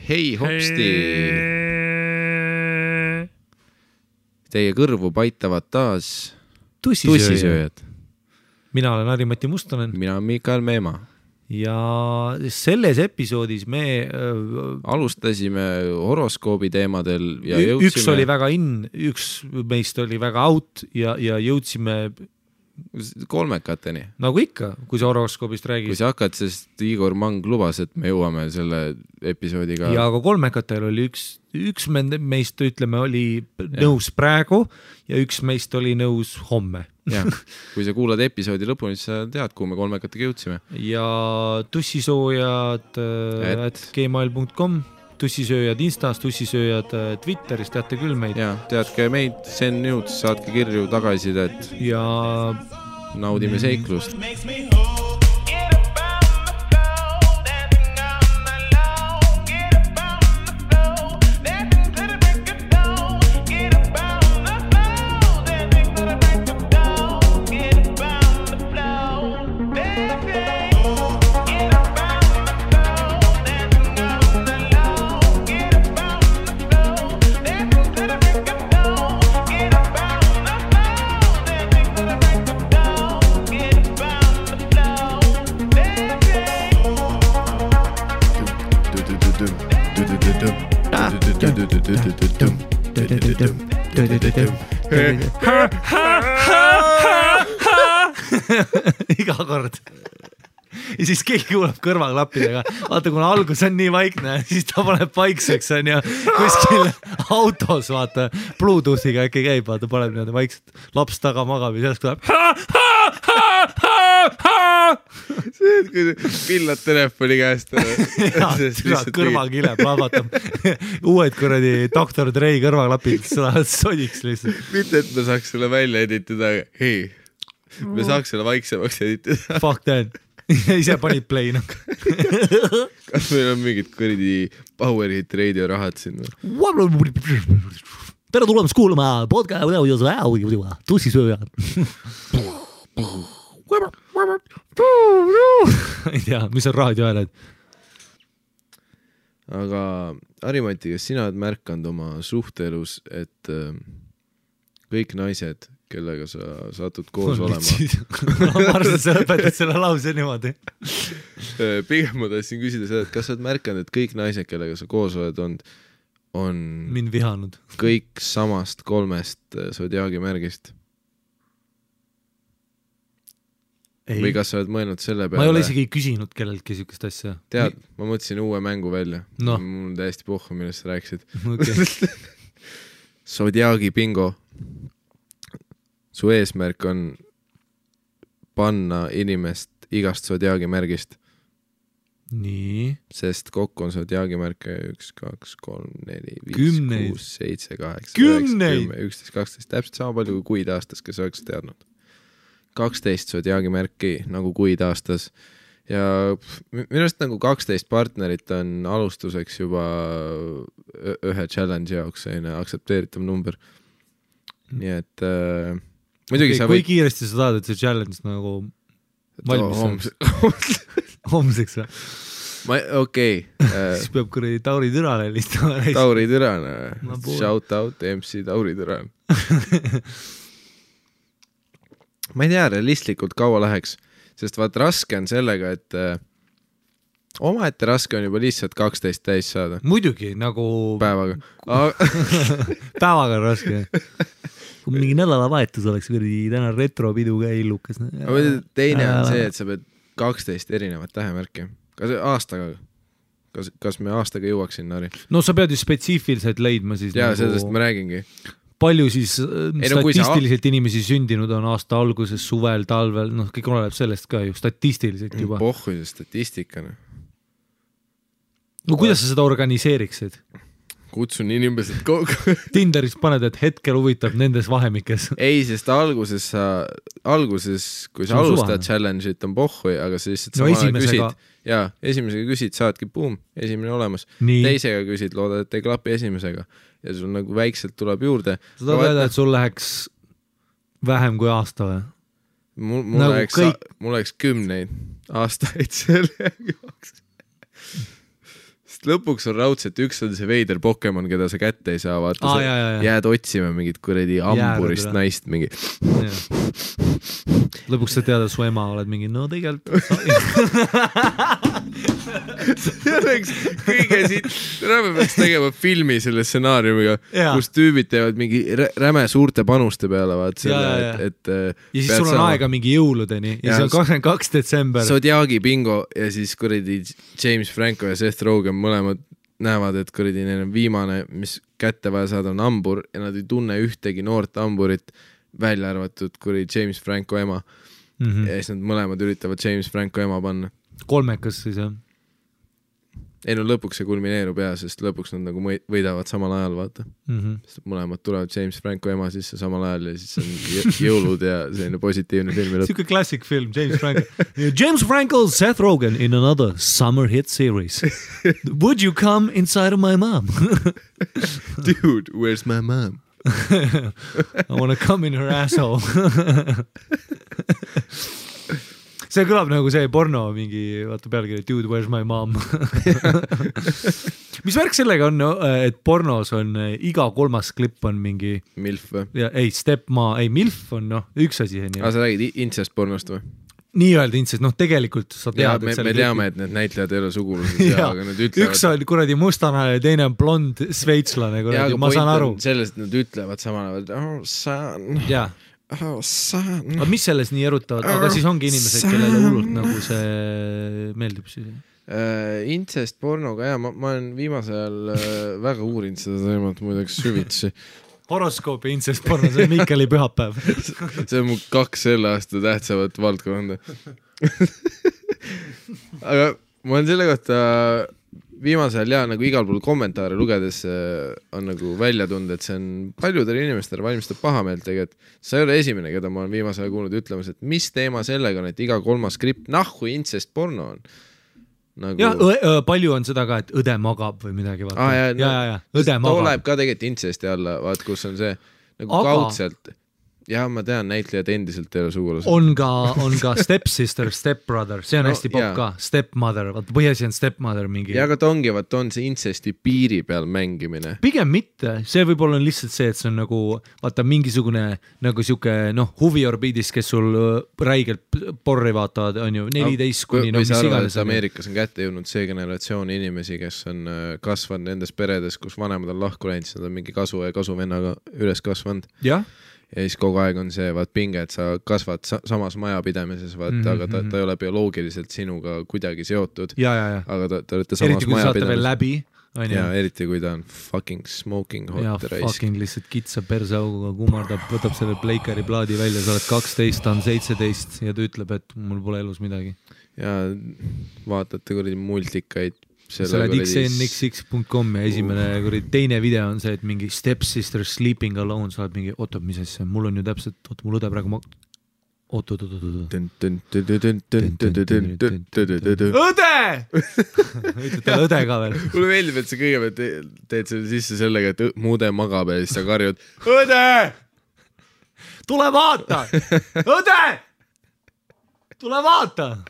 Hei hopsti! Teie kõrvu paitavad taas tussisööjad. Mina olen Harri-Mati Mustonen. Mina olen Mikael Meemaa. Ja selles episoodis me alustasime horoskoobi teemadel ja jõudsime... Üks oli väga üks meist oli väga out ja jõudsime kolmekateni. Nagu ikka, kui sa horoskoobist räägid. Kui sa hakkad, sest Igor Mang lubas, et me jõuame selle episoodiga. Ja aga kolmekatel oli üks meist, ütleme, oli nõus praegu ja üks meist oli nõus homme. Ja, kui sa kuulad episoodi lõpuni, siis sa tead, kuhu me kolmekatega jõudsime. Ja tussisoojad @gmail.com tussisööjad Instas, tussisööjad Twitteris, teate küll meid. Ja, teadke meid, send news, saatke kirju tagasidet ja naudime seiklust. Iga kord. Ja siis keegi kuuleb kõrvaklappidega. Vaata, kuna algus on nii vaikne, siis ta paneb paikseks on ja kuskil autos, vaata, Bluetoothiga äkki käib, vaata, paneb niimoodi vaikselt. Laps taga magab ja sellest tuleb see, et kui pillad telefoni käest kõrvakile plahvatab uued kuradi Dr. Dre kõrvaklapid lähevad sodiks lihtsalt. Mitte, et me saaks selle välja editada, hei, me saaks selle vaiksemaks editada. Fuck that. Ise panid play. Kas meil on mingid kuradi Power Hit Radio rahad siin? Tere tulemast kuulama podcast tussisööjad. Ei tea, mis on raadioääled? Aga Harri-Mati, kas sina oled märkanud oma suhteelus, et kõik naised, kellega sa satud koos olema? Ma arvan, et sa lõpetad selle lause niimoodi. Pigem ma tahtsin küsida seda, et kas sa oled märkanud, et kõik naised, kellega sa koos oled on mind vihanud. Kõik samast 3 sodiaagi märgist? Ei. Või kas sa oled mõelnud selle peale? Ma ei ole isegi küsinud kelleltki sükest asja. Tead, ma mõtlesin uue mängu välja. No. Mul on täiesti pohhu, millest sa rääkisid. Okay. Sodiaagi bingo. Su eesmärk on panna inimest igast sodiaagi märgist. Nii. Sest kokku on sodiaagi märke 1, 2, 3, 4, 5, 6, 7, 8, 9, 10, 11, 12. Täpselt sama palju kui kuid aastas, kes oleks teadnud. 12 sodiaagi märki nagu kuid aastas ja minust nagu 12 partnerit on alustuseks juba ühe challenge jaoks aksepteeritav number. Nii et muidugi okay, kui kiiresti sa tahad, et see challenge nagu valmis homseks või? Okei. Siis peab kuradi Tauri Türane listama. Tauri Türane. Shout out MC Tauri Türane. Ma ei tea, realistlikult kaua läheks, sest vaat raske on sellega, et omaette raske on juba lihtsalt 12 täis saada. Muidugi, nagu päevaga. Päevaga on raske. Kui mingi nädalavahetus oleks täna retropidu ka illukas. Teine on see, et sa pead 12 erinevat tähemärki. Kas aastaga? Kas me aastaga jõuaks sinna, Harri? No sa pead ju spetsiifiliselt leidma siis. Jaa, sellest ma räägingi. Palju siis statistiliselt inimesi sündinud on aasta alguses, suvel, talvel, kõik oleneb sellest ka ju, statistiliselt juba. Pohhu see statistikana. No kuidas sa seda organiseeriksid? Kutsun inimesed kogu. Tinderis paned, et hetkel huvitab nendes vahemikes. Ei, sest alguses, kui sa alustad challenge'it on pohhu, aga sa lihtsalt sama küsid. Jaa, esimesega küsid, saadki boom, esimene olemas. Nii. Teisega küsid, loodad, et ei klapi esimesega. Ja sul nagu väikselt tuleb juurde. Sa tahad öelda, et sul läheks vähem kui aasta või? Mul läheks 10 aastaid selle jaoks. lõpuks on raudselt, üks on see veider Pokemon, keda sa kätte ei saa, vaata jääd otsima mingit kuradi amburist naist mingi. Lõpuks sa tead, su ema oled mingi, no tegelikult see oleks kõige siit, me peaks tegema filmi selle stsenaariumiga, kus tüübid teevad mingi räme suurte panuste peale, vaat selle, et ja siis sul on aega mingi jõuludeni ja see on 22. detsember. Zodiaagi bingo ja siis kuradi James Franco ja Seth Rogen mõlemad näevad, et kuradi neil on viimane, mis kätte vaja saada on hambur ja nad ei tunne ühtegi noort hamburit, välja arvatud kuradi James Franco ema. Ja siis nad mõlemad üritavad James Franco ema panna. Kolmekas siis, jah? Ei no lõpuks see kulmineerub sest lõpuks nad nagu võidavad samal ajal, vaata. Sest mõlemad tulevad James Franco ema sisse samal ajal ja siis on jõulud ja selline positiivne filmi lõpp. Siuke classic film, James Franco. James Franco, Seth Rogen in another summer hit series. Would you come inside of my mom? Dude, where's my mom? I want to come in her asshole. See kõlab nagu see porno mingi, vaata pealkiri, dude, where's my mom? Mis värk sellega on, et pornos on iga kolmas klipp on mingi MILF või? Ei, MILF on üks asi. Sa räägid incest pornost või? Nii öelda incest, tegelikult sa tead, et me teame, et need näitlejad ei ole sugulused aga nad ütlevad... Üks on kuradi mustana ja teine on blond sveitslane, kuradi, ma saan aru. Sellest nad ütlevad samal ajal, oh son... Jaa. Oh, son. Aga mis selles nii erutavad? Aga siis ongi inimesed, kellele hullult nagu see meeldib siis? Incest pornoga, ma olen viimasel ajal väga uurinud seda teemat muideks süvitsi. Horoskoopi incest porno, see on Miikali pühapäev. See on mu 2 selle aasta tähtsavat valdkonda. Aga ma olen selle kohta viimasel nagu igal pool kommentaare lugedes on nagu välja tunda, et see on paljudele inimestele valmistab pahameelt tegelikult. See ei ole esimene, keda ma olen viimasel kuulnud ütlemas, et mis teema sellega on, et iga kolmas skript nahku incest porno on. Nagu... Ja palju on seda ka, et õde magab või midagi. Ja, õde magab. Tuleb ka tegelikult incesti alla, vaat kus on see nagu kaudselt. Ja ma tean, näitlejad endiselt ei ole sugulased. On ka stepsister, stepbrother, see on hästi popp ka, stepmother, vaata põhjasi on stepmother mingi. Ja aga ta on see incesti piiri peal mängimine. Pigem mitte, see võib-olla on lihtsalt see, et see on nagu, vaata mingisugune nagu siuke, huviorbiidis, kes sul räigelt porri vaatavad, on ju 14 kuni, mis iganes. Ameerikas on kätte jõudnud see generatsioon inimesi, kes on kasvanud nendes peredes, kus vanemad on lahku läinud, siis nad on mingi kasu ja kasuvennaga üles kasvanud. Jah. Ja siis kogu aeg on see pinge, et sa kasvad samas majapidamises, aga ta ei ole bioloogiliselt sinuga kuidagi seotud. Aga ta olete samas eriti, majapidamises. Eriti, kui saate veel läbi. Ja eriti, kui ta on fucking smoking hot ja raisk. Fucking lihtsalt kitsa persauguga kummardab, võtab selle Blakeri plaadi välja, sa oled 12, ta on 17 ja ta ütleb, et mul pole elus midagi. Ja vaatate kuradi multikaid. Sa oled xnxx.com ja esimene teine video on see, et mingi stepsister sleeping alone, sa oled mingi, mis asja, mul on ju täpselt, mul õde praegu õde! Ütled talle õde ka veel. Mulle meeldib, et sa kõigepealt teed selle sisse sellega, et muude magab ja siis sa karjud õde! Tule vaata! Õde! Tule vaata!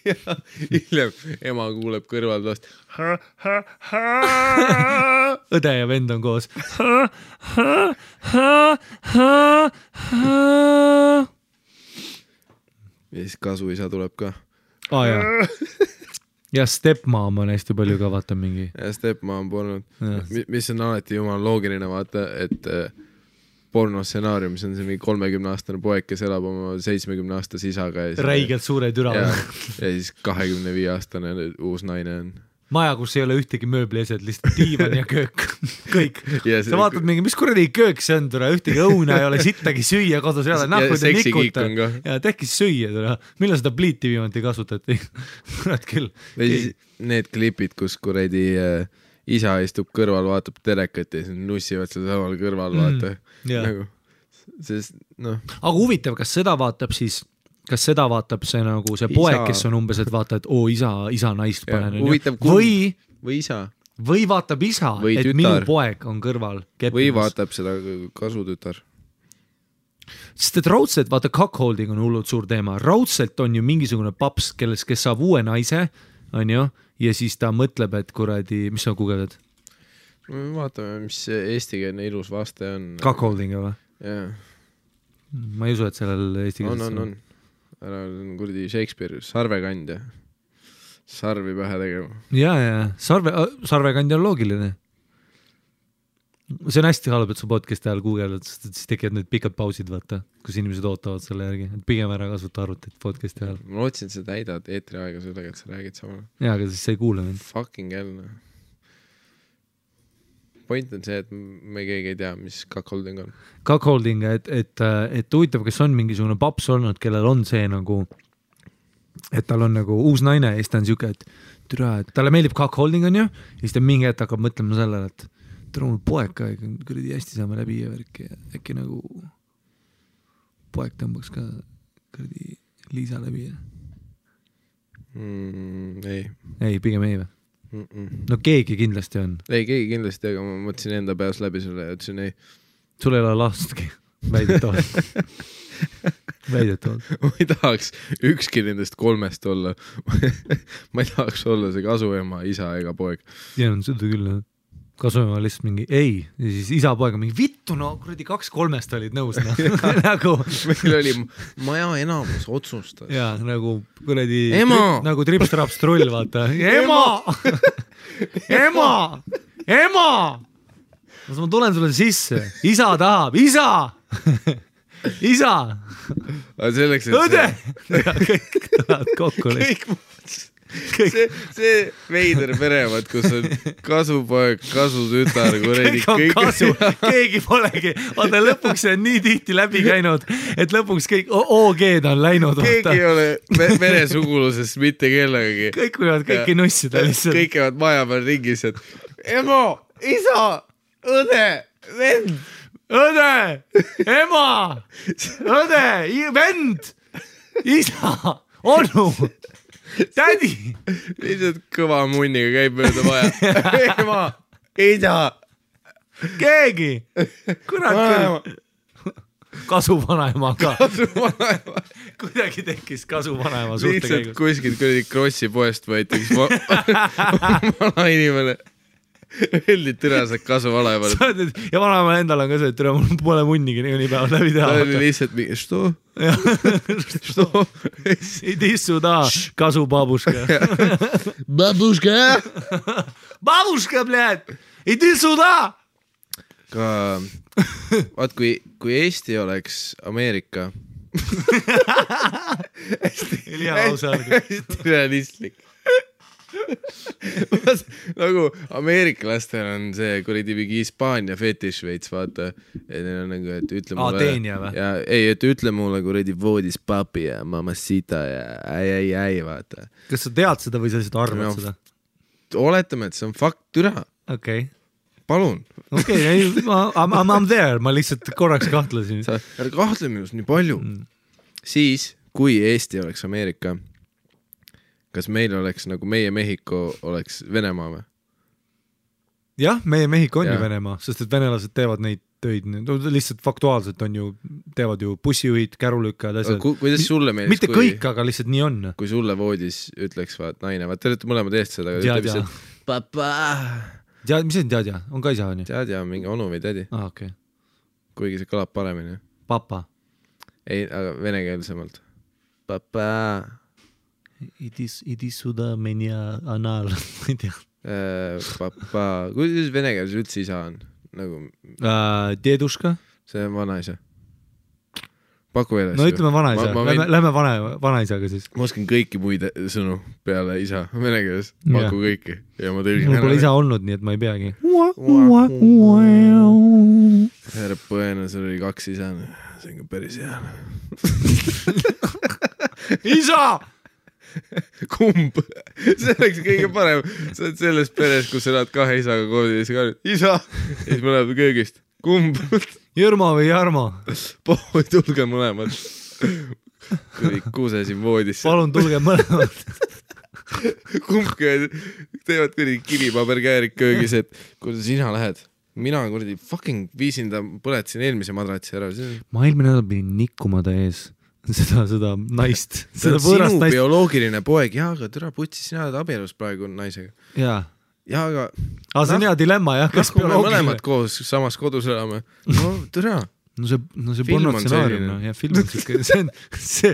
Ja hiljem ema kuuleb kõrval vast õde ja vend on koos ja siis kasuisa tuleb ka ja stepmom on hästi palju ka vaata mingi ja stepmom polnud mis on alati jumal loogiline vaata, et pornostsenaariumis on see mingi 30-aastane poeg, kes elab oma 70-aastase isaga. Räigelt suure türa. Ja siis 25-aastane uus naine on. Maja, kus ei ole ühtegi mööbli esed, lihtsalt diivan ja köök. Kõik. Sa vaatad mingi, mis kuradi köök see on, türa, ühtegi õuna ei ole, sittagi süüa kodus ei ole. Ja seksikiik on ka. Ja tekkis süüa, türa. Millal seda pliiti viimati kasutati? Kurat küll. Need klipid, kus kuradi isa istub kõrval, vaatab telekat ja siis nussivad seda samal kõrval, vaata. Nagu, sest, Aga huvitav, kas seda vaatab see nagu see poeg, kes on umbes, et vaata, et isa naist panen. Või isa. Või vaatab isa, või et tütar. Minu poeg on kõrval. Keppimas. Või vaatab seda kasutütar. Sest et raudselt, vaata, cuckolding on hullult suur teema. Raudselt on ju mingisugune paps, kes saab uue naise, on ju, ja siis ta mõtleb, et kuradi, mis sa guugeldad? Vaatame, mis eestikeelne ilus vaste on. Cuckolding või? Jah. Ma ei usu, et sellel eestikeelses on. Ära on kuradi Shakespeare, sarvekandja. Sarvi pähe tegema. Ja. Sarvekandja on loogiline. See on hästi halb, et su podcasti ajal guugeldad, sest siis tekivad need pikad pausid, vaata, kus inimesed ootavad selle järgi. Et pigem ära kasuta arvutit podcasti ajal. Ma lootsin, et sa täidad eetri aega sellega, et sa räägid samal. Jaa, aga siis sa ei kuule mind. Fucking hell. Point on see, et me keegi ei tea, mis cuckolding on. Cuckolding, et huvitav, kas on mingisugune paps olnud, kellel on see nagu, et tal on nagu uus naine ja siis ta on siuke, et türa, et talle meeldib cuckolding on ju, ja siis ta mingi hetk hakkab mõtlema sellele, et türa mul poeg ka, kuradi hästi saame läbi ja värki ja äkki nagu poeg tõmbaks ka kuradi Liisa läbi ja... Ei, pigem ei või? No keegi kindlasti on. Ei, keegi kindlasti, aga ma mõtlesin enda peas läbi sulle ja ütlesin ei. Sul ei ole lastki, väidetavalt. Ma ei tahaks ükski nendest 3 olla. Ma ei tahaks olla see kasuema, isa ega poeg. Ja on seda küll, kasuema lihtsalt mingi ei, ja siis isa poeg on mingi vittu, no kuradi 2-3 olid nõus no. Nagu meil oli maja enamus otsustas ja nagu kuradi nagu trips-traps trull, vaata ema ma tulen sulle sisse, isa tahab, isa selleks, et õde kõik tahavad kokku see veider perevad, kus on kasupoeg, kasutütar, kuredi keegi polegi, vaata lõpuks see on nii tihti läbi käinud, et lõpuks kõik OG-d on läinud. Keegi ei ole veresuguluses mitte kellegagi. Kõik võivad kõiki nussida lihtsalt. Kõik käivad maja peal ringis, et ema, isa, õde, vend, õde, ema, õde, vend, isa, onu, tädi. Lihtsalt kõva munniga käib mööda maja. Ema, isa, keegi. Kurat. Kasuvanaema ka. Kuidagi tekkis kasuvanaema suhte käigus. Lihtsalt kuskilt kuradi Krossi poest võeti üks vana inimene. Öeldi türased kasuvanaemale. Ja vanaemal endal on ka see, et türa mul pole munnigi nii päevad läbi teha. Ta oli lihtsalt mingi, što? Иди сюда, kasubaabuška. Babuška! Babuška, bled! Иди сюда! Ka, vaat kui Eesti oleks Ameerika. Hästi realistlik. Nagu ameeriklastel on see kuradi mingi Hispaania fetiš veits, vaata. Ja neil on nagu, et ütle mulle... Teenja või? Ja, ei, et ütle mulle kuradi voodis papi ja mamacita ja ai, vaata. Kas sa tead seda või sa lihtsalt arvad seda? Oletame, et see on fakt, türa. Okei. Palun. Okei, I'm there, ma lihtsalt korraks kahtlesin. Ära kahtle minust nii palju. Siis, kui Eesti oleks Ameerika, kas meil oleks nagu meie Mehhiko oleks Venemaa või? Jah, meie Mehhiko on ju Venemaa, sest et venelased teevad neid töid, lihtsalt faktuaalselt on ju, teevad ju bussijuhid, kärulükkajad, asjad. Kuidas sulle meeldis? Mitte kõik, aga lihtsalt nii on. Kui sulle voodis ütleks, vaat naine, vaat te olete mõlemad eest seda, aga ütleb lihtsalt papa. Mis see on teadja? On ka isa, on ju? Teadja on mingi onu või tädi. Okay. Kuigi see kõlab paremini. Papa. Ei, aga venekeelsemalt. Papa. Idi suda menja anal. Ma ei tea. Papa. Kuidas venekeeles üldse isa on? Nagu... Deduška. See on vanaisa. Paku eeles. No ütleme vanaisa. Lähme vanaisaga siis. Ma oskan kõiki muid sõnu peale isa venekeeles. Paku kõiki. Ja ma tõlgin mul pole isa olnud, nii et ma ei peagi. Härra põena, sul oli 2 isa. See on ka päris hea. Isa! Kumb? See oleks kõige parem. Sa oled selles peres, kus sa elad 2 isaga koodis. Isa! Ja siis me läheb köögist. Kumb? Jõrma või Jarmo? Tulge mõlemad. Kui kuuse siin voodisse. Palun tulge mõlemad. Kumbki teevad kuidagi kivipaberkäärik köögis, et kuule sina lähed. mina kuradi fucking viisin ta, põletasin eelmise madratsi ära. Ma eelmine nädal pidin nikkuma ta ees seda naist. Seda sinu naist. Bioloogiline poeg, jaa, aga türa putsi, sina oled abielus praegu naisega. Jaa. Jaa, aga... see on hea dilemma, jah. Kas me mõlemad koos samas kodus elame? No türa. No see pornotsenaarium, ja film on siuke, see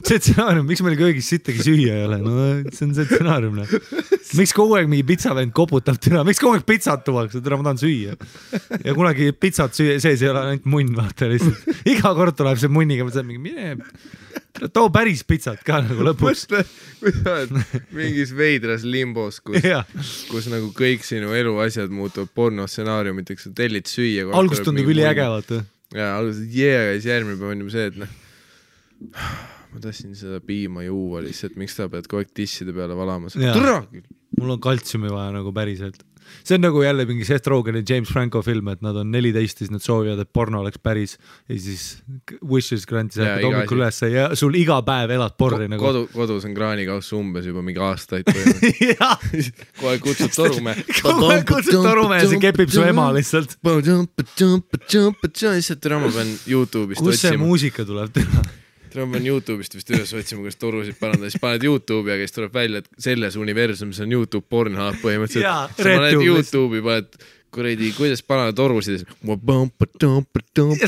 stsenaarium, miks meil köögis sittagi süüa ei ole, no see on see stsenaarium, miks kogu aeg mingi pitsavend koputab türa, miks kogu aeg pitsat tuuakse, türa ma tahan süüa ja kunagi pitsat sees ei ole ainult munn, vaata lihtsalt, iga kord tuleb see munniga, ma saan mingi mine too päris pitsat ka nagu lõpuks. Kui sa oled mingis veidras limbos, kus nagu kõik sinu eluasjad muutuvad pornostsenaariumiteks, sa tellid süüa. Algust tundub üli äge, vaata. Ja alguses järgmine päev on see, et ma tahtsin seda piima juua lihtsalt, miks ta pead kogu aeg tisside peale valamas. Mul on kaltsiumi vaja nagu päriselt. See on nagu jälle mingi Seth Rogen ja James Franco film, et nad on 14, siis nad soovivad, et porno oleks päris ja siis wishes granti sa hakkad hommikul üles ja sul iga päev elad porri nagu. Kodus on kraanikauss umbes juba mingi aastaid kohe kutsud torume ja see kepib su ema lihtsalt. Lihtsalt türa ma pean YouTube'ist kus see muusika tuleb teha? Ma pean YouTube'ist vist üles otsima, kuidas torusid parandada, siis paned YouTube'i ja kes tuleb välja, et selles universumis on YouTube Pornhub põhimõtteliselt. Sa paned YouTube'i, paned kuradi, kuidas parandada torusid ja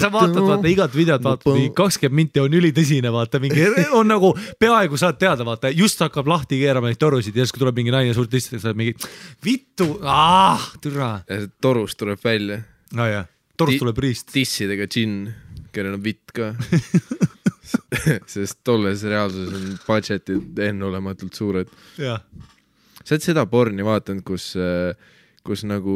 sa vaatad igat videot, vaatad 20 minti on ülitõsine, vaata mingi on nagu peaaegu saad teada, vaata just hakkab lahti keerama neid torusid ja siis kui tuleb mingi naine suurt istid, sa oled mingi vittu, türa. Ja see torust tuleb välja. Torust tuleb riist. Tissidega džinn, kellel on vitt ka. Sest tolles reaalsuses on budgetid ennulematult suured. Sa oled seda porni vaatanud, kus nagu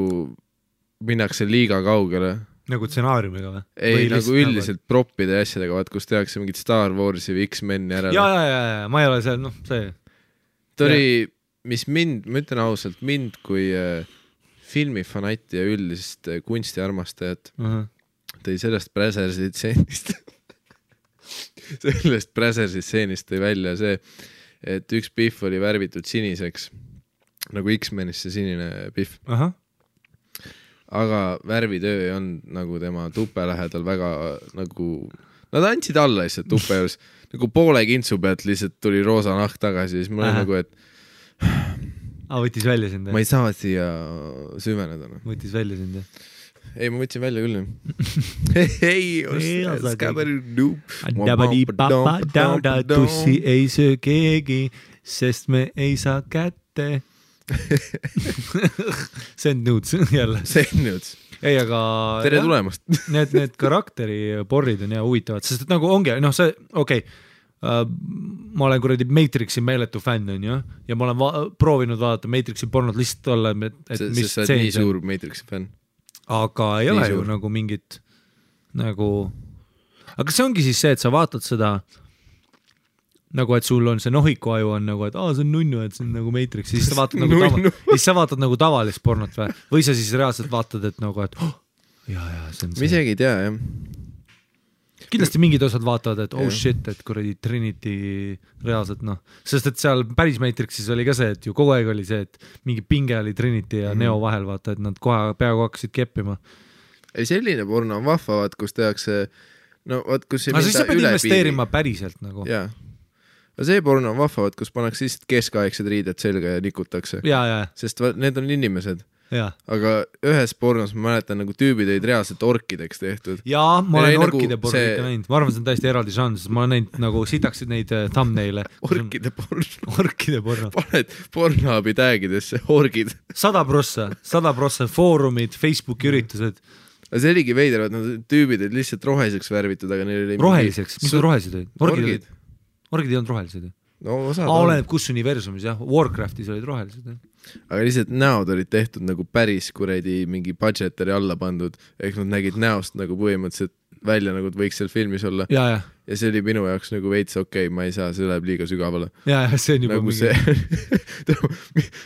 minnakse liiga kaugele. Nagu stsenaariumiga või? Ei, nagu üldiselt proppide ja asjadega, vaat kus tehakse mingit Star Warsi või X-Meni ära. Ja, ma ei ole seal, see. Ta oli, mis mind, ma ütlen ausalt, mind kui filmifanati ja üldist kunstiarmastajat tõi sellest Brazersi stseenist. Sellest Brazersi stseenist tõi välja see, et üks pihv oli värvitud siniseks, nagu X-Menis see sinine pihv. Aga värvitöö ei olnud nagu tema tupe lähedal väga nagu, nad andsid alla lihtsalt tupe juures, nagu poole kintsu pealt lihtsalt tuli roosa nahk tagasi, siis mul oli nagu, et võttis välja sind? Ma ei saa siia süveneda. Võttis välja sind? Ei, ma võtsin välja küll. Tussi ei söö keegi, sest me ei saa kätte. Send nudes jälle. Send nudes. Ei, aga... Tere tulemast. Need karakteri-porrid on huvitavad, sest nagu ongi, see, okei, ma olen kuradi Matrixi meeletu fänn, on ju, ja ma olen proovinud vaadata Matrixi pornod lihtsalt olla, et mis sa oled nii suur Matrixi fänn. Aga ei ole ju nagu mingit nagu, aga see ongi siis see, et sa vaatad seda nagu, et sul on see nohikuaju on nagu, et see on nunnu, et see on nagu Matrix, siis sa vaatad nagu tavalist pornot või sa siis reaalselt vaatad, et nagu, et see on see. Ma isegi ei tea, jah. Kindlasti mingid osad vaatavad, et shit, et kuradi Trinity reaalselt sest et seal päris Matrixis oli ka see, et ju kogu aeg oli see, et mingi pinge oli Trinity ja Neo vahel, vaata, et nad kohe peaaegu hakkasid keppima. Ei, selline porno on vahva, kus tehakse kus ei minda üle piiri. Siis sa pead investeerima päriselt nagu. Jaa. Aga see porno on vahva, kus pannakse lihtsalt keskaegsed riided selga ja nikutakse. Sest need on inimesed. Aga ühes pornos ma mäletan nagu tüübid olid reaalselt orkideks tehtud. Jaa, ma olen orkide porno ikka näinud. Ma arvan, see on täiesti eraldi žanr, sest ma olen näinud nagu sitaksid neid thumbnaile. Orkide porno. Paned Pornhubi tagidesse, orgid. 100% foorumid, Facebooki üritused. Aga see oligi veider, et nad tüübid olid lihtsalt roheliseks värvitud, aga neil oli... Roheliseks? Mis rohelised olid? Orgid ei olnud rohelised. Oleneb kus universumis, jah. Warcraftis olid rohelised. Aga lihtsalt näod olid tehtud nagu päris kuradi mingi budgeteri alla pandud, ehk nad nägid näost nagu põhimõtteliselt välja, nagu võiks seal filmis olla. Ja see oli minu jaoks nagu veits okei, ma ei saa, see läheb liiga sügavale. Ja see on juba nagu mingi...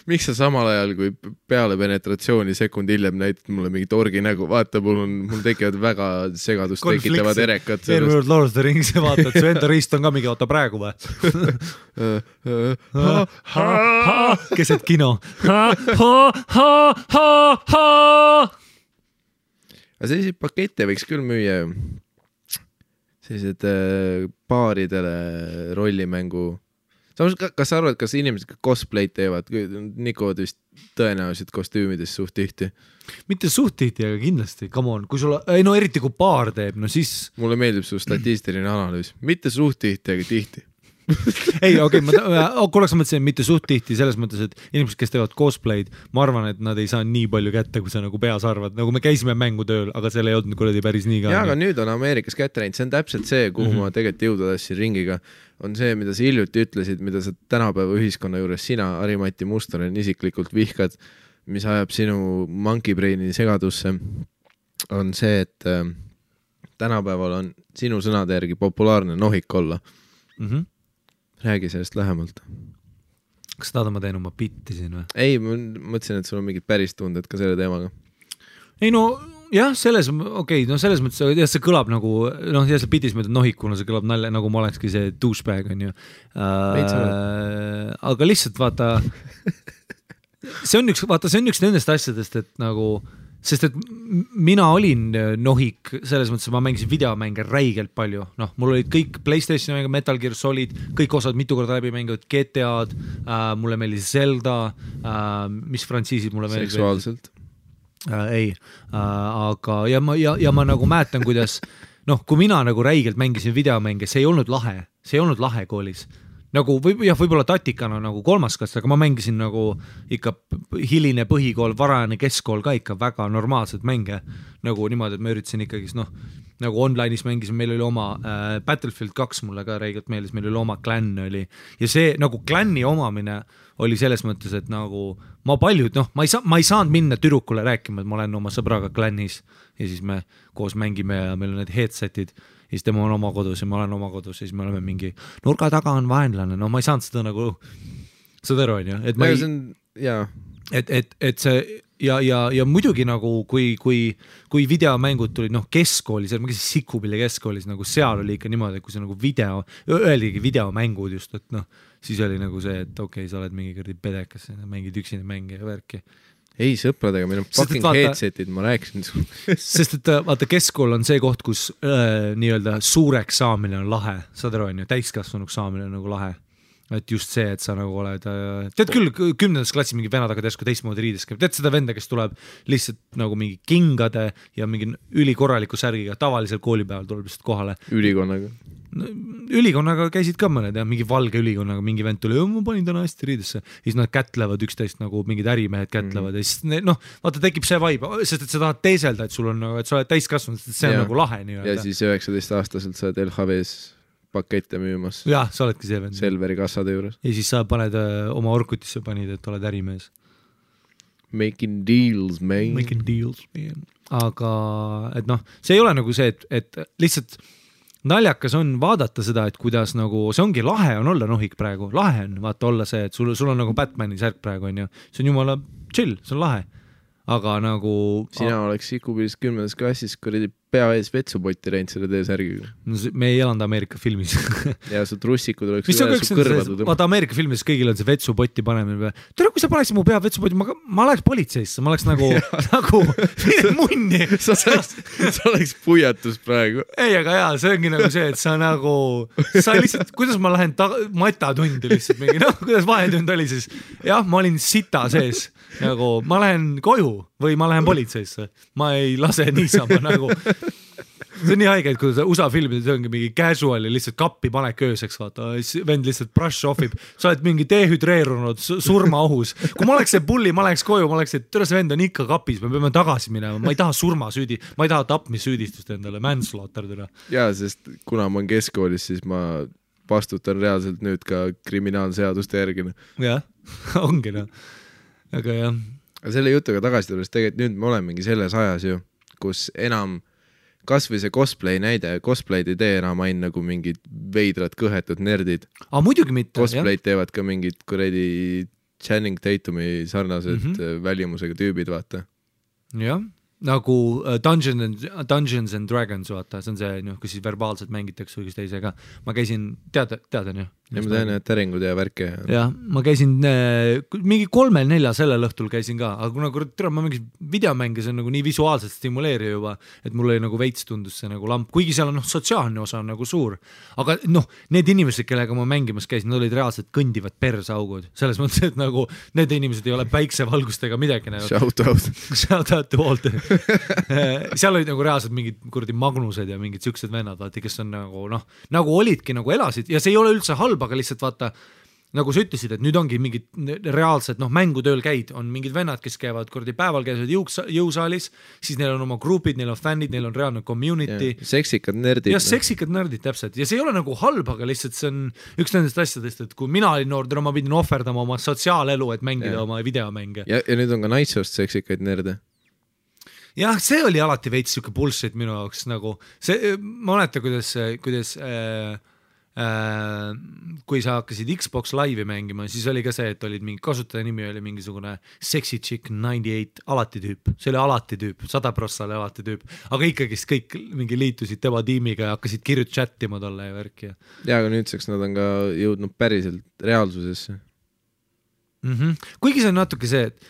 Miks sa samal ajal, kui peale penetratsiooni sekund hiljem näitad mulle mingi torgi nägu, vaata, mul tekivad väga segadust tekitavad erekad. Eelmine Lord of the Rings ja vaata, et su enda riist on ka mingi, vaata praegu või? Keset kino. aga selliseid pakette võiks küll müüa ju. Sellised baaridele rollimängu. Samas, kas sa arvad, kas inimesed cosplay'd teevad? Nikovad vist tõenäoliselt kostüümides suht tihti. Mitte suht tihti, aga kindlasti. Come on, kui sulla, ei no eriti kui baar teeb, no siis... Mulle meeldib su statistiline analüüs. Mitte suht tihti, aga tihti. Ei, okei, korraks mõtlesin, mitte suht tihti selles mõttes, et inimesed, kes teevad cosplay'd, ma arvan, et nad ei saa nii palju kätte, kui sa nagu peas arvad. Nagu me käisime mängutööl, aga seal ei olnud kuradi päris nii ka. Jaa, aga nüüd on Ameerikas kätte läinud. See on täpselt see, kuhu ma tegelikult jõuda tassin ringiga. On see, mida sa hiljuti ütlesid, mida sa tänapäeva ühiskonna juures sina, Harimati Mustonen, isiklikult vihkad, mis ajab sinu monkey braini segadusse, on see, et tänapäeval on sinu sõnade järgi populaarne nohik olla. Räägi sellest lähemalt. Kas tahad ma teen oma bitti siin või? Ei, ma mõtlesin, et sul on mingid päris tunded ka selle teemaga. Ei no, jah, selles mõttes, jah, see kõlab nagu, noh, ja see bitis mõtled nohikuna, see kõlab nalja, nagu ma olekski see douchebag, on ju. Aga lihtsalt vaata, see on üks nendest asjadest, et nagu, sest et mina olin nohik, selles mõttes, et ma mängisin videomänge räigelt palju. Noh, mul olid kõik PlayStationi mänge, Metal Gear Solid, kõik osad mitu korda läbi mängivad, GTA-d, mulle meeldis Zelda, mis frantsiisid mulle meeldis. Seksuaalselt? Ei, aga ja ma nagu mäletan, kuidas, noh, kui mina nagu räigelt mängisin videomänge, see ei olnud lahe koolis. Nagu võib-olla tatikana nagu kolmas klass, aga ma mängisin nagu ikka hiline põhikool, varajane keskkool ka ikka väga normaalselt mänge. Nagu niimoodi, et ma üritasin ikkagis, noh, nagu online'is mängisin, meil oli oma Battlefield 2 mulle ka räigelt meeldis, meil oli oma klann oli. Ja see nagu klanni omamine oli selles mõttes, et nagu ma paljud, noh, ma ei saanud minna tüdrukule rääkima, et ma olen oma sõbraga klannis ja siis me koos mängime ja meil on need headsetid. Ja siis tema on oma kodus ja ma olen oma kodus ja siis me oleme mingi nurga taga on vaenlane. No ma ei saanud seda nagu, seda aru on ju. Et, et see ja muidugi nagu kui videomängud tulid, noh, keskkoolis, ma käisin Sikupilli keskkoolis, nagu seal oli ikka niimoodi, et kui see nagu öeldigi videomängud just, et noh, siis oli nagu see, et okei, sa oled mingi kõrdi pedekas, mängid üksine mänge ja värki. Ei sõpradega, meil on fucking headsetid, ma rääkisin sul. Sest et vaata, keskkool on see koht, kus nii-öelda suureks saamine on lahe, saad aru, on ju, täiskasvanuks saamine on nagu lahe. Et just see, et sa nagu oled, tead küll 10. klassi mingi venad aga teesku teistmoodi riides käib, tead seda venda, kes tuleb lihtsalt nagu mingi kingade ja mingi ülikorraliku särgiga, tavalisel koolipäeval tuleb lihtsalt kohale. Ülikonnaga käisid ka mõned ja mingi valge ülikonnaga mingi vend tuli, ma panin täna hästi riidesse. Ja siis nad kätlevad üksteist nagu mingid ärimehed kätlevad ja siis noh, vaata tekib see vibe, sest et sa tahad teeselda, et sul on nagu, et sa oled täiskasvanud, et see on nagu lahe nii. Ja siis 19-aastaselt sa oled LHVs pakette müümas. Jah, sa oledki see vend. Selveri kassade juures. Ja siis sa paned oma Orkutisse panid, et oled ärimees. Making deals, man. Making deals, man. Aga, et noh, see ei ole nagu see, et lihtsalt naljakas on vaadata seda, et kuidas nagu, see ongi lahe on olla nohik praegu, lahe on vaata olla see, et sul on nagu Batmani särk praegu on ju, see on jumala chill, see on lahe, aga nagu sina oleks Sikubilis 10. klassis kuradi pea ees vetsupotti reinud selle T-särgiga. No, me ei elanud Ameerika filmis. Ja su trussikud oleks üle su kõrvadu. Vaata Ameerika filmis kõigil on see vetsupotti panemine. Tere, kui sa paneksid mu pea vetsupotti, ma oleks politseisse, ma oleks nagu munni. Sa oleks puiatus praegu. Ei, aga jaa, see ongi nagu see, et sa nagu, sa lihtsalt, kuidas ma lähen matatundi lihtsalt mingi, noh, kuidas vahetund oli siis. Jah, ma olin sita sees, nagu ma lähen koju või ma lähen politseisse. Ma ei lase niisama nagu. See on nii haige, et kui USA filmides ongi mingi casual ja lihtsalt kappi panek ööseks, vaata, vend lihtsalt brush offib, sa oled mingi dehüdreerunud surmaohus. Kui ma oleks see pulli, ma läheks koju, ma oleks, et tõra see vend on ikka kapis, me peame tagasi minema, ma ei taha surmasüüdi, ma ei taha tapmissüüdistust endale, manslaughter tõra. Jaa, sest kuna ma olen keskkoolis, siis ma vastutan reaalselt nüüd ka kriminaalseaduste järgina. Jah, ongi noh, aga jah. Aga selle jutuga tagasi tulles, tegelikult nüüd me olemegi selles ajas ju, kus enam kas või see cosplay näide, cosplay'd ei tee enam ain nagu mingid veidrad kõhetud nerdid. Muidugi mitte. Cosplay'd teevad ka mingid kuredi Channing Tatumi sarnased välimusega tüübid, vaata. Jah, nagu Dungeons and Dragons, vaata, see on see, kus siis verbaalselt mängitakse või kus teisega. Ma käisin, teadan ju? ja ma tean, et täringud ja värke. Jah, ma käisin mingi 3-4 sellel õhtul käisin ka, aga kuna ma mingis videomänge, see on nagu nii visuaalselt stimuleeriv juba, et mul oli nagu veits tundus see nagu lamp, kuigi seal on sotsiaalne osa on nagu suur, aga need inimesed, kellega ma mängimas käisin, nad olid reaalselt kõndivad persaugud, selles mõttes, et nagu need inimesed ei ole päiksevalgustega midagi näinud. Shout out to Walt. Seal olid nagu reaalselt mingid kuradi Magnused ja mingid siuksed vennad, vaati, kes on nagu olidki, nagu elasid ja see ei ole üldse halb, aga lihtsalt vaata, nagu sa ütlesid, et nüüd ongi mingid reaalsed, mängutööl käid, on mingid vennad, kes käivad kuradi päeval, käivad jõusaalis, siis neil on oma grupid, neil on fännid, neil on reaalne community. Ja, seksikad nerdid. Ja seksikad nerdid, täpselt. Ja see ei ole nagu halb, aga lihtsalt see on üks nendest asjadest, et kui mina olin noor, ma pidin ohverdama oma sotsiaalelu, et mängida oma videomänge. Ja nüüd on ka naissoost seksikaid nerde. Jah, see oli alati veits siuke bullshit minu jaoks nagu see, ma mäletan, kuidas kui sa hakkasid Xbox Live'i mängima, siis oli ka see, et olid mingi kasutaja nimi oli mingisugune Sexy Chick 98 alati tüüp, see oli alati tüüp, 100% oli alati tüüp, aga ikkagi kõik mingi liitusid tema tiimiga ja hakkasid kirjut chattima tolle ja värki. Ja, aga nüüdseks nad on ka jõudnud päriselt reaalsusesse. Kuigi see on natuke see, et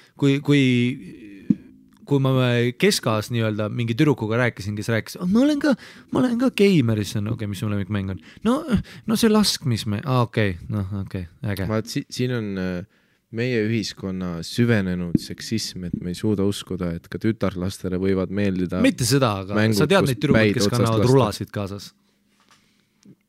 kui ma keskaas nii-öelda mingi tüdrukuga rääkisin, kes rääkis, ma olen ka geimer, siis on mis mu lemmikmäng on. No see laskmisme, äge. Vaat siin on meie ühiskonna süvenenud seksism, et me ei suuda uskuda, et ka tütarlastele võivad meeldida mitte seda, aga mängud, sa tead neid tüdrukud, kes kannavad rulasid kaasas.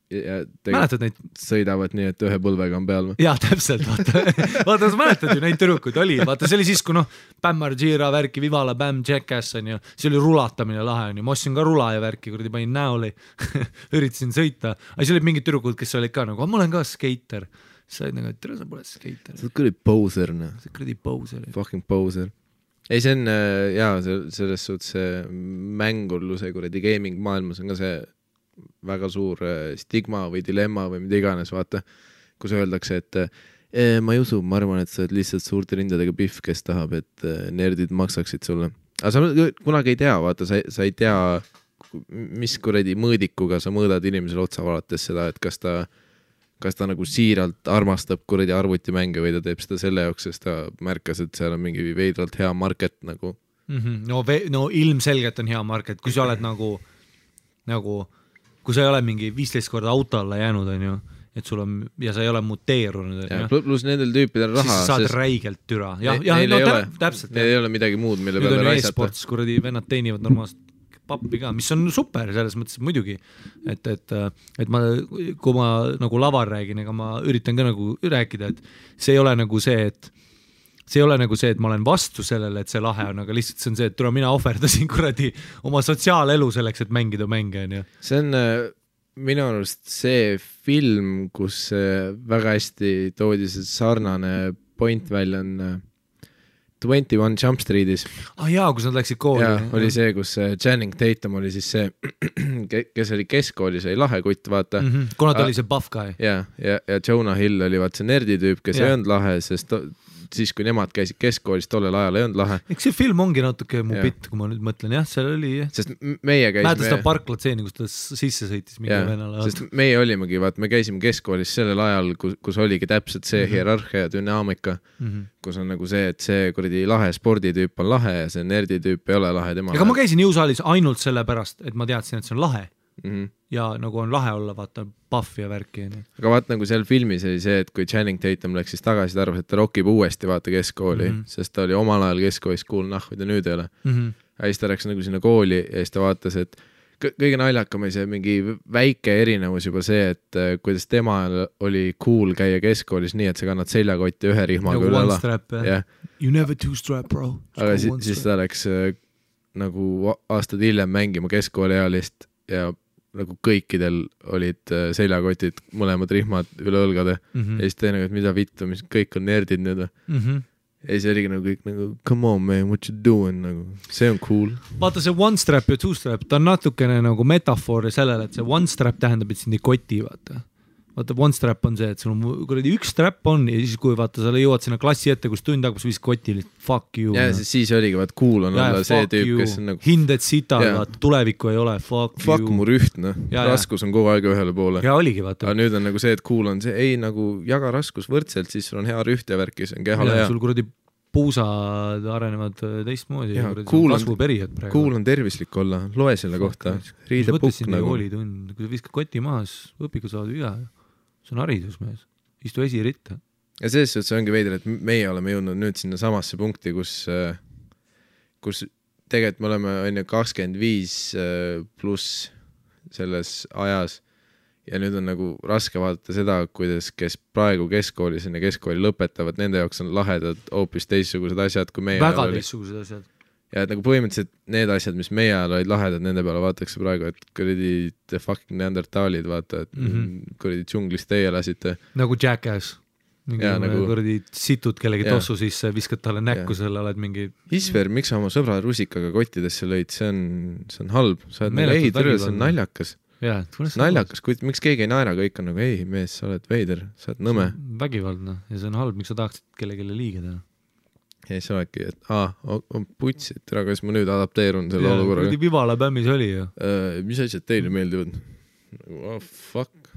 Mäletad neid? Sõidavad nii, et ühe põlvega on peal või? Jaa, täpselt, vaata, sa mäletad ju neid tüdrukuid oli, vaata see oli siis, kui Bam Margera värki, Vivala, Bam, Jackass on ju, see oli rulatamine lahe on ju, ma ostsin ka rula ja värki, kuradi panin näoli, üritasin sõita, aga see oli mingid tüdrukud, kes olid ka nagu, ma olen ka skater, sa olid nagu, et tere, sa pole skater. Sa oled kuradi poser, noh. Sa oled kuradi poser. Fucking poser. Ei, see on, jaa, selles suhtes mängurluse kuradi gaming maailmas on ka see väga suur stigma või dilemma või mida iganes, vaata, kus öeldakse, et ma ei usu, ma arvan, et sa oled lihtsalt suurte rindadega pihv, kes tahab, et nerdid maksaksid sulle. Aga sa kunagi ei tea, vaata, sa ei tea, mis kuradi mõõdikuga sa mõõdad inimesele otsa valates seda, et kas ta nagu siiralt armastab kuradi arvutimänge või ta teeb seda selle jaoks, sest ta märkas, et seal on mingi veidralt hea market nagu. No ilmselgelt on hea market, kui sa oled nagu kui sa ei ole mingi 15 korda auto alla jäänud, on ju, et sul on, ja sa ei ole muteerunud. Plus nendel tüüpidel raha. Siis saad räigelt türa. Täpselt. Neil ei ole midagi muud, mille peale raisata. Nüüd on e-sports, kuradi vennad teenivad normaalselt pappi ka, mis on super selles mõttes muidugi, et kui ma nagu laval räägin, ega ma üritan ka nagu rääkida, et see ei ole nagu see, et ma olen vastu sellele, et see lahe on, aga lihtsalt see on see, et mina ohverdasin kuradi oma sotsiaalelu selleks, et mängida mänge. See on minu arust see film, kus väga hästi toodi see sarnane point välja on 21 Jump Streetis. Jaa, kus nad läksid kooli. Ja, oli see, kus Channing Tatum oli siis see, kes oli keskkoolis, oli lahe kutt, vaata. Kuna ta oli see buff guy. Ja Jonah Hill oli vaat see nerditüüp, kes ei olnud lahe, sest siis, kui nemad käisid keskkoolis, tollel ajal ei olnud lahe. Eks see film ongi natuke mu bitt, kui ma nüüd mõtlen, jah, seal oli. Sest meie käisime. Mäeta seda parklatseeni, kus ta sisse sõitis mingi venala. Sest meie olimegi, vaat me käisime keskkoolis sellel ajal, kus oligi täpselt see hierarhia ja dünaamika, kus on nagu see, et see kuradi lahe sporditüüp on lahe ja see nerditüüp ei ole lahe tema. Ega ma käisin jõusaalis ainult selle pärast, et ma teadsin, et see on lahe. Ja nagu on lahe olla, vaata, buff ja värki. Aga vaat nagu seal filmis oli see, et kui Channing Tatum läks siis tagasi, ta arvas, et ta rockib uuesti vaata keskkooli, sest ta oli omal ajal keskkoolis cool nahvid ja nüüd ei ole. Ja siis ta läks nagu sinna kooli ja siis ta vaatas, et kõige naljakam oli see mingi väike erinevus juba see, et kuidas tema oli cool käia keskkoolis nii, et sa kannad seljakotti ühe rihmaga nagu üle ala. Strap, you never two strap, bro. Aga siis ta läks nagu aastad hiljem mängima keskkooliealist ja nagu kõikidel olid seljakotid, mõlemad rihmad üle õlgade ja siis teine, et mida vittu, mis kõik on nerdid nüüd. Ja siis oligi nagu kõik nagu, come on man, what you doing, nagu, see on cool. Vaata see one strap ja two strap, ta on natukene nagu metafoor sellele, et see one strap tähendab, et sind ei koti, vaata. vaata one strap on see, et sul on kuradi üks strap on ja siis kui vaata sa jõuad sinna klassi ette, kus tund hakkab, viis koti fuck you. Ja siis oligi, vaat cool on olla see tüüp, kes on nagu hinded sita, vaata tulevikku ei ole, fuck mu rüht, raskus on kogu aeg ühele poole. Ja oligi, vaata. Aga nüüd on nagu see, et cool on see, ei nagu jaga raskus võrdselt, siis sul on hea rüht ja värk, see on kehale hea. Sul kuradi puusad arenevad teistmoodi ja kasvuperiood praegu. Cool on tervislik olla, loe selle kohta. Riidepukk nagu. Kui sa viskad koti maas, õpiga saad viga. See on haridus mees. Istu esiritta. Ja selles suhtes ongi veider, et meie oleme jõudnud nüüd sinna samasse punkti, kus tegelikult me oleme 25 pluss selles ajas ja nüüd on nagu raske vaadata seda, kuidas kes praegu keskkoolis ja keskkooli lõpetavad, nende jaoks on lahedad hoopis teistsugused asjad, kui meie väga teistsugused asjad. Ja et nagu põhimõtteliselt need asjad, mis meie ajal olid lahedad, nende peale vaadatakse praegu, et kuradi the fucking neandertalid, vaata, et kuradi džunglis teie lasite. Nagu Jackass. Nagu kuradi situd kellegi tossu sisse, viskad talle näkku selle, oled mingi... Isver, miks sa oma sõbra rusikaga kottidesse lõid? See on halb. Sa oled nagu, ei, türe, see on naljakas. Naljakas, miks keegi ei naera, kõik on nagu, ei mees, sa oled veider, sa oled nõme. Vägivaldne ja see on halb, miks sa tahaksid kellelegi liiga teha. Ja siis oledki, et on putsid, kas ma nüüd adapteerun selle olukorraga. Kuradi Vivala bämmis oli ju. Mis asjad teile meeldivad? Fuck.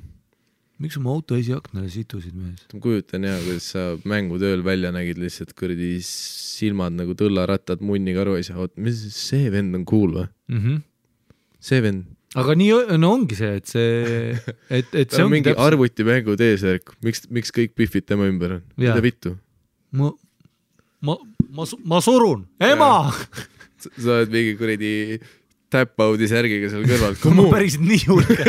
Miks oma auto esiaknale situsid mees? Ma kujutan hea, kuidas sa mängutööl välja nägid lihtsalt kuradi silmad nagu tõllarattad munni karu ei saa. Mis see vend on cool või? See vend aga nii ongi see, et see on mingi arvuti mängu teesärk, miks kõik pihvid tema ümber on? Mida vittu? Ma surun, ema! Sa oled mingi kuradi tap-out'i särgiga seal kõrval. Ma päris nii hulge.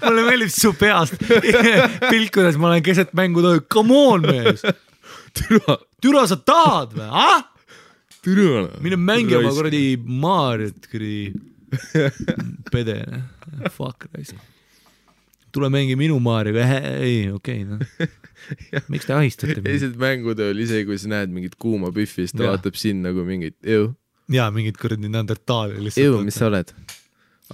Mulle meeldib su peast pilt, kuidas ma olen keset mängu tohi. Come on, mees! Türa sa tahad või? Türa! Mine mängi oma kuradi Mariot, kuradi pede, fuck raisa. Tule mängi minu Maarioga, ei, okei. Miks te ahistate? Eesed mängutööl, isegi kui sa näed mingit kuuma püffi, siis ta vaatab siin nagu mingit ew. Jaa, mingit kuradi neandertaali. Ew, mis sa oled?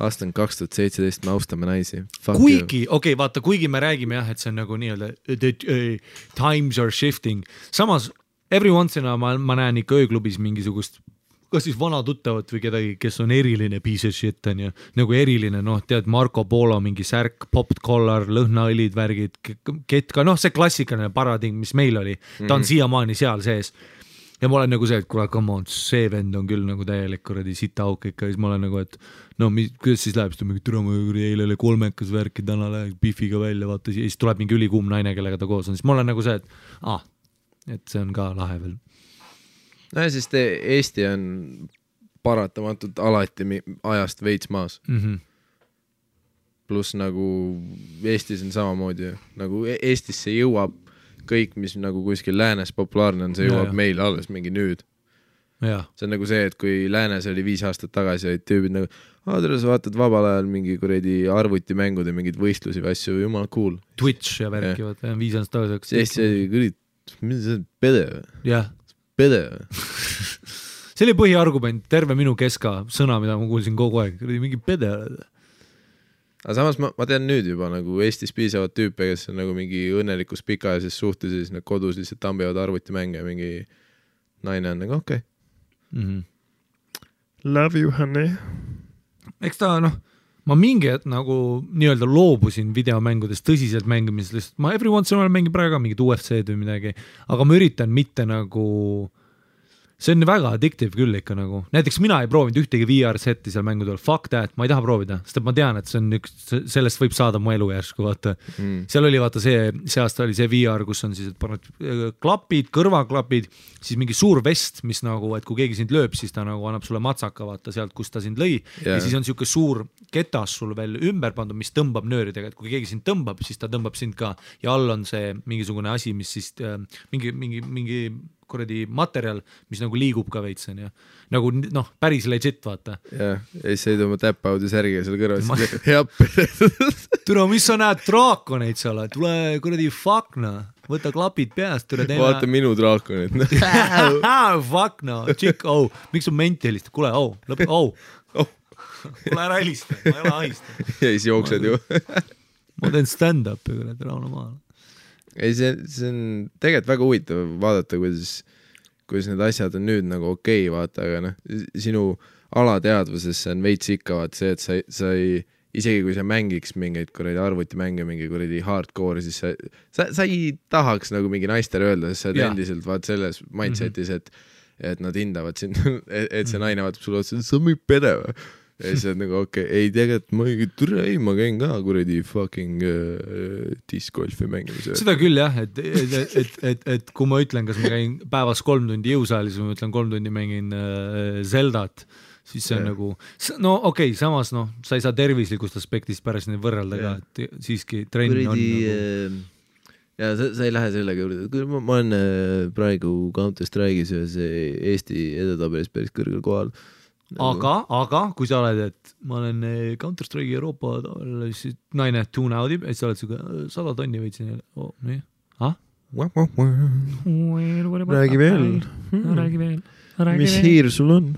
Aasta on 2017, me austame naisi. Kuigi, okei, vaata, kuigi me räägime jah, et see on nagu nii-öelda times are shifting. Samas, every once in a ma näen ikka ööklubis mingisugust kas siis vana tuttavat või kedagi, kes on eriline piece of shit, on ju, nagu eriline, tead, Marco Polo, mingi särk, popped collar, lõhnaõlid, värgid, ketka, see klassikaline paradigm, mis meil oli, ta on siiamaani seal sees. Ja ma olen nagu see, et kuule, come on, see vend on küll nagu täielik kuradi sitaauk ikka, siis ma olen nagu, et kuidas siis läheb, siis ta mingi türama eile oli 3 värki, täna läheb bifiga välja, vaata, siis tuleb mingi ülikuum naine, kellega ta koos on, siis ma olen nagu see, et see on ka lahe veel. No ja sest Eesti on paratamatult alati ajast veits maas. Plus nagu Eestis on samamoodi, nagu Eestisse jõuab kõik, mis nagu kuskil läänes populaarne on, see jõuab meil alles mingi nüüd. See on nagu see, et kui läänes oli 5 aastat tagasi, olid tüübid nagu, tere, sa vaatad vabal ajal mingi kuradi arvutimängude, mingid võistlusi või asju, jumal cool. Twitch ja värki, 5 aastat tagasi. Eesti oli mis see pede või? Jah. Pede. See oli põhiargument, terve minu keska sõna, mida ma kuulsin kogu aeg, mingi pede. Aga samas ma tean nüüd juba nagu Eestis piisavad tüüpe, kes on nagu mingi õnnelikus pikaajases suhtes ja siis nad kodus lihtsalt tambivad arvutimänge ja mingi naine on nagu okei. Love you, honey. Eks ta ma mingi nagu nii-öelda loobusin videomängudest tõsiselt mängimisest, ma every once in a while mängin praegu mingid UFC-d või midagi, aga ma üritan mitte nagu, see on väga addictive küll ikka nagu, näiteks mina ei proovinud ühtegi VR-setti seal mängude all, fuck that, ma ei taha proovida, sest ma tean, et see on sellest võib saada mu elu järsku, vaata. Seal oli vaata see aasta oli see VR, kus on siis, et paned klapid, kõrvaklapid, siis mingi suur vest, mis nagu, et kui keegi sind lööb, siis ta nagu annab sulle matsaka, vaata sealt, kus ta sind lõi, ja siis on siuke suur ketas sul veel ümber pandud, mis tõmbab nööridega, et kui keegi sind tõmbab, siis ta tõmbab sind ka ja all on see mingisugune asi, mis siis mingi kuradi materjal, mis nagu liigub ka veits, on ju. Nagu päris legit, vaata. Ja siis ei tõmba tap-out'i särgiga seal kõrval. Türa, mis sa näed draakoneid seal? Tule kuradi fuckna, võta klapid peast. Vaata minu draakonid. Fuckna, tšik, miks on menti helistab? Kule, lõpe, Kule ära helista, ma ei ole ahista. Ja siis jooksed ju. ma teen stand-up'i kurat Rauno maal. Ei, see on tegelikult väga huvitav vaadata, kuidas need asjad on nüüd nagu okei, vaata, aga noh, sinu alateadvuses on veits ikka vaata see, et sa ei, isegi kui sa mängiks mingeid kuradi arvutimänge, mingi kuradi hardcore, siis sa ei tahaks nagu mingi naistele öelda, sest sa oled endiselt vaat selles mindsetis, et nad hindavad sind, et see naine vaatab sulle otsa, sa mingi pede või? Ja siis oled nagu okei, ei tegelikult ma käin ka kuradi fucking discgolfi mängimise. Seda küll jah, et kui ma ütlen, kas ma käin päevas 3 tundi jõusaalis või ma ütlen 3 tundi mängin Zeldat, siis see on nagu, no okei, samas noh, sa ei saa tervislikust aspektist pärast neid võrrelda ka, et siiski trenn on nagu... Ja sa ei lähe sellega juurde, ma olen praegu Counter-Strike'is ühes Eesti edetabelis päris kõrgel kohal. Aga kui sa oled, et ma olen Counter-Strike'i Euroopa siis naine tune out'ib, et sa oled suga 100 tonni võitsin oh, nii. Räägi veel. Mis hiir sul on?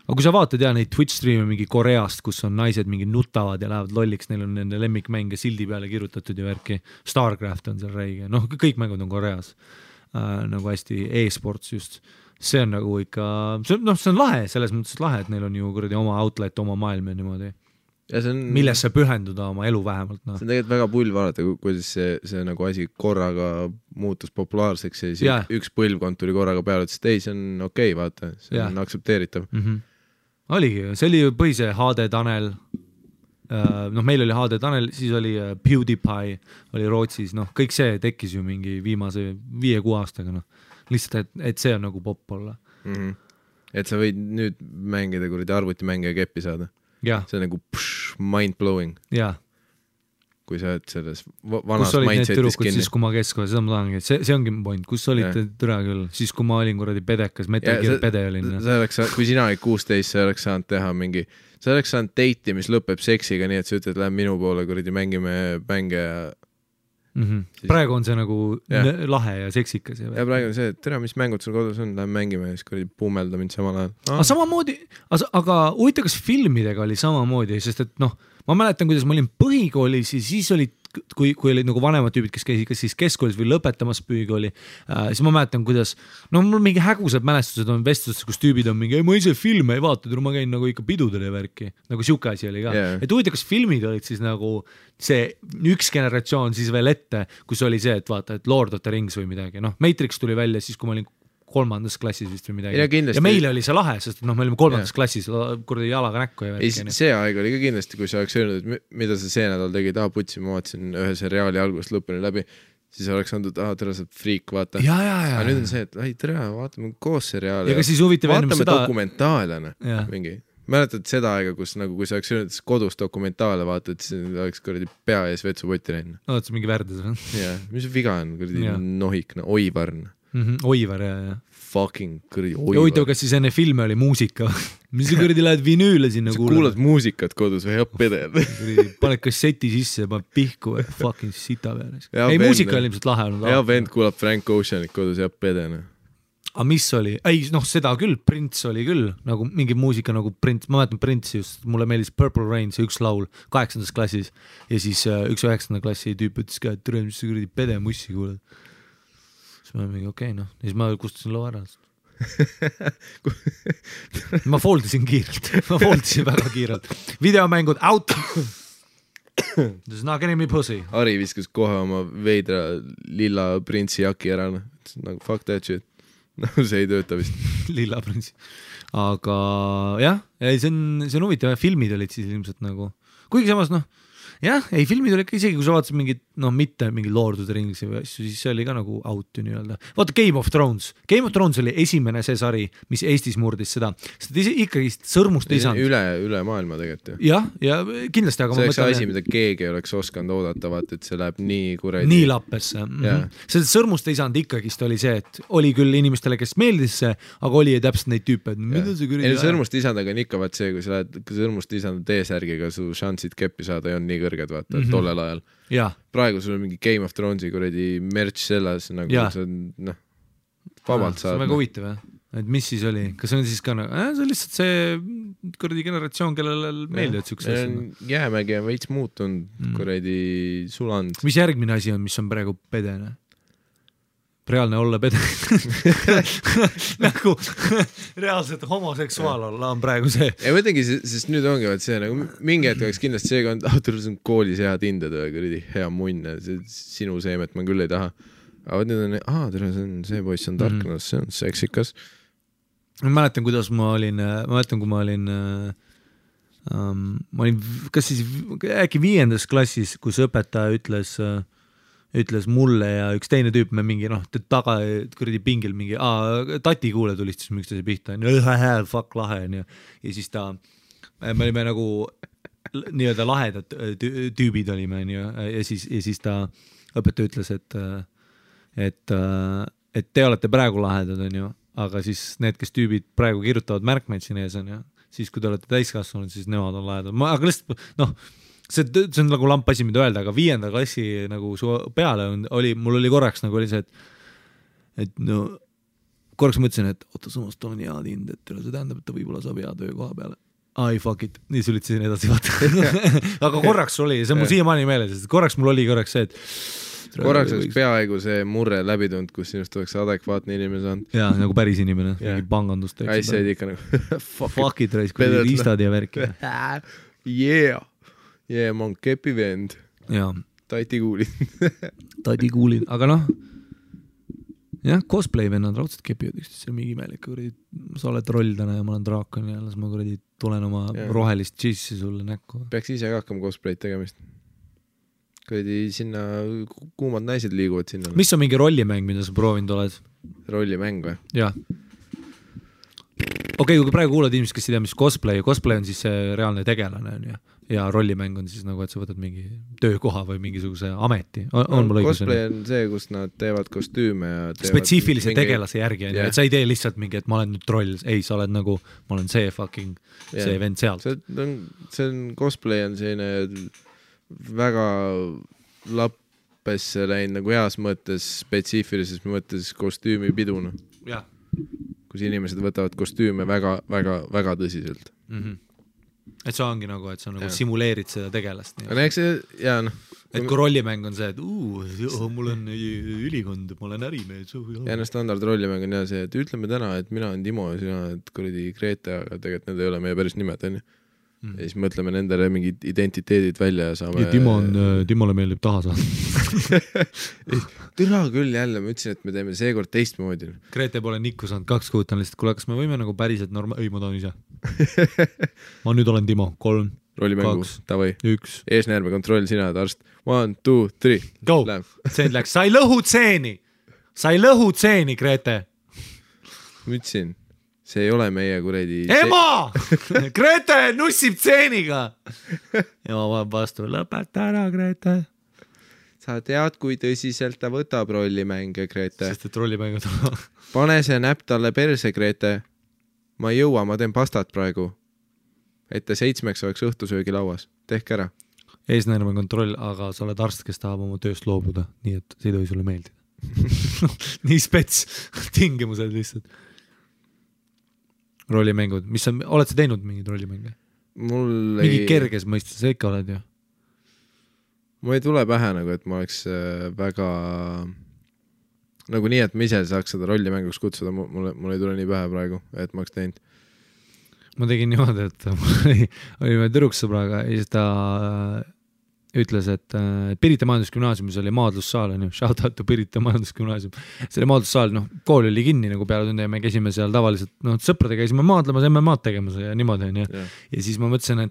Aga kui sa vaatad neid Twitch stream'e mingi Koreast, kus on naised mingi nutavad ja lähevad lolliks, neil on nende lemmikmänge sildi peale kirjutatud ja värki, Starcraft on seal räige, noh kõik mängud on Koreas, nagu hästi e-sports just, see on nagu ikka, see on lahe, selles mõttes lahe, et neil on ju kuradi oma outlet, oma maailm ja niimoodi, millesse pühenduda oma elu vähemalt. No. See on tegelikult väga pull vaadata, kuidas see nagu asi korraga muutus populaarseks ja siis üks põlvkond tuli korraga peale, et ei, see on okei, vaata, see on aktsepteeritav. Oligi, see oli põhise HD Tanel, meil oli HD Tanel, siis oli PewDiePie, oli Rootsis, kõik see tekkis ju mingi viimase 5-6 aastaga, lihtsalt, et see on nagu popp olla. Et sa võid nüüd mängida kuradi arvutimänge ja keppi saada. See on nagu mind-blowing. Kui sa oled selles vanas mindsetis kinni. Siis kui ma keskkoja, seda ma tahangi, see ongi point, kus olite türa küll, siis kui ma olin kuradi pedekas, Metal Gear pede olin. Kui sina olid 16, sa oleks saanud teha mingi, sa oleks saanud date'i, mis lõpeb seksiga, nii et sa ütled, lähen minu poole, kuradi mängime mänge ja... Praegu on see nagu lahe ja seksikas. Ja praegu on see, et tere, mis mängud sul kodus on, lähen mängime ja siis kuradi pummelda mind samal ajal. Aga samamoodi, aga huvitav, kas filmidega oli samamoodi, sest et ma mäletan, kuidas ma olin põhikoolis ja siis olid, kui olid nagu vanemad tüübid, kes käisid kas siis keskkoolis või lõpetamas põhikooli, siis ma mäletan, kuidas, mul mingi hägusad mälestused on vestlustes, kus tüübid on mingi, ma ise filme ei vaata, ma käin nagu ikka pidudele värki, nagu siuke asi oli ka. Et huvitav, kas filmid olid siis nagu see üks generatsioon siis veel ette, kus oli see, et vaata, et Lord of the Rings või midagi, Matrix tuli välja siis, kui ma olin 3. klassis vist või midagi. Ja meile oli see lahe, sest me olime 3. klassis kuradi jalaga näkku ja värki. See aeg oli ka kindlasti, kui sa oleks öelnud, et mida sa see nädal tegid, putsi, ma vaatasin ühe seriaali algusest lõpuni läbi, siis oleks andnud, tere, sa friik, vaata. Aga nüüd on see, et tere, vaatame koos seriaali. Ja ka siis huvitav ennum seda... Vaatame dokumentaalena mingi. Mäletad seda aega, kus nagu, kui sa oleks öelnud, et kodus dokumentaale vaatad, siis oleks kuradi pea ees vetsupoti läinud. Oot, see mingi värdes või? Jah, mis viga on, kuradi nohikna, oivarn. Oivar, jah. Fucking kuradi oivar. Huvitav, kas siis enne filme oli muusika? Mis sa kuradi lähed vinüüle sinna kuulad? Sa kuulad muusikat kodus või hea pedel? Paned kasseti sisse ja paned pihku või fucking sita peale. Ei, muusika oli ilmselt lahe olnud. Hea vend kuulab Frank Oceanit kodus ja pedena. Aga mis oli? Ei, seda küll, Prince oli küll, nagu mingi muusika nagu Prince, ma mäletan Prince just, mulle meeldis Purple Rain, see üks laul 8. klassis ja siis üks 9. klassi tüüp ütles ka, et tere, mis sa kuradi pede mussi kuulad. Siis ma mingi okei, ja siis ma kustusin loo ära. Ma foldisin väga kiirelt. Videomängud out! There's not getting me pussy. Ari viskas kohe oma veidra lilla Prince'i jaki ära, nagu fuck that shit. No see ei tööta vist. Lilla Prince'i. Aga jah, see on huvitav, filmid olid siis ilmselt nagu, kuigi samas jah, ei filmid oli ikka isegi, kui sa vaatasid mingid, mitte mingi Lord of the Rings või asju, siis see oli ka nagu out ju nii-öelda. Vaata Game of Thrones oli esimene see sari, mis Eestis murdis seda, sest ikkagi sõrmust ei saanud. Üle maailma tegelikult. Ja kindlasti, aga see oleks asi, mida keegi oleks oskanud oodata, vaata, et see läheb nii kuradi. Nii lappesse. Seda sõrmust ei saanud ikkagist oli see, et oli küll inimestele, kes meeldis see, aga oli täpselt neid tüüpe, et mida see kuradi. Sõrmust isandaga on ikka vaat see, kui sa lähed sõrmust isanda T-särgiga, su šansid keppi saada ei on nii kõrged, vaata, tollel ajal. Praegu sul on mingi Game of Thronesi kuradi merch selles, nagu see on, vabalt saad. See on väga huvitav, et mis siis oli, kas on siis ka see on lihtsalt see kuradi generatsioon, kellele meeldivad siukse asjad. Jäämägi on veits muutunud, kuradi sulanud. Mis järgmine asi on, mis on praegu pedene? Reaalne olla pede. Nagu reaalselt homoseksuaal olla on praegu see. Ja mõtlengi, sest nüüd ongi see nagu mingi hetk oleks kindlasti seega on koolis head hinded või kuradi hea munn, sinu seemet ma küll ei taha. Aga nüüd on, see poiss on tarknas, see on seksikas. Ma mäletan, kuidas kui ma olin kas siis äkki 5. klassis, kus õpetaja ütles mulle ja üks teine tüüp, me mingi taga kuradi pingil mingi, tati kuule tulistas üksteise pihta, fuck lahe ja siis me olime nagu nii-öelda lahedad tüübid olime ja siis ta õpetaja ütles, et te olete praegu lahedad on ju, aga siis need, kes tüübid praegu kirjutavad märkmeid siin ees on ju, siis kui te olete täiskasvanud, siis nemad on lahedad. Aga lihtsalt, see on nagu lamp asi, mida öelda, aga 5. klassi nagu su peale mul oli korraks nagu oli see, et korraks mõtlesin, et samas ta on hea tind, et see tähendab, et ta võib-olla saab hea töökoha peale. Ai, fuck it, nii sulitasin edasi vaata. Aga korraks oli, see on mul siiamaani meeles, sest korraks mul oli see, et korraks oleks peaaegu see murre läbi tulnud, kus sinust oleks adekvaatne inimene saanud. Jaa, nagu päris inimene, mingi pangandust. Said ikka nagu fuck it, raisk, kui riistad ja värki. Yeah, ma on kepi vend. Jaa. Tati kuulid. Aga jah, cosplay vennad raudselt kepivad üksteist, see on mingi imelik. Sa oled roll täna ja ma olen draakon ja las ma tulen oma rohelist džissi sulle näkku. Peaks ise ka hakkama cosplayt tegemist. Sinna kuumad naised liiguvad sinna. Mis on mingi rollimäng, mida sa proovinud oled? Rollimäng või? Jah. Okei, kui praegu kuulad inimesed, kes ei tea, mis cosplay on siis see reaalne tegelane ja rollimäng on siis nagu, et sa võtad mingi töökoha või mingisuguse ameti. On mul õigus? Cosplay on see, kus nad teevad kostüüme ja spetsiifilise tegelase järgi, et sa ei tee lihtsalt mingi, et ma olen nüüd troll, ei, sa oled nagu, ma olen see fucking see vend sealt. See on cosplay on selline väga lappesse läinud nagu heas mõttes, spetsiifilises mõttes kostüümipiduna. Jah. Kus inimesed võtavad kostüüme väga, väga, väga tõsiselt. Et see ongi nagu, et sa nagu simuleerid seda tegelast. Et kui rollimäng on see, et mul on ülikond, ma olen ärimees. Ja standard rollimäng on see, et ütleme täna, et mina olen Timo ja sina oled kuradi Grete, aga tegelikult need ei ole meie päris nimed, on ju. Ja siis mõtleme nendele mingid identiteedid välja ja saame... Ja Timole meeldib taha saada. Türa küll jälle, ma ütlesin, et me teeme seekord teistmoodi. Grete pole nikku saanud 2 kuud, on lihtsalt, kuule, kas me võime nagu päriselt ei, ma tahan ise. Ma nüüd olen Timo, 3, rollimängu, 2, tavai. 1. Eesnäärme kontroll, sina oled arst. 1, 2, 3. Go! Tseen läks, sa ei lõhu tseeni, Grete. Ma ütlesin. See ei ole meie kuredi... Ema! Grete nussib tseeniga! Ema vaeb vastu, lõpeta ära, Grete. Sa tead, kui tõsiselt ta võtab rollimänge, Grete. Sest et rollimänge tuleb. Pane see näpp talle perse, Grete. Ma ei jõua, ma teen pastat praegu. Et ta 7 oleks õhtusöögi lauas. Tehke ära. Eesnäärme kontroll, aga sa oled arst, kes tahab oma tööst loobuda. Nii et see ei tohi sulle meeldida. Nii spets tingimused lihtsalt. Rollimängud, oled sa teinud mingid rollimänge? Mingi kerges mõistes, sa ikka oled ju? Mul ei tule pähe nagu, et ma oleks väga nagu nii, et ma ise saaks seda rollimänguks kutsuda, mul ei tule nii pähe praegu, et ma oleks teinud. Ma tegin niimoodi, et olime tüdruksõbraga ja siis ta ütles, et Pirita majandusgümnaasiumis oli maadlussaal, shout out to Pirita majandusgümnaasium. Selle maadlussaal, kool oli kinni nagu peale tunde ja me käisime seal tavaliselt, sõprade käisime maadlemas, MM-ad tegemas ja niimoodi. Ja siis ma mõtlesin,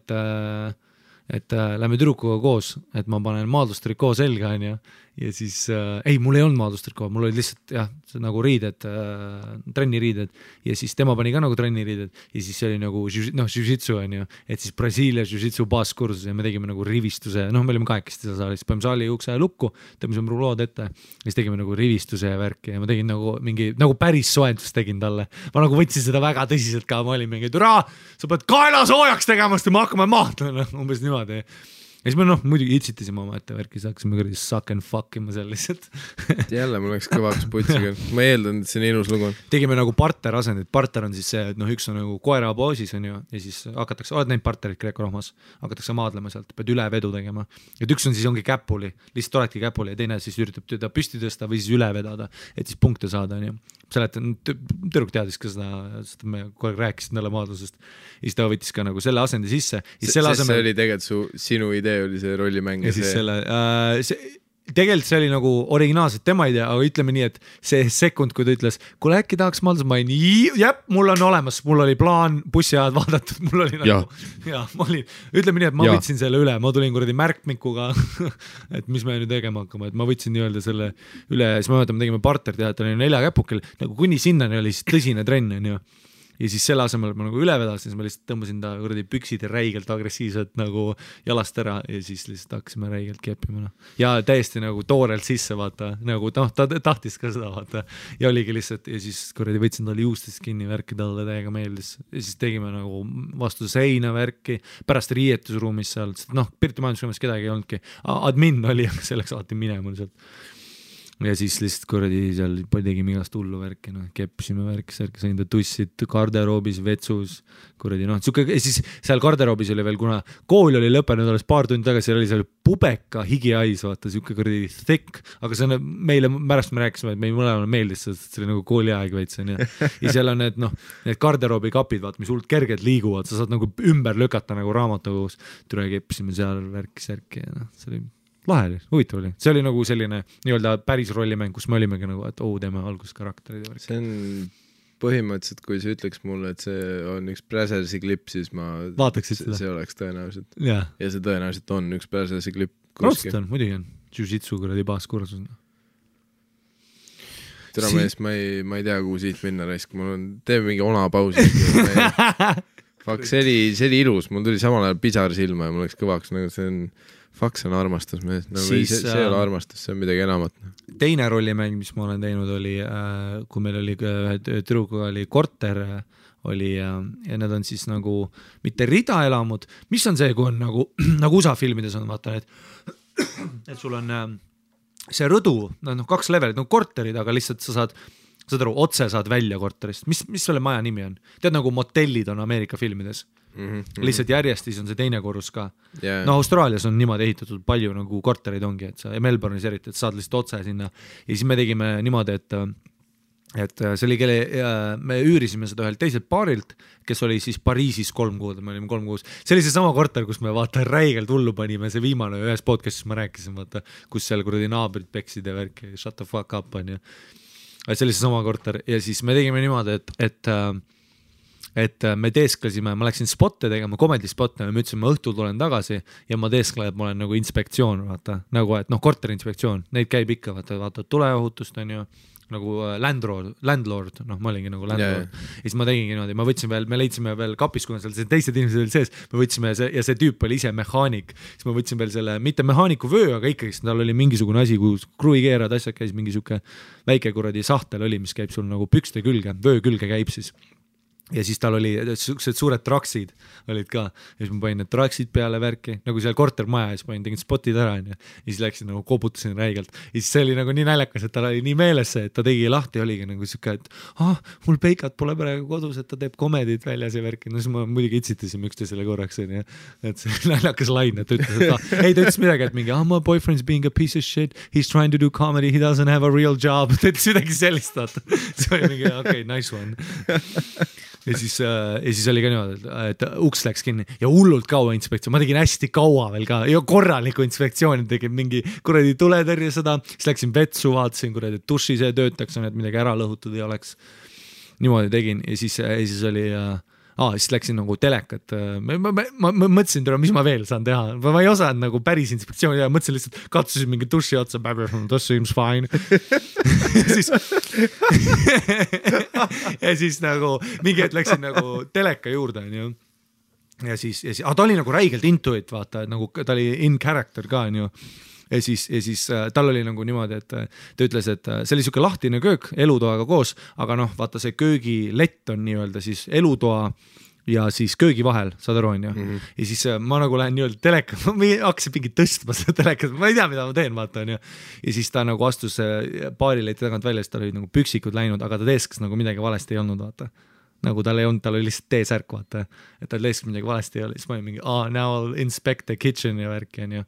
et lähme tüdrukuga koos, et ma panen maadlustrikoo selga ja siis, ei, mul ei olnud maadlustrikoo, mul oli lihtsalt nagu riided, trenniriided ja siis tema pani ka nagu trenniriided ja siis see oli nagu jiu-jitsu et siis Brasiilia jiu-jitsu baaskursus ja me tegime nagu rivistuse, me olime 8 seal saalis, panime saali ukse lukku, tõmbasime rulood ette ja siis tegime nagu rivistuse ja värki ja ma tegin nagu mingi, nagu päris soendust tegin talle, ma nagu võtsin seda väga tõsiselt ka, ma olin mingi, türa, sa pead kaela soojaks tegema, sest me hakkame mahtama, umbes niimoodi. ja siis me muidugi itsitasime oma ette värki, siis hakkasime kuradi suck and fuck ima seal lihtsalt jälle mul läks kõvaks putsiga, ma eeldan, et see on ilus lugu. Tegime nagu partner asendit, partner on siis see, et üks on nagu koera poosis on ju, ja siis hakatakse, oled näinud partnerit Kreeko-Rohmas, hakatakse maadlema sealt, pead üle vedu tegema. Et üks on siis ongi käpuli, lihtsalt oledki käpuli ja teine siis üritab teda püsti tõsta või siis üle vedada, et siis punkte saada on ju. Tüdruk teadis ka seda me kogu aeg rääkisid talle maadlusest ja siis ta võttis ka nagu selle asendi sisse. See oli tegelikult sinu idee oli see rollimäng. Ja siis selle, tegelikult see oli nagu originaalselt tema idea, aga ütleme nii, et see sekund, kui ta ütles, kuule äkki tahaks maadlus, ma olin, mul on olemas, mul oli plaan, bussiajad vaadatud, mul oli nagu, ma olin, ütleme nii, et ma võtsin selle üle, ma tulin kuradi märkmikuga, et mis me nüüd tegema hakkama, et ma võtsin nii-öelda selle üle ja siis ma mõtlen, me tegime partnerteatri 4 käpukil, nagu kuni sinnani oli siis tõsine trenn, on ju. Ja siis selle asemel ma nagu üle vedasin, siis ma lihtsalt tõmbasin ta kuradi püksid ja räigelt agressiivselt nagu jalast ära ja siis lihtsalt hakkasime räigelt keppima. Ja täiesti nagu toorelt sisse vaata, nagu ta tahtis ka seda vaata ja oligi lihtsalt ja siis kuradi võtsin talle juustest kinni värki, talle täiega meeldis ja siis tegime nagu vastu seina värki, pärast riietusruumis seal, Pirti majandusruumis kedagi ei olnudki, admin oli, aga selleks alati minema sealt. Ja siis lihtsalt kuradi seal tegime igast hullu värki, keppisime värki, sain ta tussid garderoobis, vetsus, kuradi ja siis seal garderoobis oli veel, kuna kool oli lõppenud alles paar tundi tagasi, oli seal pubeka higiais, vaata, siuke kuradi thick, aga see on meile, pärast me rääkisime, et meil mõlemale meeldis, see oli nagu kooliaeg veits, ja seal on need garderoobi kapid, vaata, mis hullult kergelt liiguvad, sa saad nagu ümber lükata nagu raamatukogus, tule keppisime seal värki ja see oli lahe oli, huvitav oli. See oli nagu selline nii-öelda päris rollimäng, kus me olimegi nagu, et teeme alguskarakterid. See on põhimõtteliselt, kui sa ütleks mulle, et see on üks Brazersi klipp, siis ma vaataksid seda. See oleks tõenäoliselt. Ja see tõenäoliselt on üks Brazersi klipp. Raudselt on, muidugi on. Jiu-jitsu kuradi baaskursus. Tere mees, ma ei tea, kuhu siit minna raisk. Teeme mingi ona pausi. Fuck, see oli ilus. Mul tuli samal ajal pisar silma ja mul läks kõvaks. See on armastus mees, see ei ole armastus, see on midagi enamat. Teine rollimäng, mis ma olen teinud, oli, kui meil oli tüdrukuga oli korter oli ja need on siis nagu mitte ridaelamud, mis on see, kui on nagu USA filmides on, vaata, et sul on see rõdu, 2 levelit, korterid, aga lihtsalt sa saad otse saad välja korterist. Mis selle maja nimi on? Tead, nagu motellid on Ameerika filmides. Lihtsalt järjestis on see teine korrus ka. Austraalias on niimoodi ehitatud palju nagu korterid ongi, et sa Melbourne'is eriti, et saad lihtsalt otse sinna. Ja siis me tegime niimoodi, et see oli me üürisime seda ühelt teiselt paarilt, kes oli siis Pariisis 3 kuud, me olime 3 kuus. See oli see sama korter, kus me vaata räigelt hullu panime, see viimane ühes podcastis ma rääkisin, vaata, kus seal kuradi naabrid peksid ja värki, shut the fuck up on ju. See oli see sama korter ja siis me tegime niimoodi, et me teesklesime, ma läksin spotte tegema, comedy spotte, me ütlesin, ma õhtul tulen tagasi ja ma teesklen, et ma olen nagu inspektsioon, vaata, nagu, et korterinspektsioon, neid käib ikka, vaata tuleohutust on ju, nagu landlord, ma olingi nagu landlord. Ja siis ma tegingi niimoodi, me leidsime veel kapis, kuna seal teised inimesed olid sees, me võtsime ja see tüüp oli ise mehaanik, siis ma võtsin veel selle, mitte mehaaniku vöö, aga ikkagi tal oli mingisugune asi, kus kruikeerad asjad käis, mingi siuke väike kuradi sahtel oli, mis käib sul nagu pükste külge, vöö külge käib siis. Ja siis tal oli sellised suured traksid olid ka ja siis ma panin need traksid peale värki nagu seal kortermaja ja siis tegin spotid ära ja siis läksin nagu kobutasin räigelt ja siis see oli nagu nii näljakas, et tal oli nii meeles see, et ta tegi lahti ja oligi nagu siuke, et mul peikat pole praegu kodus, et ta teeb komedit väljas ja värki, no siis ma muidugi itsitasime üksteisele korraks ja et see näljakas lain, et ta ütles, et ta ütles midagi, et mingi my boyfriend's being a piece of shit, he's trying to do comedy, he doesn't have a real job, ta ütles midagi sellist, see oli mingi okay, nice one. Ja siis oli ka niimoodi, et uks läks kinni ja hullult kaua inspektsioon, ma tegin hästi kaua veel ka ja korraliku inspektsiooni, tegin mingi kuradi tuletõrje seda, siis läksin vetsu, vaatasin kuradi, et duši see töötaks, et midagi ära lõhutud ei oleks. Niimoodi tegin ja siis oli siis läksin nagu telekat, ma mõtlesin, mis ma veel saan teha, ma ei osanud nagu päris inspektsiooni ja mõtlesin lihtsalt, katsusin mingi duši otsa, this seems fine. ja siis nagu mingi hetk läksin nagu teleka juurde ja siis ta oli nagu räigelt into it, vaata, et nagu ta oli in character ka ja siis tal oli nagu niimoodi, et ta ütles, et see oli siuke lahtine köök elutoaga koos, aga vaata see köögilett on nii-öelda siis elutoa ja siis köögi vahel, saad aru, on ju. Ja siis ma nagu lähen nii-öelda teleka, ma hakkasin mingi tõstma seda telekat, ma ei tea, mida ma teen, vaata, on ju. Ja siis ta nagu astus baarileti tagant välja, siis tal oli nagu püksikud läinud, aga ta teeskas nagu midagi valesti ei olnud, vaata. Nagu tal ei olnud, tal oli lihtsalt T-särk, vaata. Et tal teeskas midagi valesti ei ole, siis ma olin mingi, now I'll inspect the kitchen ja värki, on ju.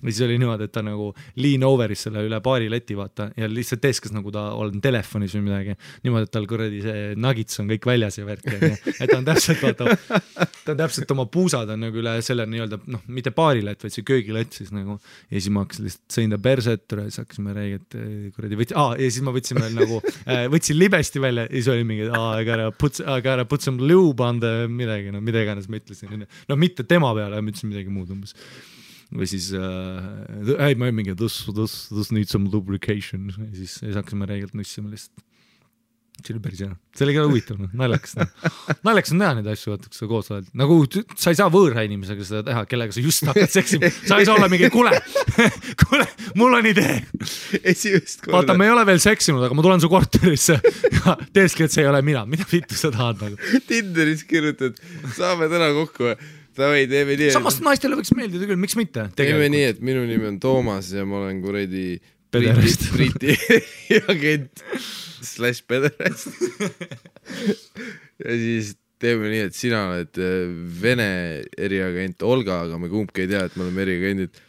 Ja siis oli niimoodi, et ta nagu lean over'is selle üle baarileti, vaata, ja lihtsalt teeskas nagu ta on telefonis või midagi. Niimoodi, et tal kuradi see nuggets on kõik väljas ja värki, on ju. Et ta on täpselt, vaata, ta on täpselt oma puusad on nagu üle selle nii-öelda, noh, mitte baarilett, vaid see köögilett siis nagu. Ja siis ma hakkasin lihtsalt sõin ta perset, siis hakkasime räägid, kuradi ja siis ma võtsin veel nagu, võtsin libesti välja ja siis oli mingi, I gotta put some lube on the midagi, no mida iganes ma ütlesin. No mitte tema peale, ma ütlesin midagi muud umbes. Või siis, ei, ma ei mingi, this needs some lubrication. Ja siis hakkasime räägilt nussima lihtsalt. See oli päris hea. See oli ka huvitav, naljakas. Naljakas on teha neid asju, vaata, kui sa koos oled. Nagu sa ei saa võõra inimesega seda teha, kellega sa just hakkad seksima. Sa ei saa olla mingi, kuule, mul on idee. Vaata, me ei ole veel seksinud, aga ma tulen su korterisse ja teeski, et see ei ole mina. Mida vittu sa tahad nagu? Tinderis kirjutad, saame täna kokku. Teeme nii, samast naistele võiks meeldida küll, miks mitte? Teeme nii, et minu nimi on Toomas ja ma olen kuredi Briti agent / pederast. Ja siis teeme nii, et sina oled Vene eriagent Olga, aga me kumbki ei tea, et me oleme eriagendid.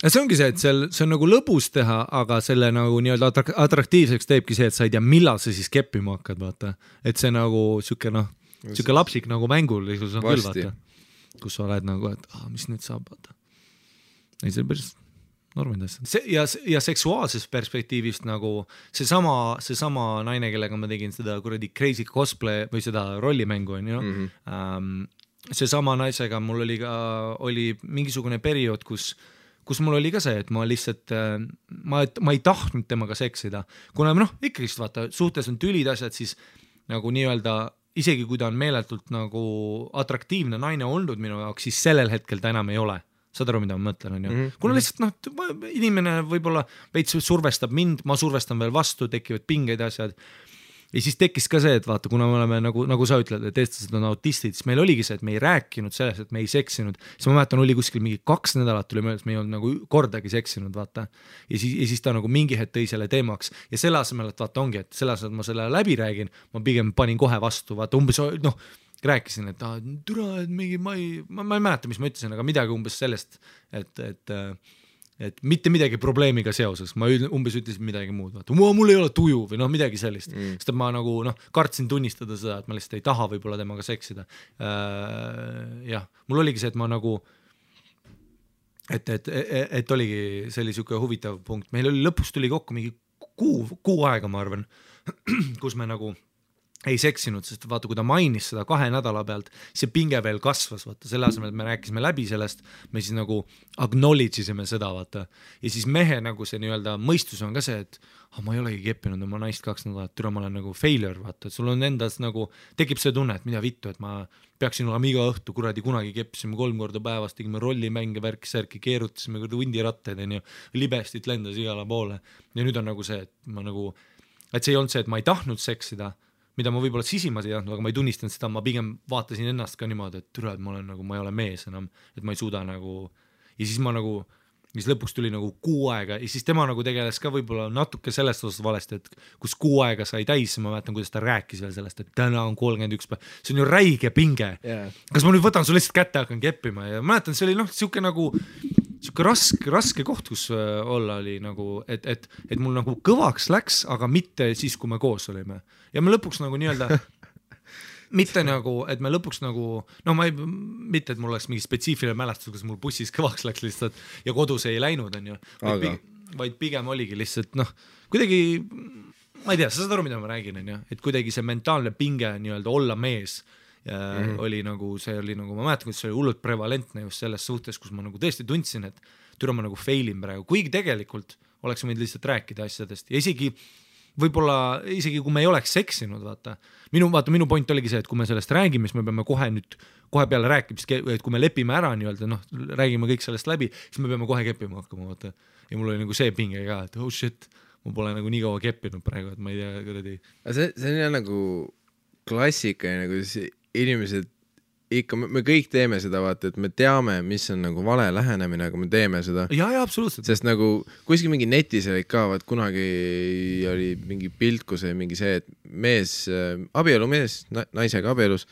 Ja see ongi see, et see on nagu lõbus teha, aga selle nagu nii-öelda atraktiivseks teebki see, et sa ei tea, millal sa siis keppima hakkad, vaata. Et see nagu siuke lapsik nagu mängul küll, vaata. Kus sa oled nagu, et mis nüüd saab, vaata. Ei, see on päris normid asjad. Ja seksuaalsest perspektiivist nagu seesama naine, kellega ma tegin seda kuradi crazy cosplay või seda rollimängu, on ju. Seesama naisega mul oli mingisugune periood, kus mul oli ka see, et ma lihtsalt, ma ei tahtnud temaga seksida. Kuna ikkagi vaata, suhtes on tülid asjad, siis nagu nii-öelda isegi kui ta on meeletult nagu atraktiivne naine olnud minu jaoks, siis sellel hetkel ta enam ei ole. Saad aru, mida ma mõtlen, on ju? Kuna lihtsalt inimene võib-olla veits survestab mind, ma survestan veel vastu, tekivad pingeid asjad. Ja siis tekkis ka see, et vaata, kuna me oleme nagu sa ütled, et eestlased on autistid, siis meil oligi see, et me ei rääkinud sellest, et me ei seksinud. Siis ma mäletan, oli kuskil mingi 2 nädalat tuli möödas, me ei olnud nagu kordagi seksinud, vaata. Ja siis ta nagu mingi hetk tõi selle teemaks. Ja selle asemel, et vaata ongi, et selle asemel, et ma selle läbi räägin, ma pigem panin kohe vastu, vaata umbes, rääkisin, et türa, et mingi, ma ei mäleta, mis ma ütlesin, aga midagi umbes sellest, et mitte midagi probleemiga seoses, ma umbes ütlesin midagi muud, vaata, mul ei ole tuju või midagi sellist, sest ma nagu kartsin tunnistada seda, et ma lihtsalt ei taha võib-olla temaga seksida. Jah, mul oligi see, et ma nagu, et oligi selline huvitav punkt, meil oli lõpus tuli kokku mingi kuu aega, ma arvan, kus me nagu ei seksinud, sest vaata, kui ta mainis seda 2 nädala pealt, see pinge veel kasvas, vaata, selle asemel, et me rääkisime läbi sellest, me siis nagu acknowledge isime seda, vaata, ja siis mehe nagu see nii-öelda mõistus on ka see, et ma ei olegi keppinud oma naist 2 nädalat, türa ma olen nagu failure, vaata, et sul on endas nagu, tekib see tunne, et mida vittu, et ma peaksin olema iga õhtu, kuradi kunagi keppisime 3 korda päevas, tegime rollimänge, värki-särki, keerutasime hundirattaid, libestit lendas igale poole, ja nüüd on nagu see, et ma nagu, et see ei olnud see, et ma ei tahtnud seksida, mida ma võib-olla sisimas ei tahtnud, aga ma ei tunnistanud seda, ma pigem vaatasin ennast ka niimoodi, et türa, et ma olen nagu, ma ei ole mees enam, et ma ei suuda nagu, ja siis ma nagu, siis lõpuks tuli nagu 6 aega ja siis tema nagu tegeles ka võib-olla natuke sellest osas valesti, et kus 6 aega sai täis, ma mäletan, kuidas ta rääkis veel sellest, et täna on 31 päev, see on ju räige pinge. Kas ma nüüd võtan su lihtsalt kätte, hakkan keppima ja mäletan, see oli siuke nagu, siuke raske koht, kus olla oli nagu, et mul nagu kõvaks läks, aga mitte siis, kui me koos olime. Ja me lõpuks nagu nii-öelda, mitte nagu, et me lõpuks nagu, mitte, et mul oleks mingi spetsiifiline mälestus, kus mul bussis kõvaks läks lihtsalt ja kodus ei läinud, on ju. Vaid pigem oligi lihtsalt, kuidagi, ma ei tea, sa saad aru, mida ma räägin, on ju, et kuidagi see mentaalne pinge nii-öelda olla mees oli nagu, see oli nagu, ma mäletan, kuidas see oli hullult prevalentne just selles suhtes, kus ma nagu tõesti tundsin, et türa ma nagu failin praegu, kuigi tegelikult oleks võinud lihtsalt rääkida asjadest ja võib-olla isegi kui me ei oleks seksinud, vaata, minu point oligi see, et kui me sellest räägime, siis me peame kohe peale rääkimist, et kui me lepime ära nii-öelda, räägime kõik sellest läbi, siis me peame kohe keppima hakkama, vaata. Ja mul oli nagu see pinge ka, et oh shit, ma pole nagu nii kaua keppinud praegu, et ma ei tea, kuradi. See on jah nagu klassika, nagu inimesed ikka me kõik teeme seda, vaata, et me teame, mis on nagu vale lähenemine, aga me teeme seda. Ja, absoluutselt. Sest nagu kuskil mingi netis olid ka, vaat kunagi oli mingi pilt, kus oli mingi see, et abielumees naisega abielus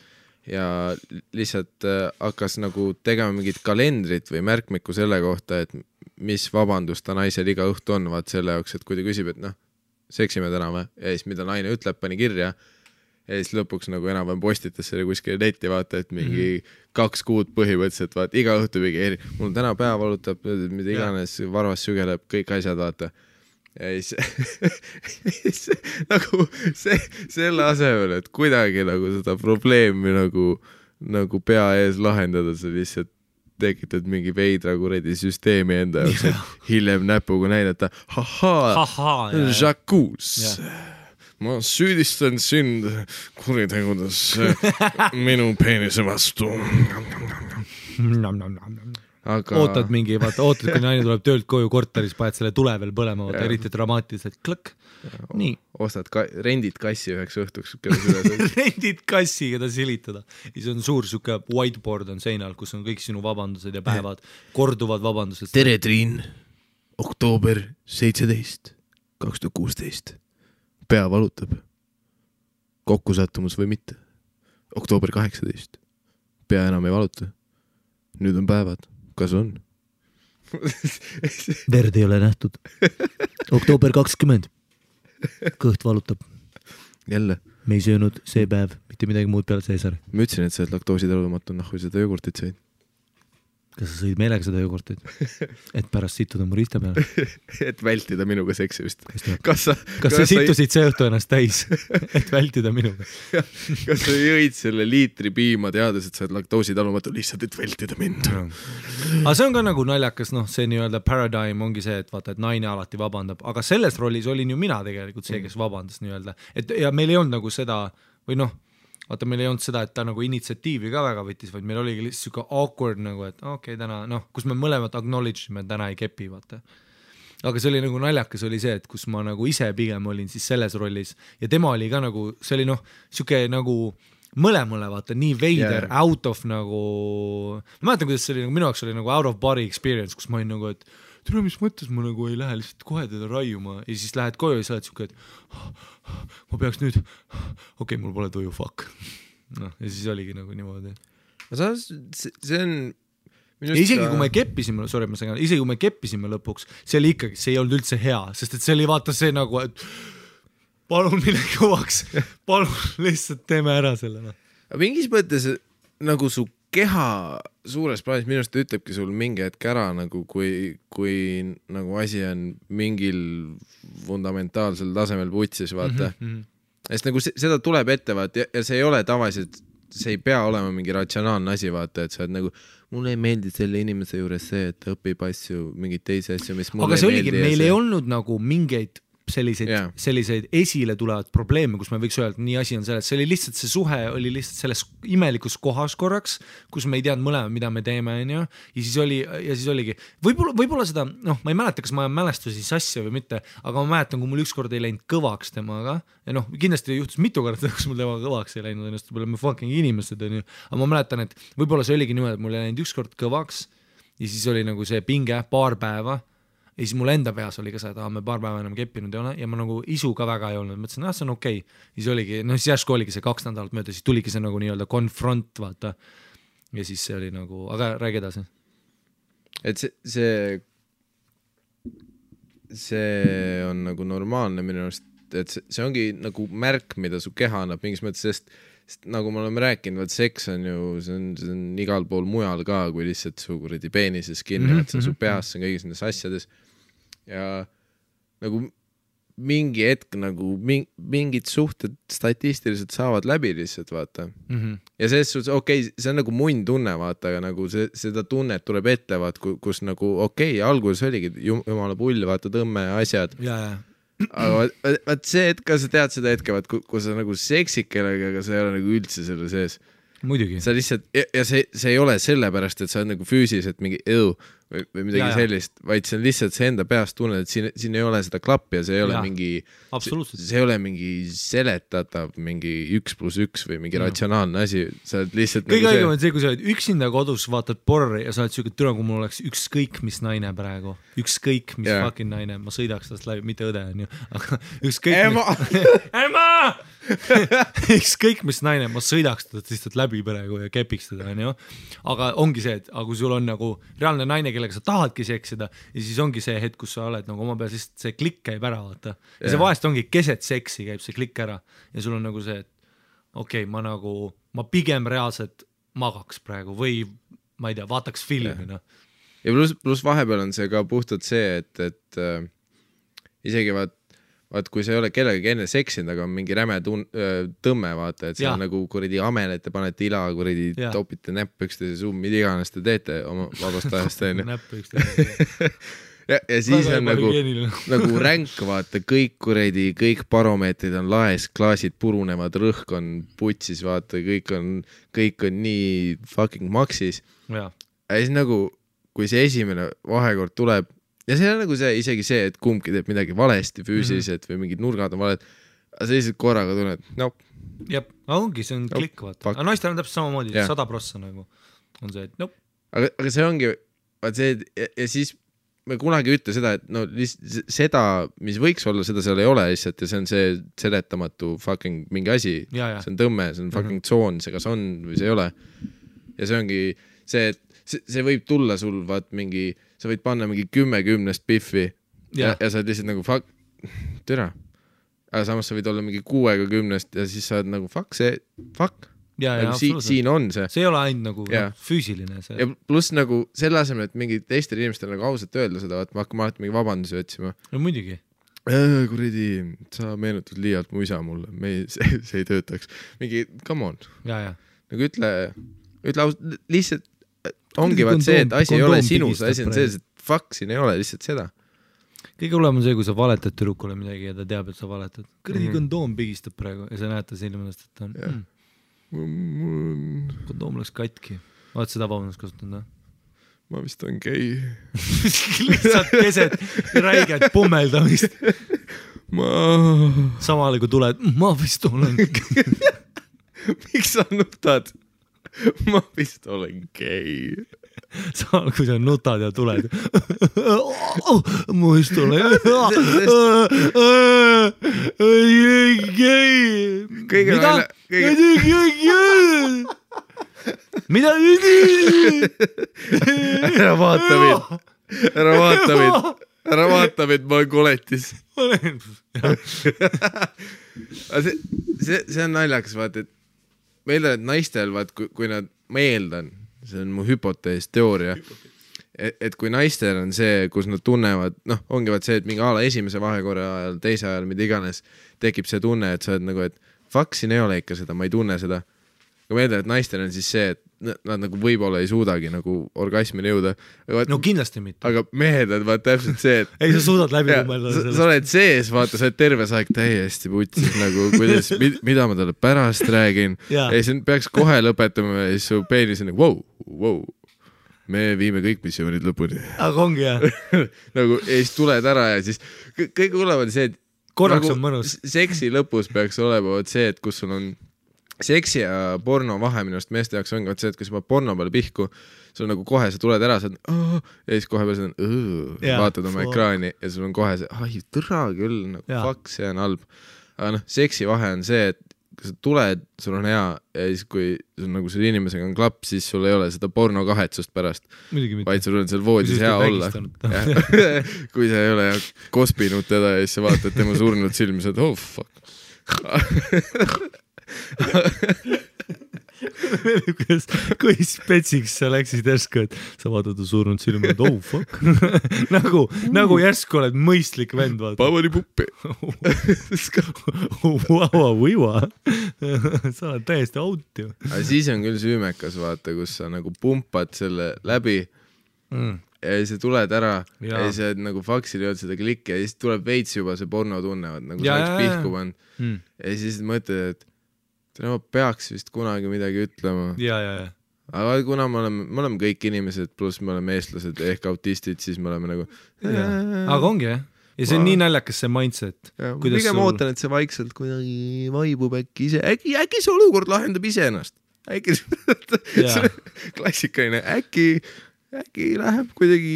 ja lihtsalt hakkas nagu tegema mingit kalendrit või märkmikku selle kohta, et mis vabandus ta naisel iga õhtu on, vaat selle jaoks, et kui ta küsib, et noh, seksime täna või? Ja siis mida naine ütleb, pani kirja ja siis lõpuks nagu enam-vähem postitas selle kuskile netti, vaata, et mingi 2 kuud põhimõtteliselt, vaata, iga õhtu mingi mul täna pea valutab, mida iganes, varvas sügeleb, kõik asjad, vaata. Ja siis nagu selle asemel, et kuidagi nagu seda probleemi nagu pea ees lahendada, sa lihtsalt tekitad mingi veidra kuredi süsteemi enda jaoks, et hiljem näpuga näidata, Jacques. Ma süüdistan sind kuritegudes minu peenise vastu. Aga... Ootad mingi, vaata, kui naine tuleb töölt koju korteris, paned selle tule veel põlema, vaata, eriti dramaatiliselt, klõkk. Nii. Rendid kassi üheks õhtuks. Rendid kassi, keda silitada. Ja see on suur suke whiteboard on seinal, kus on kõik sinu vabandused ja päevad, korduvad vabandused. Tere, Triin. Oktoober 17, 2016. Pea valutab. Kokkusattumus või mitte. Oktoober 18. Pea enam ei valuta. Nüüd on päevad. Kas on? Verd ei ole nähtud. Oktoober 20. Kõht valutab. Jälle. Me ei söönud see päev mitte midagi muud peale Caesari. Ma ütlesin, et sa oled laktoositalumatu, kui seda jogurtit said. Kas sa sõid meelega seda jogurtit? Et pärast sittuda mu riista peale? Et vältida minuga seksimist. Kas sa sittusid see õhtu ennast täis? Et vältida minuga? Kas sa jõid selle liitri piima teades, et sa oled laktoositalumatu lihtsalt, et vältida mind? Aga see on ka nagu naljakas, see nii-öelda paradigm ongi see, et vaata, et naine alati vabandab. Aga selles rollis olin ju mina tegelikult see, kes vabandas nii-öelda. Ja meil ei olnud nagu seda, või vaata, meil ei olnud seda, et ta nagu initsiatiivi ka väga võttis, vaid meil oligi lihtsalt siuke awkward nagu, et okei, täna, kus me mõlemad acknowledge'ime, et täna ei kepi, vaata. Aga see oli nagu naljakas oli see, et kus ma nagu ise pigem olin siis selles rollis ja tema oli ka nagu, see oli siuke nagu mõlemale, vaata, nii veider, out of nagu, ma mäletan, kuidas see oli, minu jaoks oli nagu out of body experience, kus ma olin nagu, et tere, mis mõttes ma nagu ei lähe lihtsalt kohe teda raiuma ja siis lähed koju ja sa oled siuke, et ma peaks nüüd, okei, mul pole tuju, fuck. Ja siis oligi nagu niimoodi. See on... Isegi kui me keppisime, isegi kui me keppisime lõpuks, see oli ikkagi, see ei olnud üldse hea, sest et see oli vaata see nagu, et palun mine kõvaks, palun lihtsalt teeme ära selle. Mingis mõttes nagu su keha suures plaanis minust ütlebki sul mingi hetk ära, nagu kui nagu asi on mingil fundamentaalsel tasemel putsis, vaata. Sest nagu seda tuleb ette, vaata, ja see ei ole tavaliselt, see ei pea olema mingi ratsionaalne asi, vaata, et sa oled nagu, mulle ei meeldi selle inimese juures see, et õpib asju, mingid teisi asju, mis mulle ei meeldi. Aga see oligi, meil ei olnud nagu mingeid selliseid esile tulevad probleeme, kus me võiks öelda, et nii asi on selles, see oli lihtsalt, see suhe oli lihtsalt selles imelikus kohas korraks, kus me ei teadnud mõlema, mida me teeme, ja siis oligi, võib-olla seda, ma ei mäleta, kas ma mälestusi sassi või mitte, aga ma mäletan, kui mul ükskord ei läinud kõvaks temaga, ja kindlasti juhtus mitu korda, kus mul temaga kõvaks ei läinud, ennast me fucking inimesed, aga ma mäletan, et võib-olla see oligi niimoodi, et mul ei läinud ükskord kõvaks, ja siis oli nagu see pinge paar päeva, ja siis mul enda peas oli ka see, et me paar päeva enam keppinud ei ole ja ma nagu isu ka väga ei olnud, mõtlesin, see on okei. Siis oligi, siis järsku oligi see 2 nädalat mööda, siis tuligi see nagu nii-öelda confront, vaata. Ja siis see oli nagu, aga räägi edasi. Et see on nagu normaalne minu arust, et see ongi nagu märk, mida su keha annab mingis mõttes, sest nagu me oleme rääkinud, vaat seks on ju, see on igal pool mujal ka, kui lihtsalt su kuradi peenises kinni, et see on su peas, see on kõigis nendes asjades. Ja nagu mingi hetk nagu mingid suhted statistiliselt saavad läbi lihtsalt, vaata. Ja selles suhtes, okei, see on nagu munn tunne, vaata, aga nagu seda tunnet tuleb ette, vaat, kus nagu okei, alguses oligi jumala pull, vaata, tõmme asjad. Aga vaat see hetk, sa tead seda hetke, vaat, kui sa nagu seksid kellega, aga sa ei ole nagu üldse selle sees. Muidugi. Sa lihtsalt, ja see ei ole sellepärast, et sa oled nagu füüsiliselt mingi või midagi sellist, vaid see on lihtsalt see enda peast tunned, et siin ei ole seda klappi ja see ei ole mingi, see ei ole mingi seletatav mingi 1+1 või mingi ratsionaalne asi, sa oled lihtsalt kõige õigem on see, kui sa oled üksinda kodus, vaatad porri ja sa oled siuke türa, kui mul oleks ükskõik mis naine praegu, ükskõik mis fucking naine, ma sõidaks tast läbi, mitte õde on ju, aga ükskõik Ema! ükskõik mis naine, ma sõidaks tast lihtsalt läbi praegu ja kepiks teda on ju, aga ongi see, et kui sul on nagu reaalne naine, kellega sa tahadki seksida ja siis ongi see hetk, kus sa oled nagu oma peal, siis see klikk käib ära, vaata. Ja see vahest ongi keset seksi käib see klikk ära ja sul on nagu see, et okei, ma pigem reaalselt magaks praegu või ma ei tea, vaataks filmi. Ja pluss vahepeal on see ka puhtalt see, et isegi vaat kui sa ei ole kellegagi enne seksinud, aga on mingi räme tõmme, vaata, et see on nagu kuradi amel, et te panete ila, kuradi topite näpp üksteise suu, mida iganes te teete oma vabast ajast. Näpp üksteise. ja siis on nagu ränk, vaata, kõik baromeetrid on laes, klaasid purunevad, rõhk on putsis, vaata, kõik on nii fucking maksis. Ja siis nagu, kui see esimene vahekord tuleb, ja see on nagu see, isegi see, et kumbki teeb midagi valesti füüsiliselt või mingid nurgad on valed, aga sa lihtsalt korraga tunned, Jep, ongi, see on klikk, vaata. Aga naistel on täpselt samamoodi, 100% nagu on see, et Aga see ongi, vaat see, ja siis me kunagi ütle seda, et seda, mis võiks olla, seda seal ei ole lihtsalt ja see on see seletamatu fucking mingi asi, see on tõmme, see on fucking tsoon, see kas on või see ei ole. Ja see ongi see, et see võib tulla sul, vaat mingi, sa võid panna mingi 10 piffi ja sa oled lihtsalt nagu fuck, türa. Aga samas sa võid olla mingi 6 ja siis sa oled nagu fuck. Nagu siin on see. See ei ole ainult nagu füüsiline. See. Ja pluss nagu selle asemel, et mingi teistel inimestel nagu ausalt öelda seda, et ma hakkama alati mingi vabandusi otsima. No muidugi. Kuradi, sa meenutad liialt mu isa mulle, see ei töötaks. Mingi, come on. Nagu ütle lihtsalt ongi vaat see, et asi ei ole sinus, asi on see, et fuck, siin ei ole lihtsalt seda. Kõige hullem on see, kui sa valetad tüdrukule midagi ja ta teab, et sa valetad. Kõrdi kondoom pigistab praegu ja sa näed ta silmadest, et ta on kondoom läks katki. Oled seda vabandust kasutanud, või? Ma vist on gei. Lihtsalt keset räiget pummeldamist. Samal kui tuled, ma vist olen Miks sa nutad? Ma vist olen gei. Samal kui sa nutad ja tuled. Ma vist olen gei. Mida? Ära vaata mind, ma olen koletis. See on naljakas, vaata, et meil on naistel, vaat, kui nad, ma eeldan, see on mu hüpotees, teooria, et kui naistel on see, kus nad tunnevad, ongi vaat see, et mingi ala esimese vahekorra ajal, teise ajal, mida iganes, tekib see tunne, et sa oled nagu, et fuck, siin ei ole ikka seda, ma ei tunne seda. Aga ma eeldan, et naistel on siis see, et nad nagu võib-olla ei suudagi nagu orgasmini jõuda. No kindlasti mitte. Aga mehed on vaat täpselt see, et ei, sa suudad läbi kummelda. Sa oled sees, vaata, sa oled terve aeg täiesti putsis nagu, kuidas, mida ma talle pärast räägin. Ja siis peaks kohe lõpetama ja siis su peenis on nagu, wow, me viime kõik missioonid lõpuni. Aga ongi, jah. Nagu, ja siis tuled ära ja siis kõik hullem on see, et korraks on mõnus. Seksi lõpus peaks olema see, et kus sul on seksi ja porno vahe minu arust meeste jaoks ongi see, et kui sa paned porno peale pihku, sul nagu kohe sa tuled ära, sa oled ja siis kohe peal sa vaatad oma ekraani ja sul on kohe see, tõra küll, nagu fuck, see on halb. Aga seksi vahe on see, et kui sa tuled, sul on hea ja siis kui sul nagu selle inimesega on klapp, siis sul ei ole seda porno kahetsust pärast, vaid sul on seal voodis hea olla. Kui sa ei ole kospinud teda ja siis sa vaatad tema surnud silmi, sa oled, fuck. kui spetsiks sa läksid järsku, et sa vaatad surnud silma, et fuck. nagu järsku oled mõistlik vend, vaata. Pavani puppi. Sa oled täiesti out ju. Aga siis on küll süümekas, vaata, kus sa nagu pumpad selle läbi ja siis tuled ära ja siis oled nagu faksil jõud seda klikki ja siis tuleb veits juba see porno tunnevad, nagu sa oleks pihku pannud ja siis mõtled, et ma peaks vist kunagi midagi ütlema. aga kuna me oleme kõik inimesed, pluss me oleme eestlased ehk autistid, siis me oleme nagu aga ongi jah, ja see on nii naljakas see mindset. Pigem ootan, et see vaikselt kuidagi vaibub äkki ise, äkki see olukord lahendab ise ennast, äkki klassikaline, äkki läheb kuidagi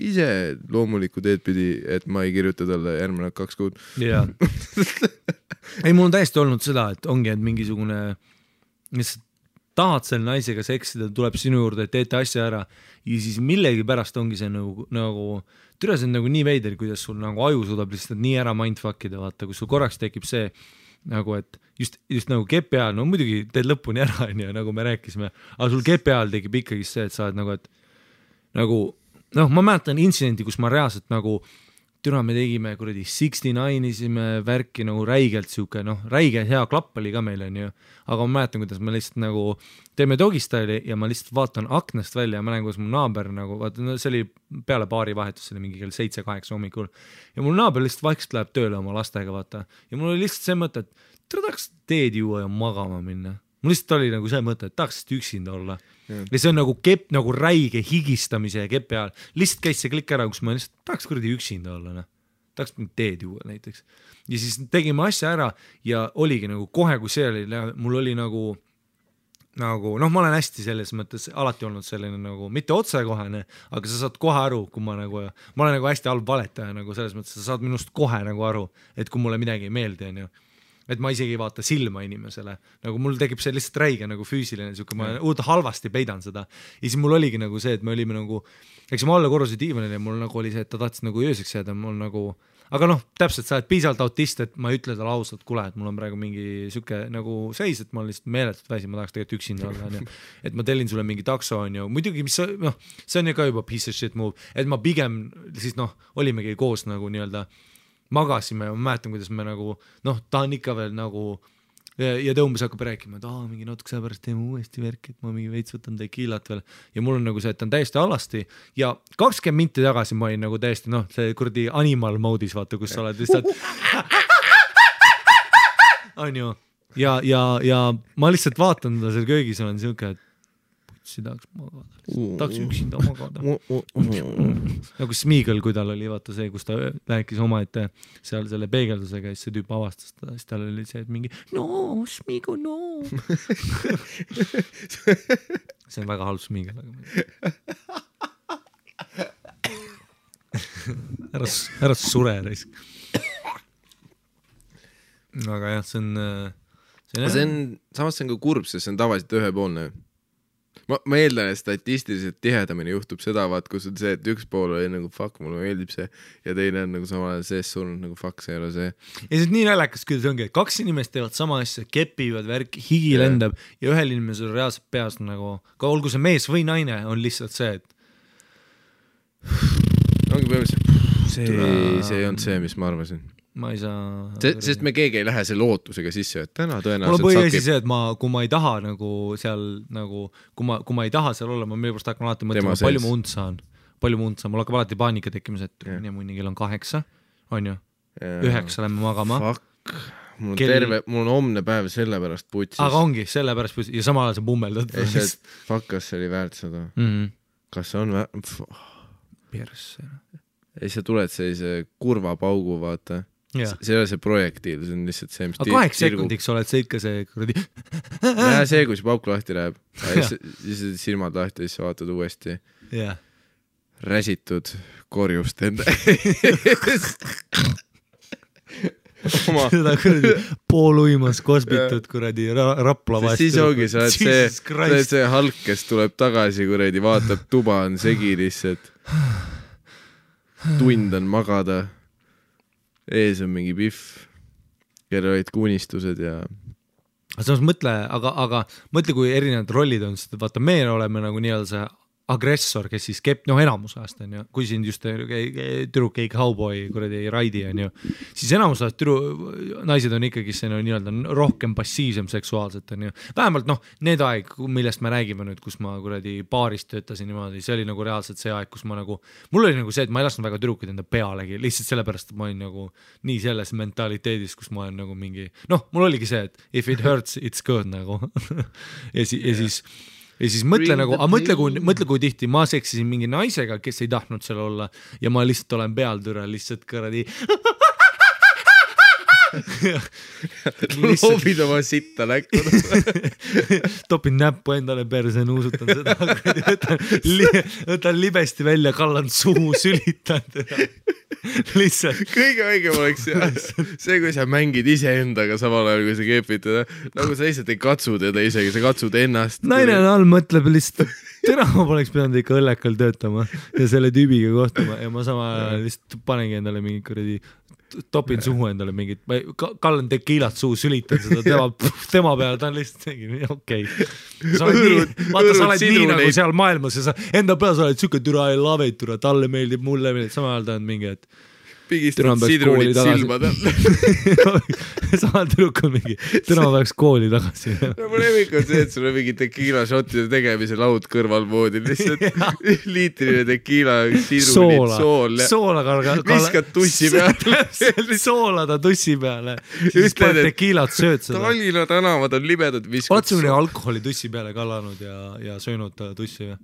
ise loomulikku teed pidi, et ma ei kirjuta talle järgmine 2 kuud. Jaa. Ei, mul on täiesti olnud seda, et ongi, et mingisugune, mis tahad selle naisega seksida, tuleb sinu juurde, et teete asja ära ja siis millegi pärast ongi see nagu türa, see on nagu nii veider, kuidas sul nagu aju suudab lihtsalt nii ära mindfuckida, vaata, kus sul korraks tekib see nagu, et just nagu kepi ajal, no muidugi teed lõpuni ära, nagu me rääkisime, aga sul kepi ajal tekib ikkagi see, et sa oled nagu, et nagu, ma mäletan intsidenti, kus ma reaalselt nagu türa, me tegime kuradi 69-isime värki nagu räigelt siuke, räige hea klapp oli ka meil, on ju, aga ma mäletan, kuidas me lihtsalt nagu teeme dogistyle'i ja ma lihtsalt vaatan aknast välja ja ma näen, kuidas mu naaber nagu, vaata, see oli peale baari vahetus, see oli mingi kell 7-8 hommikul ja mul naaber lihtsalt vaikselt läheb tööle oma lastega, vaata, ja mul oli lihtsalt see mõte, et tahaks teed juua ja magama minna. Mul lihtsalt oli nagu see mõte, et tahaks lihtsalt üksinda olla. Ja see on nagu kepp, nagu räige higistamise ja kepi ajal. Lihtsalt käis see klikk ära, kus ma lihtsalt tahaks kuradi üksinda olla. Tahaks mingi teed juua näiteks. Ja siis tegime asja ära ja oligi nagu kohe, kui see oli, mul oli nagu, ma olen hästi selles mõttes alati olnud selline nagu, mitte otsekohene, aga sa saad kohe aru, kui ma olen nagu hästi halb valetaja, nagu selles mõttes, sa saad minust kohe nagu aru, et kui mulle midagi ei meeldi, on ju. Et ma isegi ei vaata silma inimesele, nagu mul tekib see lihtsalt räige nagu füüsiline, ma halvasti peidan seda ja siis mul oligi nagu see, et me olime nagu, eks ma alla korruse diivanil ja mul nagu oli see, et ta tahtis nagu ööseks jääda, mul nagu, aga täpselt sa oled piisavalt autist, et ma ei ütle talle ausalt, kuule, et mul on praegu mingi süke nagu seis, et ma olen lihtsalt meeletult väsi, ma tahaks tegelikult üksinda olla, et ma tellin sulle mingi takso, on ju, muidugi, mis see on ju ka juba piece of shit move, et ma pigem siis olimegi koos nagu nii-öelda magasime ja ma mäletan, kuidas me nagu, ta on ikka veel nagu ja ta umbes hakkab rääkima, et mingi natuke selle pärast teeme uuesti värk, et ma mingi veits võtan tekiilat veel ja mul on nagu see, et ta on täiesti alasti ja 20 minti tagasi ma olin nagu täiesti, see kurdi animal mode'is, vaata, kus sa oled lihtsalt on ju ja ma lihtsalt vaatan ta seal köögis, olen siuke, et tahaks magada, tahaks üksinda magada. Nagu Smeagol, kui tal oli vaata see, kus ta rääkis oma ette seal selle peegeldusega ja siis see tüüp avastas ta, siis tal oli see, et mingi no, Smeagol, no. See on väga halb Smeagol, aga ära sure risk. Aga jah, see on samas see on ka kurb, sest see on tavaliselt ühepoolne. Ma eeldan, et statistiliselt tihedamini juhtub seda, vaat, kus on see, et üks pool oli nagu fuck, mulle meeldib see ja teine on nagu samal ajal sees surnud nagu fuck, see ei ole see. Ja see on nii näljakas, kuidas ongi, et 2 inimest teevad sama asja, kepivad värk, higi lendab ja ühel inimesel reaalselt peas nagu, ka olgu see mees või naine, on lihtsalt see, et ongi põhimõtteliselt see on see, mis ma arvasin. Ma ei saa sest me keegi ei lähe selle ootusega sisse, et täna tõenäoliselt mul on põhiasi see, et kui ma ei taha nagu seal nagu, kui ma ei taha seal olla, ma millepärast hakkan alati mõtlema, palju ma und saan, mul hakkab alati paanika tekkimas, et mõni kell on 8, on ju 9 lähme magama fuck, mul on homne päev selle pärast putsis, aga ongi selle pärast putsis ja samal ajal sa pummeldad fuck, kas see oli väärt seda kas see on persse ja siis sa tuled sellise kurva paugu, vaata. See ei ole see projektiil, see on lihtsalt see, mis 8 sekundiks oled see ikka see kuradi see, kui see pauk lahti läheb siis silmad lahti, siis vaatad uuesti räsitud korjust enda seda kuradi pooluimas kosbitud kuradi Rapla vastu siis ongi, sa oled see Hulk, kes tuleb tagasi kuradi, vaatab tuba on segi lihtsalt tund on magada, ees on mingi pihv, kelle olid kunistused ja samas mõtle, aga mõtle, kui erinevad rollid on, sest vaata, me oleme nagu nii-öelda see agressor, kes siis enamus ajast on ju, kui siin just tüdruk ei cowboy kuradi ei raidi on ju, siis enamus ajast naised on ikkagi see nii-öelda rohkem passiivsem seksuaalselt on ju, vähemalt need aeg, millest me räägime nüüd, kus ma kuradi baaris töötasin niimoodi, see oli nagu reaalselt see aeg, kus ma nagu, mul oli nagu see, et ma ei lasknud väga tüdrukuid enda pealegi, lihtsalt sellepärast, et ma olin nagu nii selles mentaliteedis, kus ma olen nagu mingi, mul oligi see, et if it hurts, it's good nagu ja siis ja siis mõtle nagu, mõtle kui tihti ma seksisin mingi naisega, kes ei tahtnud seal olla ja ma lihtsalt olen pealtüre lihtsalt kõradi loobid oma sitta näkku topin näppu endale perse, nuusutan seda võtan libesti välja, kallan suhu, sülitan teda lihtsalt kõige õigem oleks see, kui sa mängid iseendaga samal ajal, kui sa keepid teda, nagu sa lihtsalt ei katsu teda isegi, sa katsud ennast. Naine all mõtleb lihtsalt, täna ma poleks pidanud ikka õllekal töötama ja selle tüübiga kohtuma ja ma samal ajal lihtsalt panengi endale mingi kuradi topin suhu endale mingit, kallan tekiilat suhu, sülitan seda tema peale, ta on lihtsalt okei. Vaata, sa oled nii nagu seal maailmas ja sa enda peal sa oled süke türa I love it, türa, talle meeldib, mulle meeldib, samal ajal ta on mingi, et pigistad sidrunit silmad samal tüdrukul mingi, täna ma peaks kooli tagasi. Mu lemmik on see, et sul on mingi tekiila šottide tegemise laud kõrval moodi, lihtsalt liitriline tekiila, sidrunit, soola, viskad tussi peale. Soolada tussi peale, siis paned tekiilat sööd seda. Tallinna tänavad on libedad, viskad. Oled sa mõni alkoholi tussi peale kallanud ja söönud tussi või?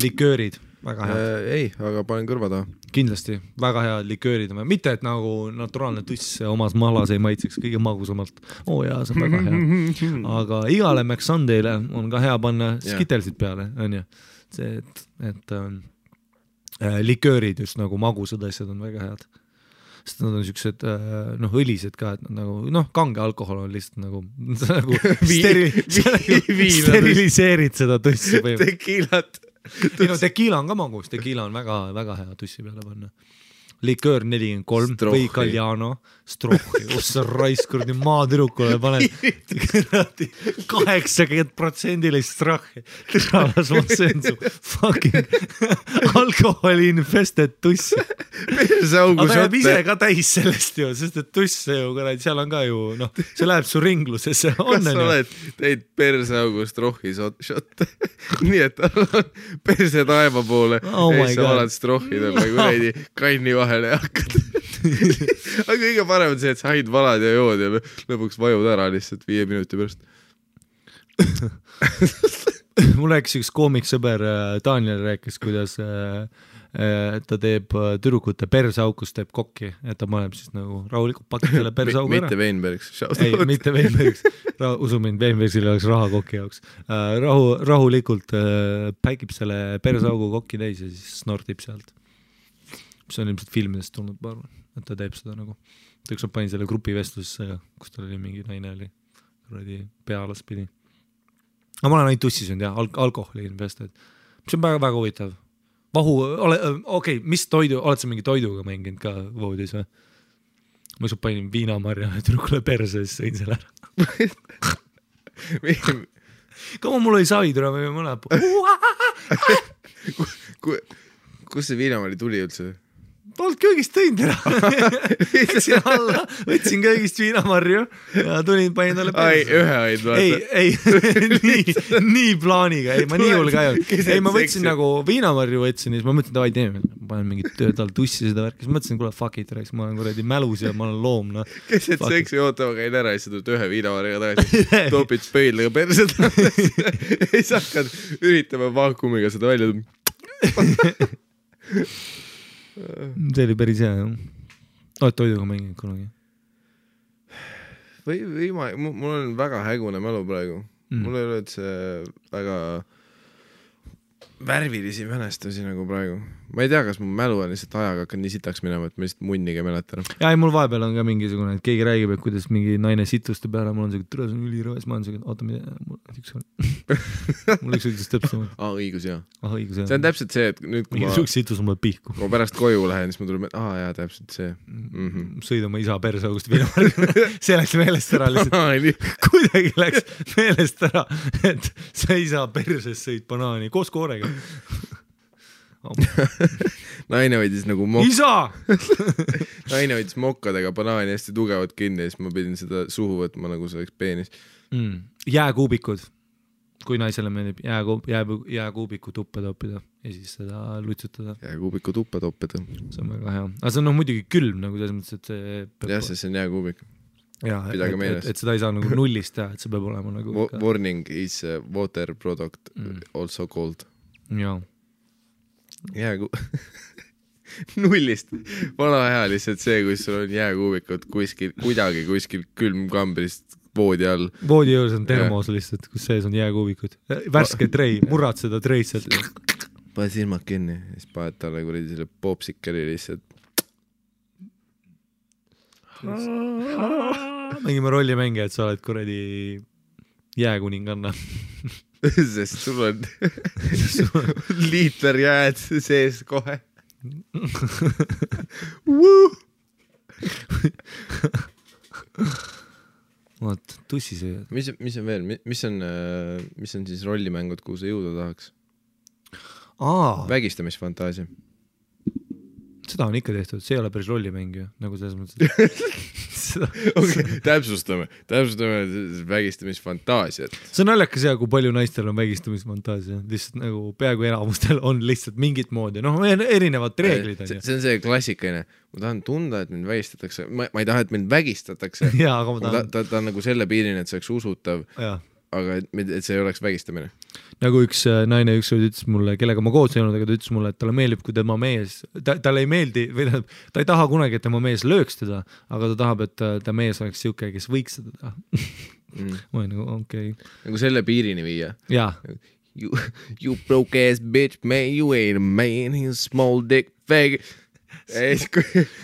Liköörid, väga head. Ei, aga panen kõrva taha. Kindlasti, väga head liköörid. Mitte, et nagu naturaalne tuss omas mahlas ei maitseks kõige magusamalt. Jaa, see on väga hea. Aga igale McSundayle on ka hea panna skitelsid peale, on ju. See, et liköörid just nagu magusad asjad on väga head. Sest nad on siuksed, õlised ka, et nagu, kange alkohol on lihtsalt nagu steriliseerid seda tussi. Tekiilat. Tekiila on ka magus, tekiila on väga, väga hea tussi peale panna. Liköör 43 või Galliano, Strohhi, ossa raiskurdi maatürukule paned 80% Strohhi. Tõralas ma söön su fucking alkoholi infested tussi. Aga jääb ise ka täis sellest ju, sest et tuss ju, seal on ka ju, see läheb su ringlusesse. Kas sa oled teid perseaugu Strohhi šotte? Nii, et perse taeva poole ja sa oled Strohhidel nagu näidi kanni vahele ja hakkad. Aga kõige parem on see, et sa haid valad ja jood ja lõpuks vajud ära lihtsalt 5 minuti pärast. Mul rääkis üks koomiksõber Daniel rääkis, kuidas ta teeb tüdrukute persaukus, teeb kokki, et ta paneb siis nagu rahulikult pakitele persaugu ära. Mitte Veinbergs. Ei, mitte Veinbergs. Usu mind, Veinbergsil oleks raha kokki jaoks. Rahulikult päikib selle persaugu kokki täis ja siis snortib sealt. See on ilmselt filmidest tulnud, ma arvan, et ta teeb seda nagu. Ta üks panin selle grupi vestlusesse, kus tal oli mingi naine oli pealas pidi. Aga ma olen ainult tussi söönud, alkoholi invested. See on väga huvitav. Mis toidu, oled sa mingi toiduga mänginud ka voodis või? Ma just panin viinamarja ja tüdrukule perse, siis sõin selle ära. Kama mul oli saidura või mõne Kus see viinamari tuli üldse? Polnud köögist tõinud ära. Võtsin köögist viinamarju ja tulin, panin talle perse. Ühe aid vaata. Nii plaaniga. Ei, ma nii hull ka ei olnud. Ei, ma võtsin nagu viinamarju võtsin ja siis ma mõtlesin, et teeme, panen mingit töötal tussi seda värki. Siis mõtlesin, kuule, fuck it, ma olen kuradi mälus ja ma olen loom. Kes et seksi ootama käin ära ja siis tuled ühe viinamarjaga tagasi. Topid spöidlega perse tagasi. Ja siis hakkad üritama vaakumiga seda välja. See oli päris hea, jah. Oled toiduga mänginud kunagi? Mul on väga hägune mälu praegu. Mul ei ole üldse väga värvilisi mälestusi nagu praegu. Ma ei tea, kas mu mälu on lihtsalt ajaga hakkan nii sitaks minema, et ma lihtsalt munniga mäletan. Ja mul vahepeal on ka mingisugune, et keegi räägib, et kuidas mingi naine situste peale, mul on see, et türa, see on ülirõves, ma olen see, et oota, mul üks ütles täpselt. Õigus, jah. Õigus, jah. See on täpselt see, et nüüd kui ma situs on mul pihku. Kui ma pärast koju lähen, siis ma tuleb, jaa, täpselt see. Sõid oma isa persaugust viinamarju. See läks meelest ära lihtsalt. Kuidagi läks meelest ära, et sa isa perses sõid banaani koos koorega. Naine võidis nagu Naine võidis mokkadega banaani hästi tugevalt kinni ja siis ma pidin seda suhu võtma nagu see oleks peenis. Jääkuubikud, kui naisele meeldib jääkuubiku tuppa toppida ja siis seda lutsutada. Jääkuubiku tuppa toppida. See on väga hea. Aga see on muidugi külm nagu selles mõttes, et see jah, see on jääkuubik. ja, et seda ei saa nagu nullist teha, et see peab olema nagu warning is water product also called. Jaa. Nullist. Vana hea lihtsalt see, kui sul on jääkuubikud kuskil külmkambrist voodi all. Voodi juures on termos lihtsalt, kus sees on jääkuubikud. Värske trei, murrad seda treid sealt. Pane silmad kinni, siis paned talle kuradi selle popsikeri lihtsalt. Mängime rollimänge, et sa oled kuradi jääkuninganna. Sest sul on liiter jääd sees kohe. Vaat, tussisööjad. Mis on veel? Mis on siis rollimängud, kuhu sa jõuda tahaks? Vägistamisfantaasia. Seda on ikka tehtud, see ei ole päris rollimäng ju, nagu selles mõttes. Täpsustame vägistamisfantaasiat. See on naljakas ja kui palju naistel on vägistamisfantaasia. Lihtsalt nagu peaaegu enamustel on lihtsalt mingit moodi. Noh, erinevad reeglid on. See on see klassikaline. Ma tahan tunda, et mind vägistatakse. Ma ei taha, et mind vägistatakse. Jaa, aga ma tahan. Ta on nagu selle piirini, et see oleks usutav. Aga et see ei oleks vägistamine. Nagu üks naine ütles mulle, kellega ma koos teinud, aga ta ütles mulle, et talle meeldib, kui tema mees, talle ei meeldi, või ta ei taha kunagi, et tema mees lööks teda, aga ta tahab, et ta mees oleks siuke, kes võiks seda teha. Ma olen nagu, okei. Nagu selle piirini viia. Jaa. You broke ass bitch, man, you ain't a man, he's a small dick fag.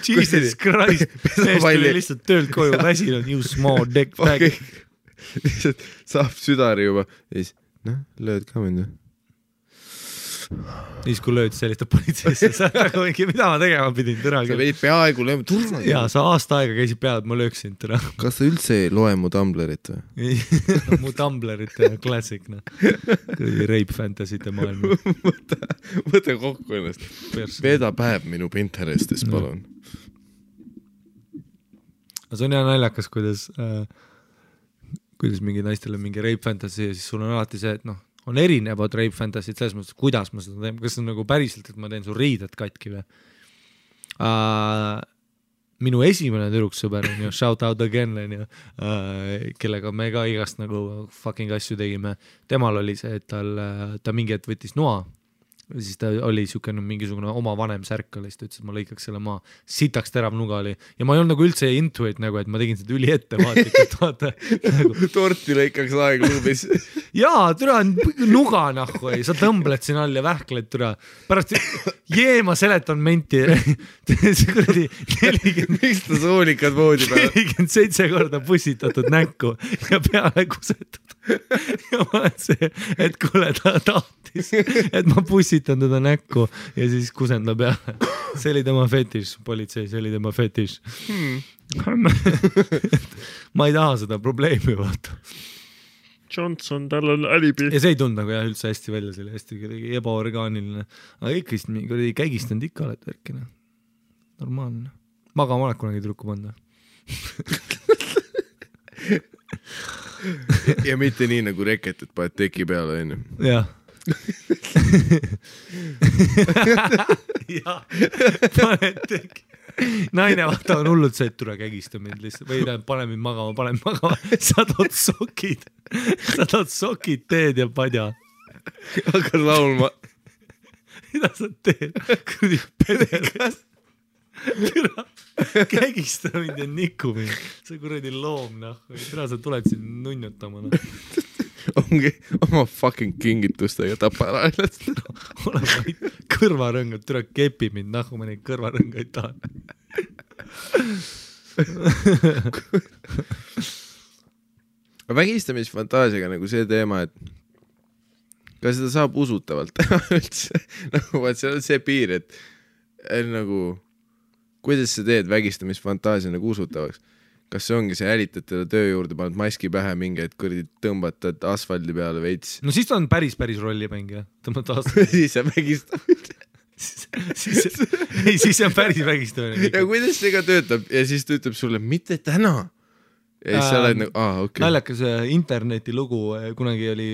Jesus Christ, mees tuli lihtsalt töölt koju väsinud, you small dick fag. Lihtsalt saab südari juba ja siis, lööd ka mind. Siis kui lööd sellist politseisse, sa nagu mingi, mida ma tegema pidin tõra. Sa veid peaaegu lööma turma. Jaa, sa aasta aega käisid peale, et ma lööksin tõra. Kas sa üldse ei loe mu Tumblerit või? Mu Tumblerit klassik, rape fantasy'te maailma. Võta kokku ennast. Veeda päev minu Pinterestis, palun. See on hea naljakas, kuidas mingi naistel on mingi rape fantasy ja siis sul on alati see, et on erinevad rape fantasy'd selles mõttes, kuidas ma seda teen, kas on nagu päriselt, et ma teen su riided katki või. Minu esimene tüdruksõber on ju, shout out again, kellega me ka igast nagu fucking asju tegime. Temal oli see, et ta mingi hetk võttis noa. Siis ta oli mingisugune oma vanem särk oli, siis ta ütles, et ma lõikaks selle maa. Sitaks terav nuga oli. Ja ma ei olnud nagu üldse intuit, nagu, et ma tegin seda üli ettevaatlikult. Nagu... Torti lõikaks aegluubis. Jaa, türa nuga nahku ei. Sa tõmbled siin all ja vähkled türa. Pärast ma seletan menti. See kuradi 40... Miks ta soolikad voodi peale? 47 korda pussitatud näkku ja peale kusetud. Ja ma olen see, et kuule ta tahtis, et ma pussitan teda näkku ja siis kusen ta peale. See oli tema fetiš, politsei, see oli tema fetiš. Ma ei taha seda probleemi vaata. Johnson, tal on alibi. Ja see ei tund nagu jah üldse hästi välja, see oli hästi ebaorgaaniline. Aga ikka käigistanud ikka oled värkina. Normaalne. Magama oled kunagi trukku panda. Ja mitte nii nagu reket, et paned teki peale enne. Jah. Jah, paned teki. Naine vaata on hullud see, et tule kägista mind lihtsalt. Või pane mind magama. Sa tood sokid, teed ja padja. Hakkad laulma. Mida sa teed? Kurdi pederis. Kägista mind ja niku mind. See kuradi loom, Tere sa tuled siin nunnutama. Ongi oma fucking kingitustega tapa ära ennast. Ole vaid kõrvarõngad, tere kepi mind, ma neid kõrvarõngaid tahan. Vägistamisfantaasiaga nagu see teema, et kas seda saab usutavalt teha üldse. Nagu vaat see on see piir, et nagu kuidas sa teed vägistamisfantaasia nagu usutavaks? Kas see ongi see älitad teda töö juurde, paned maski pähe mingi, et kõrdi tõmbatad asfaldi peale veits? No siis ta on päris rollimäng, jah. Siis see vägistamine. Siis see on päris vägistamine. Ja kuidas see ka töötab? Ja siis ta ütleb sulle, mitte täna. ja siis sa oled nagu, okei. Naljakas internetilugu, kunagi oli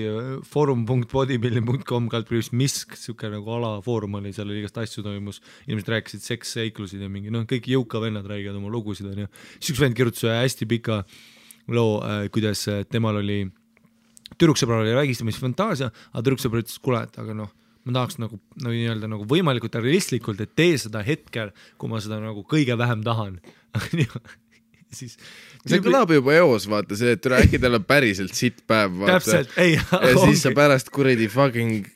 forum.bodybuilding.com misk, siuke nagu alafoorum oli, seal oli igast asju toimus, inimesed rääkisid seksseiklusid ja mingi, kõik jõuka vennad räägivad oma lugusid, on ju. Siis üks vend kirjutas hästi pika loo, kuidas temal oli, tüdruksõbral oli vägistamisfantaasia, aga tüdruksõbral ütles, kuule, et aga ma tahaks nagu võimalikult realistlikult, et tee seda hetkel, kui ma seda nagu kõige vähem tahan. Siis see kõlab juba eos, vaata see, et äkki tal on päriselt sitt päev, vaata. Täpselt, ei. Ja siis sa pärast kuradi fucking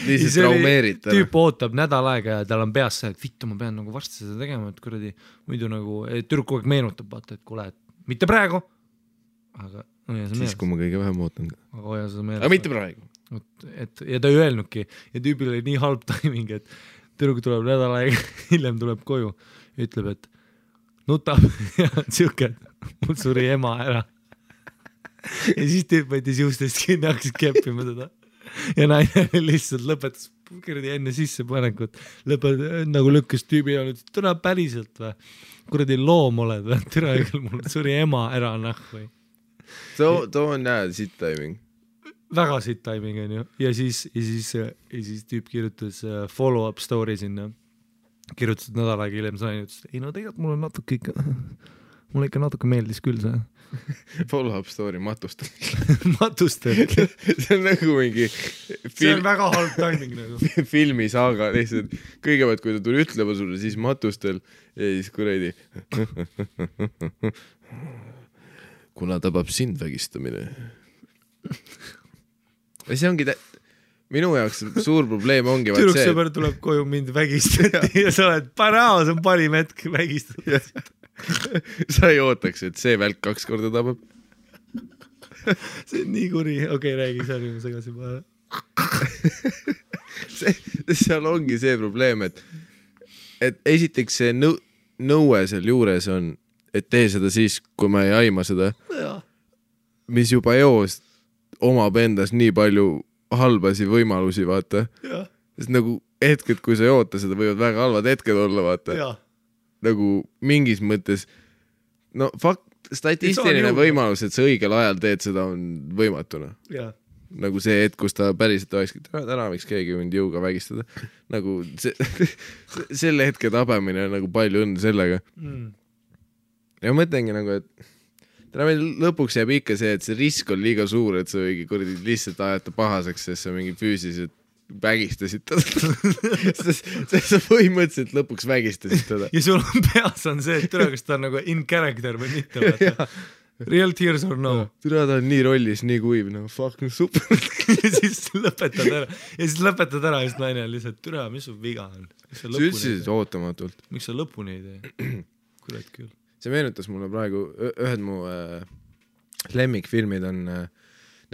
lihtsalt traumeerid. Tüüp ootab nädal aega ja tal on peas see, et vittu, ma pean nagu varsti seda tegema, et kuradi muidu nagu, tüdruk kogu aeg meenutab, vaata, et kuule, et mitte praegu, aga siis, kui ma kõige vähem ootan. Aga hoia seda meeles. Aga mitte praegu. Ja ta ei öelnudki ja tüübil oli nii halb timing, et tüdruk tuleb nädal aega, hiljem tuleb koju ja ütleb, et nutab ja siuke, mul suri ema ära. Ja siis tüüp võttis juustest kinni, hakkas keppima seda ja naine lihtsalt lõpetas kuradi enne sissepanekut, nagu lükkas tüübi ja ütles, türa päriselt või, kuradi loom oled või, türa mul suri ema ära või. Too on sitt timing. Väga sitt timing on ju. Ja siis tüüp kirjutas follow-up story sinna. Kirjutas nädal aega hiljem sain, ütles, ei tegelikult mulle ikka natuke meeldis küll see. Follow-up story matustel. Matustel. See on nagu mingi see on väga halb timing nagu. Filmisaaga lihtsalt. Kõigepealt, kui ta tuli ütlema sulle, siis matustel ja siis kuradi. Kuna tabab sind vägistamine. Ja see ongi minu jaoks suur probleem ongi tüdruksõber tuleb koju mind vägistati ja sa oled parao, see on parim hetk vägistada. Sa ei ootaks, et see välk 2 korda tabab. See on nii kuri, okei, räägi, see oli mu segasi paha. Seal ongi see probleem, et esiteks see nõue seal juures on, et tee seda siis, kui ma ei aima seda, mis juba eos omab endas nii palju halbasi võimalusi, vaata. Sest nagu hetked, kui sa ei oota seda, võivad väga halvad hetked olla, vaata. Nagu mingis mõttes, statistiline võimalus, et sa õigel ajal teed seda, on võimatuna. Nagu see hetk, kus ta päriselt olekski, täna võiks keegi mind jõuga vägistada. Nagu selle hetke tabamine on nagu palju õnne sellega. Ja mõtlengi nagu, et lõpuks jääb ikka see, et see risk on liiga suur, et sa võigi lihtsalt ajata pahaseks, sest sa mingi füüsiliselt vägistasid teda. Sest sa põhimõtteliselt lõpuks vägistasid teda. Ja sul on peas on see, et türa, kas ta on nagu in character või mitte. Real tears or no. Türa, ta on nii rollis, nii kuiv, fucking super. Ja siis lõpetad ära, just naine lihtsalt, türa, mis su viga on? Sa ütlesid ootamatult. Miks sa lõpuni ei tee? Kurat küll. See meenutas mulle praegu, ühed mu lemmikfilmid on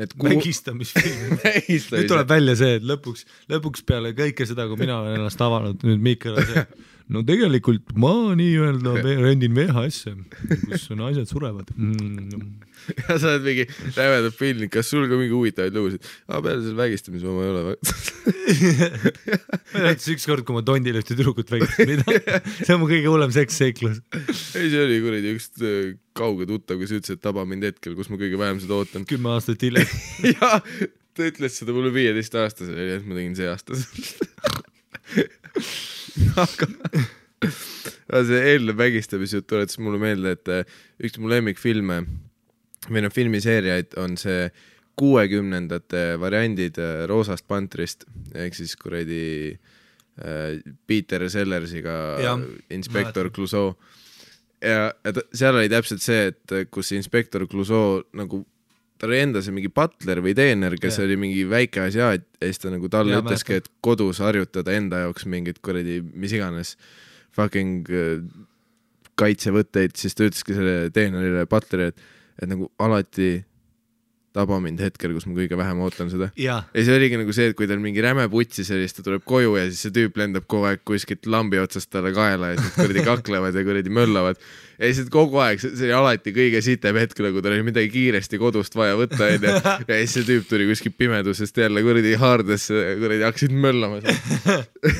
need vägistamisfilmid. Nüüd tuleb välja see, et lõpuks peale kõike seda, kui mina olen ennast avanud, nüüd Miikal on see, no tegelikult ma nii-öelda rendin VHS-e, kus naised surevad. Ja sa oled mingi rävedab filmi, kas sul ka mingi huvitavaid lugusid? Peale selle vägistamise ma ei ole. Ma näitas üks kord, kui ma tondile ühte tüdrukut vägistan. See on mu kõige hullem seksseiklus. Ei, see oli kuradi üks kauge tuttav, kes ütles, et taba mind hetkel, kus ma kõige vähem seda ootan. 10 aastat hiljem. Ja, ta ütles seda mulle 15 aastasel, et ma tegin see aastasel. Aga see eelnev vägistamisjut tuletas mulle meelde, et üks mu lemmikfilme või filmiseeriaid on see 60ndate variandid Roosast Pantrist ehk siis kuradi Peter Sellersiga Inspektor Clouseau ja seal oli täpselt see, et kus Inspektor Clouseau nagu ta oli enda see mingi butler või teener, kes oli mingi väike asja ja siis ta nagu talle ütleski, et kodus harjutada enda jaoks mingid kuradi mis iganes fucking kaitsevõtteid, siis ta ütleski selle teenerile butleri, et nagu alati taba mind hetkel, kus ma kõige vähem ootan seda. Ja see oligi nagu see, et kui tal mingi räme putsi sellist, ta tuleb koju ja siis see tüüp lendab kogu aeg kuskilt lambi otsast talle kaela ja siis kuradi kaklevad ja kuradi möllavad. Ja siis kogu aeg, see oli alati kõige sitem hetkel, kui tal oli midagi kiiresti kodust vaja võtta ja siis see tüüp tuli kuskil pimedusest jälle kuradi haardes, kuradi hakkasid möllama.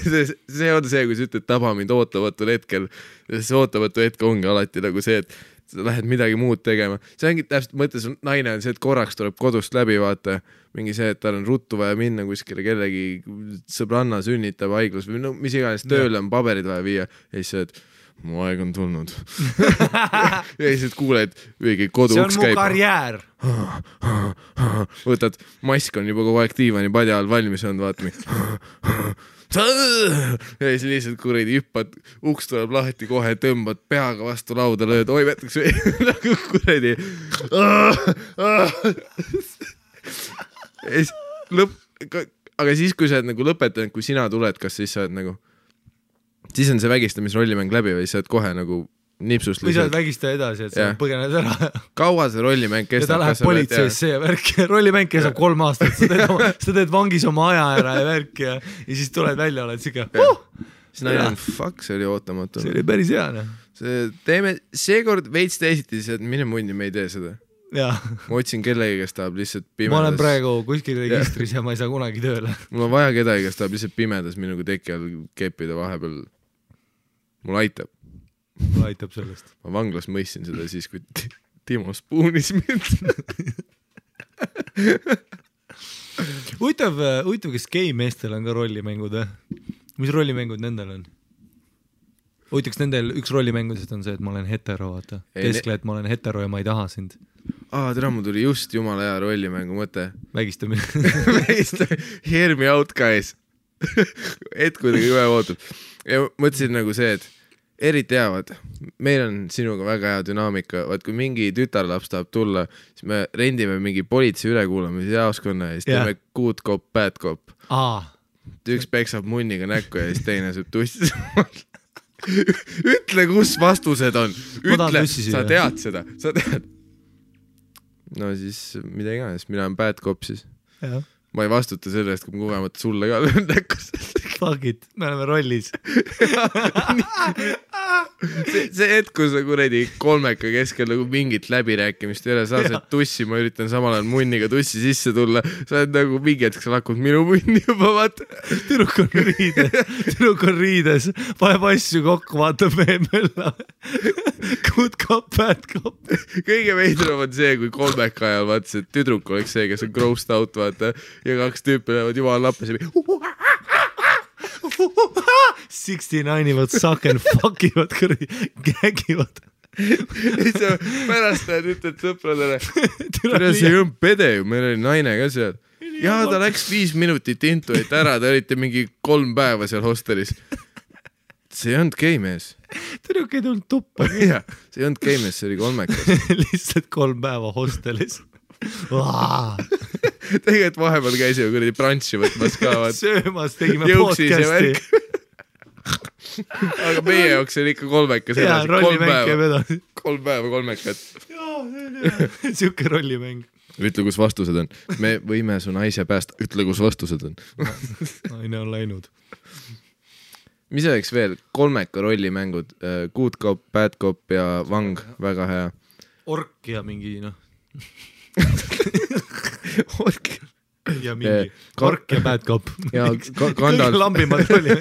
See on see, kui sa ütled taba mind ootavatul hetkel. See ootamatu hetk ongi alati nagu see, et sa lähed midagi muud tegema. See ongi täpselt mõttes, naine on see, et korraks tuleb kodust läbi, vaata, mingi see, et tal on ruttu vaja minna kuskile kellegi sõbranna sünnitab haiglas või no mis iganes tööle on paberid vaja viia ja siis see, et mu aeg on tulnud. ja siis kuuled, õige kodu uks käib. See on mu karjäär. Võtad, mask on juba kogu aeg diivani padja all valmis olnud, vaata mi. ja siis lihtsalt kuradi hüppad, uks tuleb lahti kohe, tõmbad peaga vastu lauda, lööd, oi võtaks nagu kuradi. Aga siis, kui sa oled nagu lõpetanud, kui sina tuled, kas siis sa oled nagu siis on see vägistamisrollimäng läbi või sa oled kohe nagu nipsust või sa oled vägistaja edasi, et sa põgened ära. Kaua see rollimäng kestab? Ja ta läheb politseisse ja värk. Rollimäng kestab 3 aastat. Sa teed vangis oma aja ära ja värk ja siis tuled välja, oled siga. Siis naine on, fuck, see oli ootamatu. See oli päris hea. Teeme seekord veits teisiti, et mine mundi, me ei tee seda. Ma otsin kellegi, kes tahab lihtsalt pimedas. Ma olen praegu kuskil registris ja ma ei saa kunagi tööle. Mul on vaja kedagi, kes tahab lihtsalt pimedas minuga teki all keppida vahepeal. Mul aitab. Mul aitab sellest. Ma vanglas mõistsin seda siis, kui Timo spuunis mind. Huvitav, kes gei-meestel on ka rollimängud. Mis rollimängud nendel on? Huvitaks nendel üks rollimängudest on see, et ma olen hetero, vaata. Keskle, et ma olen hetero ja ma ei taha sind. Tere, mul tuli just jumala hea rollimängu mõte. Vägistamine. Hear me out, guys. Et kuidagi ühe ootab. Ja mõtlesin nagu see, et eriti heavad. Meil on sinuga väga hea dünaamika. Vaat kui mingi tütarlaps tahab tulla, siis me rendime mingi politsei ülekuulamise jaoskonna ja siis teeme good cop, bad cop. Üks peksab munniga näkku ja siis teine saab tussi. Ütle, kus vastused on. Ütle, sa tead seda. Sa tead. No siis mida iganes, mina on bad cop siis. Ma ei vastuta selle eest, kui ma kogemata sulle ka löön näkkus. Fuck it, me oleme rollis. see hetk, kui sa kuredi kolmeka keskel nagu mingit läbirääkimist ei ole, sa saad tussi, ma üritan samal ajal munniga tussi sisse tulla, sa oled nagu mingi hetk, sa lakud minu munni juba, vaata. Tüdruk on riides, paneb asju kokku, vaatab mölla. Good cop, bad cop. Kõige veidram on see, kui kolmeka ajal vaata see tüdruk oleks see, kes on grossed out, vaata, ja 2 tüüpi lähevad jumal lappes ja 69 ivad suck and fuck ivad kõrdi, gägivad. Pärast näed ütled sõpradele, see ei olnud pede ju, meil oli naine ka seal. Ja ta läks 5 minutit intuit ära, te olite mingi 3 päeva seal hostelis. See ei olnud geimees. Tüdruk ei tulnud tuppa. See ei olnud geimees, see oli kolmekas. Lihtsalt 3 päeva hostelis. Tegelikult vahepeal käisime kuradi brantši võtmas ka. Söömas tegime podcasti. Aga meie jaoks oli ikka kolmekas edasi. 3 päeva kolmekat. Siuke rollimäng. Ütle, kus vastused on. Me võime su naise päästa. Ütle, kus vastused on. Naine on läinud. Mis oleks veel? Kolmeka rollimängud. Good cop, bad cop ja vang. Väga hea. Ork ja mingi, noh. Ork ja mingi ork ja bad cop ja kõige lambimad oli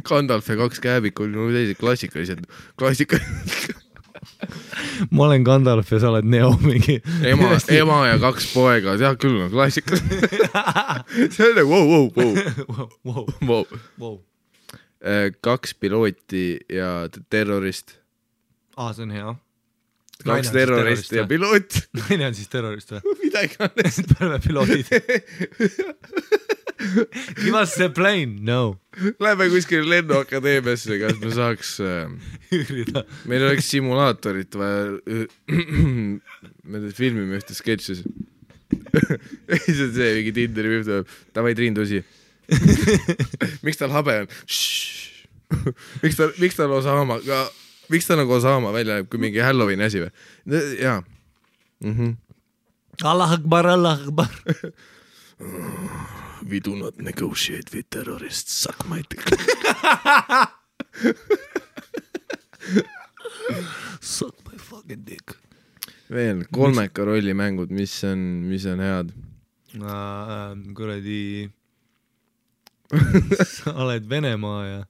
Gandalf ja 2 kääbikul klassikalised ma olen Gandalf ja sa oled Neo mingi ema ja 2 poega ja küll on klassikas see on wow 2 pilooti ja terrorist see on hea 2 terrorist ja piloot. Naine on siis terrorist või? Midagi annest. Pärme piloodid. Give us the plane, no. Läheme kuskil lennuakadeemiasse, kas me saaks üürida. Meil oleks simulaatorit vaja me filmime ühte sketšis. See on see, mingi Tinderi viib tuleb. Tavai Triin Tusi. Miks tal habe on? Miks tal Osama ka Miks ta nagu Osama välja näeb, kui mingi Halloweeni asi või? Jaa. Allah Akbar, Allah Akbar. We do not negotiate with terrorists. Suck my dick. Suck my fucking dick. Veel, kolmeka rollimängud, mis on head? Kuradi sa oled Venemaa ja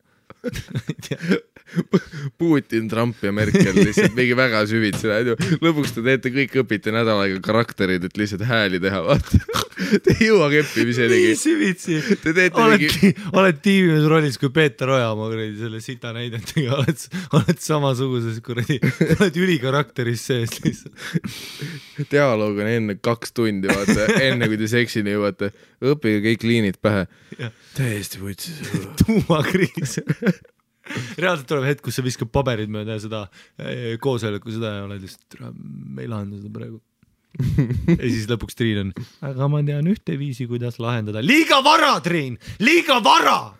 Putin, Trump ja Merkel lihtsalt mingi väga süvitsi lähed ju. Lõpuks te teete kõik, õpite nädal aega karakterid, et lihtsalt hääli teha, vaata. Te ei jõua keppimiseni. Nii süvitsi. Oled tiimimees rollis kui Peeter Oja oma selle sita näidentega, oled samasuguses kuradi, oled ülikarakteris sees lihtsalt. Dialoog on enne 2 tundi, vaata, enne kui te seksini jõuate, õppige kõik liinid pähe. Täiesti võtsis. Tuumakriis. Reaalselt tuleb hetk, kus sa viskab paberid mööda seda koosoleku seda ja oled lihtsalt, me ei lahenda seda praegu. Ja siis lõpuks Triin on, aga ma tean ühte viisi, kuidas lahendada. Liiga vara, Triin! Liiga vara!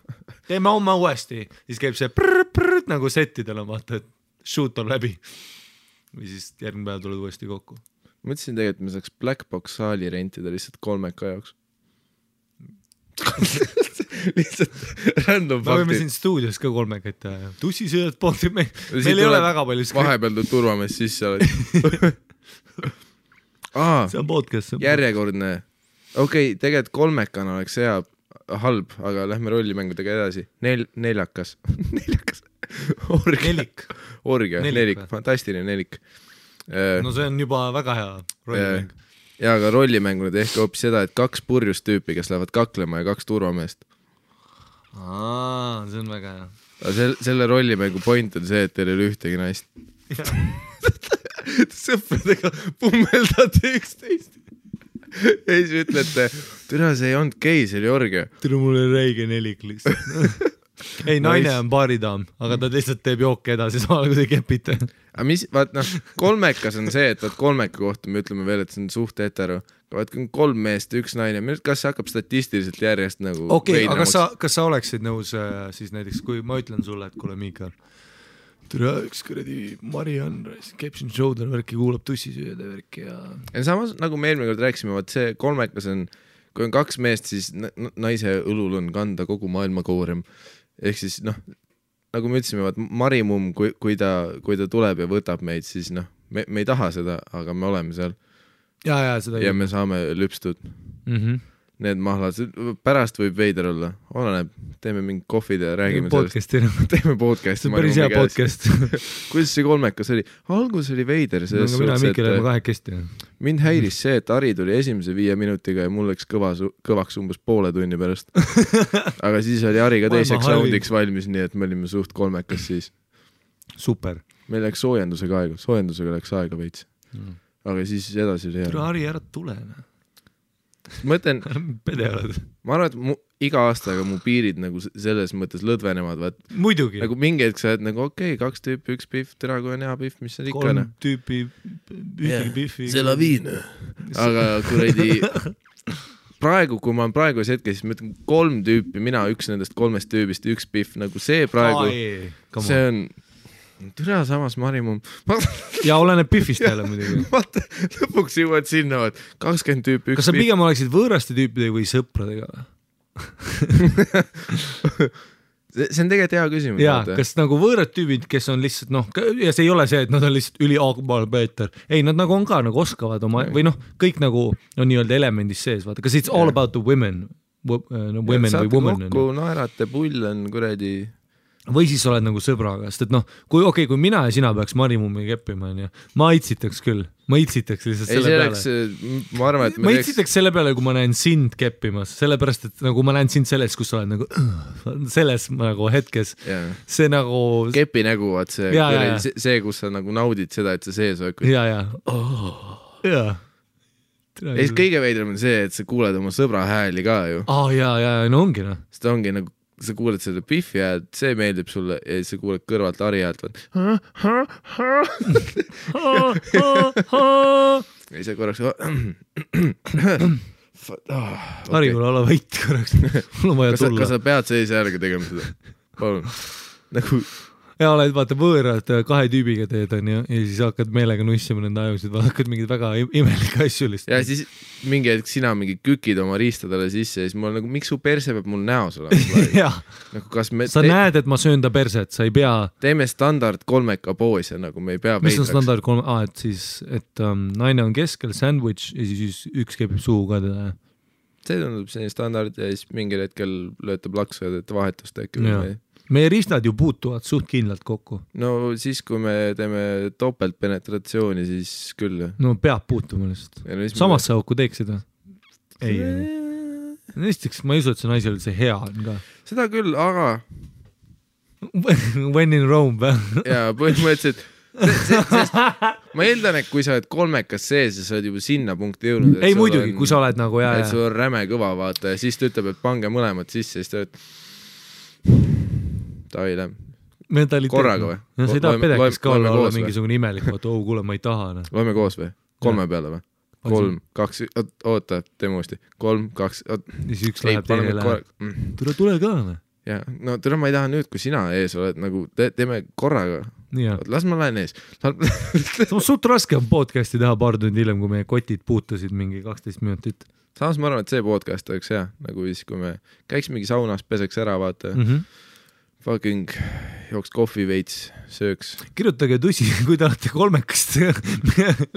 Teeme homme uuesti. Siis käib see prrrt nagu settidel on vaata, et shoot on läbi. Või siis järgmine päev tuled uuesti kokku. Mõtlesin tegelikult, me saaks Black Box saali rentida lihtsalt 3 jaoks. Lihtsalt random faktid. Me võime siin stuudios ka 3 teha. Tussisööd pooltid meil ei ole väga palju skript. Vahepeal tuleb turvamees sisse oled. See on podcast. Järjekordne. Okei, tegelikult 3 oleks hea halb, aga lähme rollimängudega edasi. Neljakas. Orgia. Nelik. Fantastiline nelik. No see on juba väga hea rollimäng. Ja aga rollimängunud ehk hoopis seda, et 2 purjust tüüpi, kes lähevad kaklema ja 2 turvameest. See on väga hea. Selle rollimängu point on see, et teil ei ole ühtegi naist. Sõpradega pummeldate üksteist. Ja siis ütlete, türa see ei olnud gei, see oli orgia. Türa mul oli räige nelik lihtsalt. Ei, naine on baaridaam, aga ta lihtsalt teeb jooke edasi samal kui te kepite. Aga mis, vaat noh, 3 on see, et 3 kohta me ütleme veel, et see on suht hetero. Vaat 3 meest, 1 naine, kas see hakkab statistiliselt järjest nagu aga kas sa oleksid nõus siis näiteks, kui ma ütlen sulle, et kuule Miikal, türa üks kuradi Mariann, Caption Shoulder värki kuulab tussisööda värki ja samas nagu me eelmine kord rääkisime, vaat see 3 on, kui on 2 meest, siis naise õlul on kanda kogu maailma koorem. Ehk siis noh, nagu me ütlesime, Marimumm, kui ta tuleb ja võtab meid, siis noh, me ei taha seda, aga me oleme seal. Ja me saame lüpstud. Need mahlad, pärast võib veider olla, oleneb, teeme mingi kohvid ja räägime sellest. Teeme podcasti. See on päris hea podcast. Kuidas see 3 oli? Algus oli veider. Mind häiris see, et Ari tuli esimese 5 minutiga ja mul läks kõvaks umbes poole tunni pärast. Aga siis oli Ari ka teiseks soundiks valmis, nii et me olime suht 3 siis. Super. Meil läks soojendusega läks aega veits. Aga siis edasi oli hea. Ari, ära tule. Mõtlen, pedeoled. Ma arvan, et iga aastaga mu piirid nagu selles mõttes lõdvenevad. Muidugi. Nagu mingi hetk sa oled nagu 2 tüüpi, 1 pihv, tere kui on hea pihv, mis on ikka. 3 tüüpi, ühtegi pihvi. See laviin. Aga kuradi praegu, kui ma olen praegus hetkes, siis ma ütlen 3 tüüpi, mina üks nendest 3 tüübist, 1 pihv, nagu see praegu, see on türa samas Marimumm. Ja oleneb pihvist jälle muidugi. Vaata, lõpuks jõuad sinna, 20 tüüpi, 1 Kas sa pigem oleksid võõraste tüüpidega või sõpradega? See on tegelikult hea küsimus. Jaa, kas nagu võõrad tüübid, kes on lihtsalt, noh, ja see ei ole see, et nad on lihtsalt üliaagmaal Peeter. Ei, nad nagu on ka, nagu oskavad oma, või noh, kõik nagu on nii-öelda elemendis sees, vaata. Kas it's all about the women? Women või woman? Saate kokku, naerate, pull on kuradi... Või siis oled nagu sõbraga, sest et noh, kui mina ja sina peaks Marimummi keppima, ma itsitaks küll. Ma itsitaks lihtsalt selle peale. Ma arvan, et ma itsitaks selle peale, kui ma näen sind keppimas, sellepärast, et nagu ma näen sind selles, kus sa oled nagu selles nagu hetkes. See nagu... Kepi nägu, vaat see, kus sa nagu naudid seda, et sa sees oled. Ja. Ja siis kõige veidram on see, et sa kuuled oma sõbra hääli ka ju. Ja, no ongi noh. Seda ongi nagu sa kuuled seda pihvi häält, see meeldib sulle ja sa kuuled kõrvalt Ari häält. Ja sa korraks... Ari, kuule, ole vait korraks. Mul on vaja tulla. Kas sa pead sees järgi tegema seda? Palun. Nagu... Ja oled vaata võõrad 2 tüübiga teed on ja siis hakkad meelega nussima nende ajusid, hakkad mingid väga imelike asju lihtsalt. Ja siis mingi hetk sina mingi kükid oma riistadele sisse ja siis mul nagu, miks su perse peab mul näos olema? Nagu, sa näed, et ma söön ta perset, sa ei pea... Teeme standard 3 poose, nagu me ei pea veidraks. Mis on standard 3? Et siis, et naine on keskel, sandwich ja siis üks kepib suhu ka teda. See tundub selline standard ja siis mingil hetkel löötab laksu ja teete vahetust äkki. meie ristad ju puutuvad suht kindlalt kokku. No siis, kui me teeme topeltpenetratsiooni, siis küll. No peab puutuma lihtsalt. Samasse auku teeksid või? Ei. Näiteks ma ei usu, et see naisel see hea on ka. Seda küll, aga When in Rome või? Jaa, põhimõtteliselt sest ma eeldan, et kui sa oled kolmekas sees ja sa oled juba sinna punkti jõudnud. Ei muidugi, kui sa oled nagu et sul on räme kõva vaata ja siis ta ütleb, et pange mõlemad sisse ja siis ta oled Tavai lähem korraga või? No sa ei taha pedekis ka olla mingisugune imelik, vaata, kuule, ma ei taha. Loeme koos või? 3 peale või? 3, 2, oota, teeme uuesti 3, 2, siis üks läheb teine läheb. Tule ka või? Ja, no tule ma ei taha nüüd, kui sina ees oled, nagu teeme korraga. Las ma lähen ees. Suht raske on podcasti teha paar tundi hiljem, kui meie kotid puutusid mingi 12 minutit. Samas ma arvan, et see podcast oleks hea, nagu siis, kui me käiks mingi saunas, peseks ära, vaata. Fucking jooks kohvi veits, sööks. Kirjutage tussi, kui te olete kolmekast.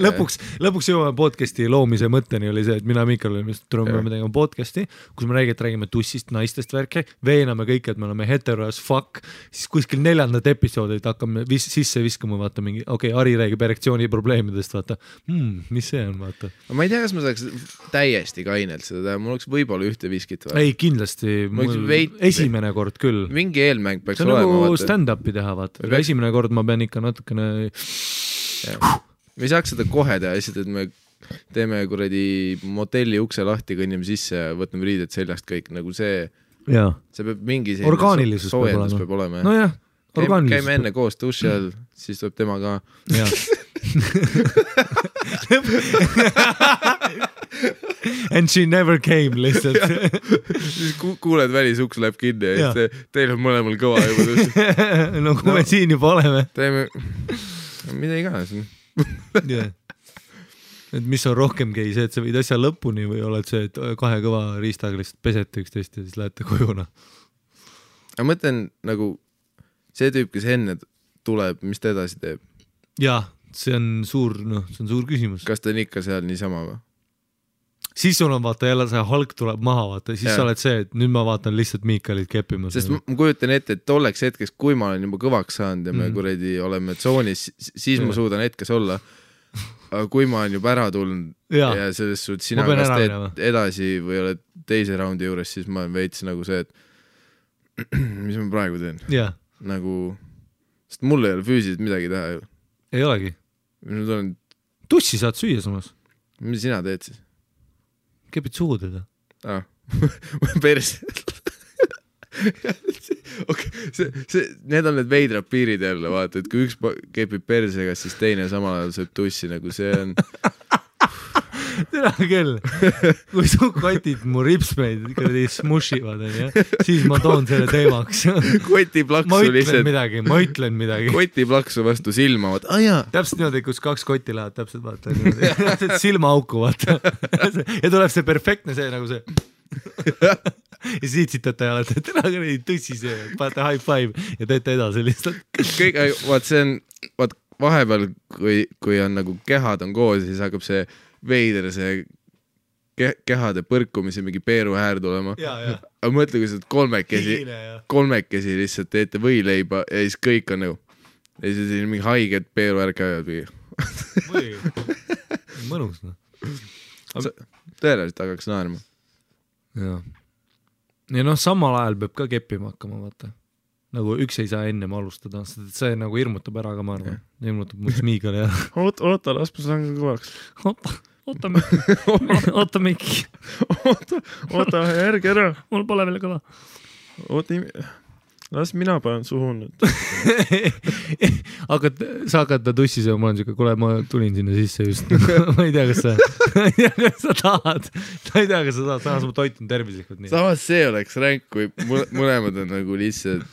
lõpuks jõuame podcasti loomise mõtteni oli see, et mina Mikal olime tegema podcasti, kus me räägime tussist, naistest värke, veename kõik, et me oleme hetero as fuck, siis kuskil 4. episoodid hakkame sisse viskama, vaata mingi, Ari räägib erektsiooni probleemidest, vaata, mis see on, vaata. Ma ei tea, kas ma saaks täiesti kainelt seda teha, mul oleks võib-olla ühte viskit. Ei, kindlasti, esimene kord küll. Mingi eelmäng peaks olema. See on nagu vaata. Stand-upi teha, vaata. Esimene kord ma pean ikka natukene... Me ei saaks seda kohe teha, lihtsalt, et me teeme kuradi motelli ukse lahti, kõnnime sisse ja võtame riided seljast kõik, nagu see peab mingi orgaanilisus peab olema. No jah, orgaanilisus. Käime enne koos duši all, siis tuleb tema ka. And she never came lihtsalt. Siis kuuled välisuks läheb kinni ja teil on mõlemal kõva juba duši. No kui me siin juba oleme. Teeme, mida iganes. Et mis on rohkem gei, see, et sa võid asja lõpuni või oled see, et 2 kõva riistaga lihtsalt pesete üksteist ja siis lähete kojuna? Ma mõtlen nagu see tüüp, kes enne tuleb, mis ta edasi teeb? Jah, see on suur küsimus. Kas ta on ikka seal niisama või? Siis sul on vaata jälle see halk tuleb maha, vaata, siis sa oled see, et nüüd ma vaatan lihtsalt Miikalit keppimas. Sest ma kujutan ette, et tolleks hetkeks, kui ma olen juba kõvaks saanud ja me kuredi oleme tsoonis, siis ma suudan hetkes olla. Aga kui ma olen juba ära tulnud ja selles suht sina kas teed edasi või oled teise raundi juures, siis ma olen veits nagu see, et mis ma praegu teen? Nagu, sest mul ei ole füüsiliselt midagi teha ju. Ei olegi. Tussi saad süüa samas. Mis sina teed siis? Kepid suhu teda. Perse. Need on need veidrad piirid jälle, vaata, et kui üks kepib persega, siis teine samal ajal sööb tussi, nagu see on... Tere küll, kui su kotid mu ripsmeid smushivad, siis ma toon selle teemaks. Kotiplaksu lihtsalt. Ma ütlen midagi. Kotiplaksu vastu silma, vaata, täpselt niimoodi, kus 2 kotti lähevad, täpselt vaata. Silmaauku, vaata. Ja tuleb see perfektne see, nagu see. Ja siit sitate ja olete, tere küll, tõssi see, paate high five ja teete edasi lihtsalt. Kõik, vaat see on, vaat vahepeal, kui on nagu kehad on koos, siis hakkab see veider see kehade põrkumise mingi peeru häär tulema. Aga mõtle, kui sa kolmekesi lihtsalt teete võileiba ja siis kõik on nagu ja siis on mingi haiged peeru häär käivad või. Mõnus. Tõenäoliselt hakkaks naerma. Ja samal ajal peab ka keppima hakkama, vaata. Nagu üks ei saa ennem alustada, see nagu hirmutab ära ka, ma arvan. Hirmutab mu smiigal ja... Oota, las ma saan ka kõvaks. Oota, Mikki. Oota, järgi ära. Mul pole veel kõva. Oota, las mina panen suhu nüüd. Sa hakkad ta tussi sööma, ma olen siuke, kuule, ma tulin sinna sisse just. Ma ei tea, kas sa tahad. Ma ei tea, kas sa tahad. Samas ma toitun tervislikult nii. Samas see oleks ränk, kui mõlemad on nagu lihtsalt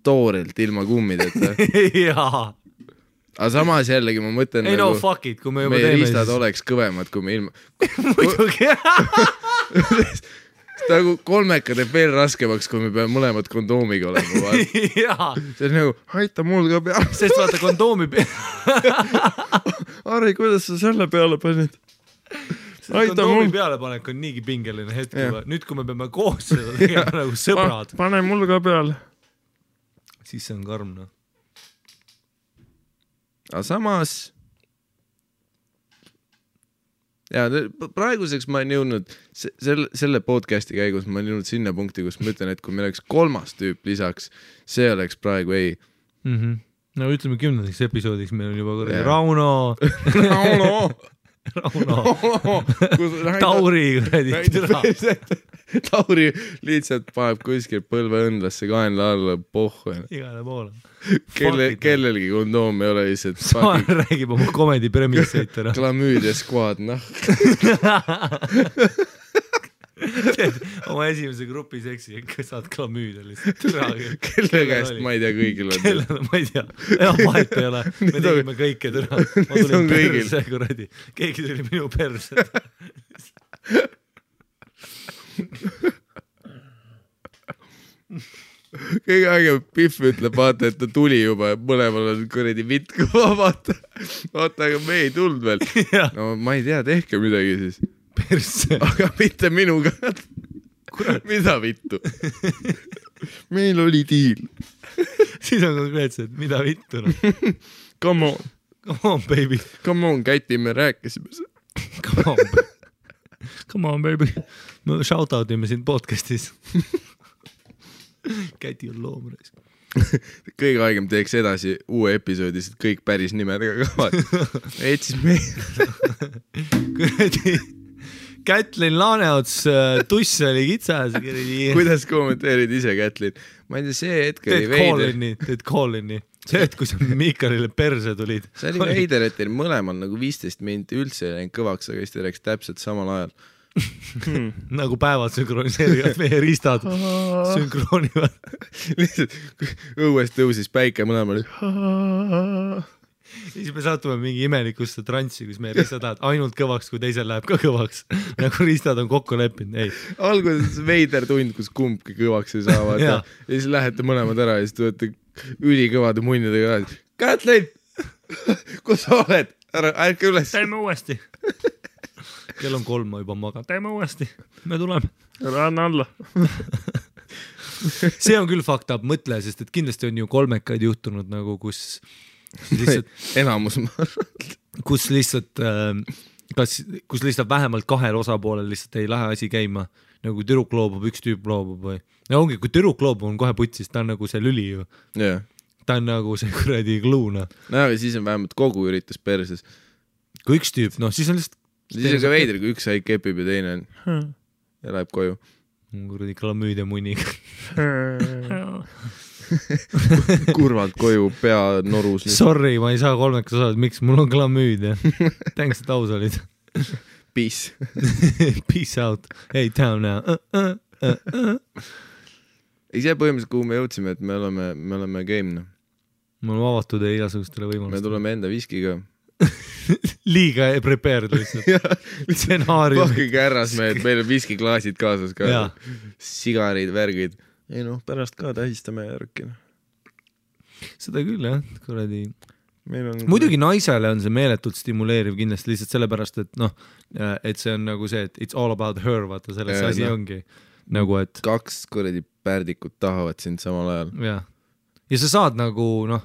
toorelt ilma kummideta. Jaa. Aga samas jällegi ma mõtlen ei nagu no fuck it, kui me juba meie teeme riistad oleks kõvemad, kui me ilma muidugi nagu kolmeka teeb veel raskemaks, kui me peame mõlemad kondoomiga olema. See on nagu, aita mul ka peale. Sest vaata kondoomi Ari, kuidas sa selle peale panid? Kondoomi pealepanek on niigi pingeline hetk. Nüüd, kui me peame koos seda tegema nagu sõbrad. Pane mul ka peale. siis see on karm, noh. Aga samas ja praeguseks ma olen jõudnud selle podcasti käigus ma olen jõudnud sinna punkti, kus ma ütlen, et kui meil oleks 3. tüüp lisaks, see oleks praegu ei. No ütleme 10. episoodiks meil on juba korrali Rauno Tauri Tauri lihtsalt paneb kuskil põlve õndlasse kaenla alla pohhu. Igale poole. Kellelgi kondoom ei ole lihtsalt Saan räägib oma komedi premisseid. Klamüüdia skuad, noh. Oma esimese grupi seksi saad klamüüdia lihtsalt. Kelle käest ma ei tea kõigil on. Kellele ma ei tea. Vahet ei ole. Me tegime kõike türa. Ma tulin perse, kuradi. Keegi tuli minu perse. Kõige aegem Pihv ütleb, vaata, et ta tuli juba ja mõlemal on kuradi vitt kõva, vaata, aga me ei tulnud veel. No ma ei tea, tehke midagi siis. Perse. Aga mitte minuga. Mida vittu? Meil oli diil. Siis on konkreetselt, mida vittu? No? Come on. Come on, baby. Come on, Käti, me rääkisime seda. Come on, baby. Me shoutoutime siin podcastis. Käti on loomreis. Kõige aegem teeks edasi uue episoodis, et kõik päris nimedega kavad. Et siis me... Kuradi... Kätlin Laaneots tuss oli kitsas. Kuidas kommenteerid ise, Kätlin? Ma ei tea, see hetk oli veider. Teed call-in'i. See hetk, kui sa Miikalile perse tulid. See oli veider, et teil mõlemal nagu 15 minti üldse ei läinud kõvaks, aga siis te rääks täpselt samal ajal. Nagu päevad sünkroniseerivad meie riistad. Sünkroonivad. Lihtsalt õues tõusis päike mõlemal. Siis me satume mingi imelikusse transsi, kus meie riistad lähevad ainult kõvaks, kui teisel läheb ka kõvaks. Nagu riistad on kokku leppinud. Alguses veider tund, kus kumbki kõvaks ei saavad. Ja siis lähete mõlemad ära ja siis tulete ülikõvade munnidega. Kätlin! Kus sa oled? Ärke üles. Teeme uuesti. Kell on 3, ma juba magan. Teeme uuesti. Me tuleme. Ranna alla. See on küll fucked up mõtle, sest et kindlasti on ju kolmekaid juhtunud nagu, kus lihtsalt... Enamus kus lihtsalt vähemalt 2 osapoolel lihtsalt ei lähe asi käima. Nagu tüdruk loobub, üks tüüp loobub või... Ja ongi, kui tüdruk loobub on kohe putsis, ta on nagu see lüli ju. Yeah. Ta on nagu see kuradi gluuna. No aga siis on vähemalt kogu üritus perses. Kui üks tüüp, noh siis on lihtsalt... Siis on ka veider, kui üks haig kepib ja teine on ja läheb koju. Kuradi klamüüdia muniga. Kurvalt koju, pea norus. Sorry, ma ei saa 3 osad, miks mul on klamüüdia. Thanks, et aus olid. Peace. Peace out. Hey, town now. Ei see põhimõtteliselt, kuhu me jõudsime, et me oleme game. Me oleme avatud ja igasugustele võimalustele. Me tuleme enda viskiga. Liiga prepared lihtsalt. Stsenaarium. Pakkuge ärras me, et meil on viskiklaasid kaasas ka. Sigarid, värgid. Ei noh, pärast ka tähistame järgi. Seda küll, jah. Kuradi... Muidugi naisele on see meeletult stimuleeriv kindlasti lihtsalt sellepärast, et noh, et see on nagu see, et it's all about her, vaata selles asi ongi. Nagu, et... 2 kuradi pärdikut tahavad sind samal ajal. Ja sa saad nagu, noh,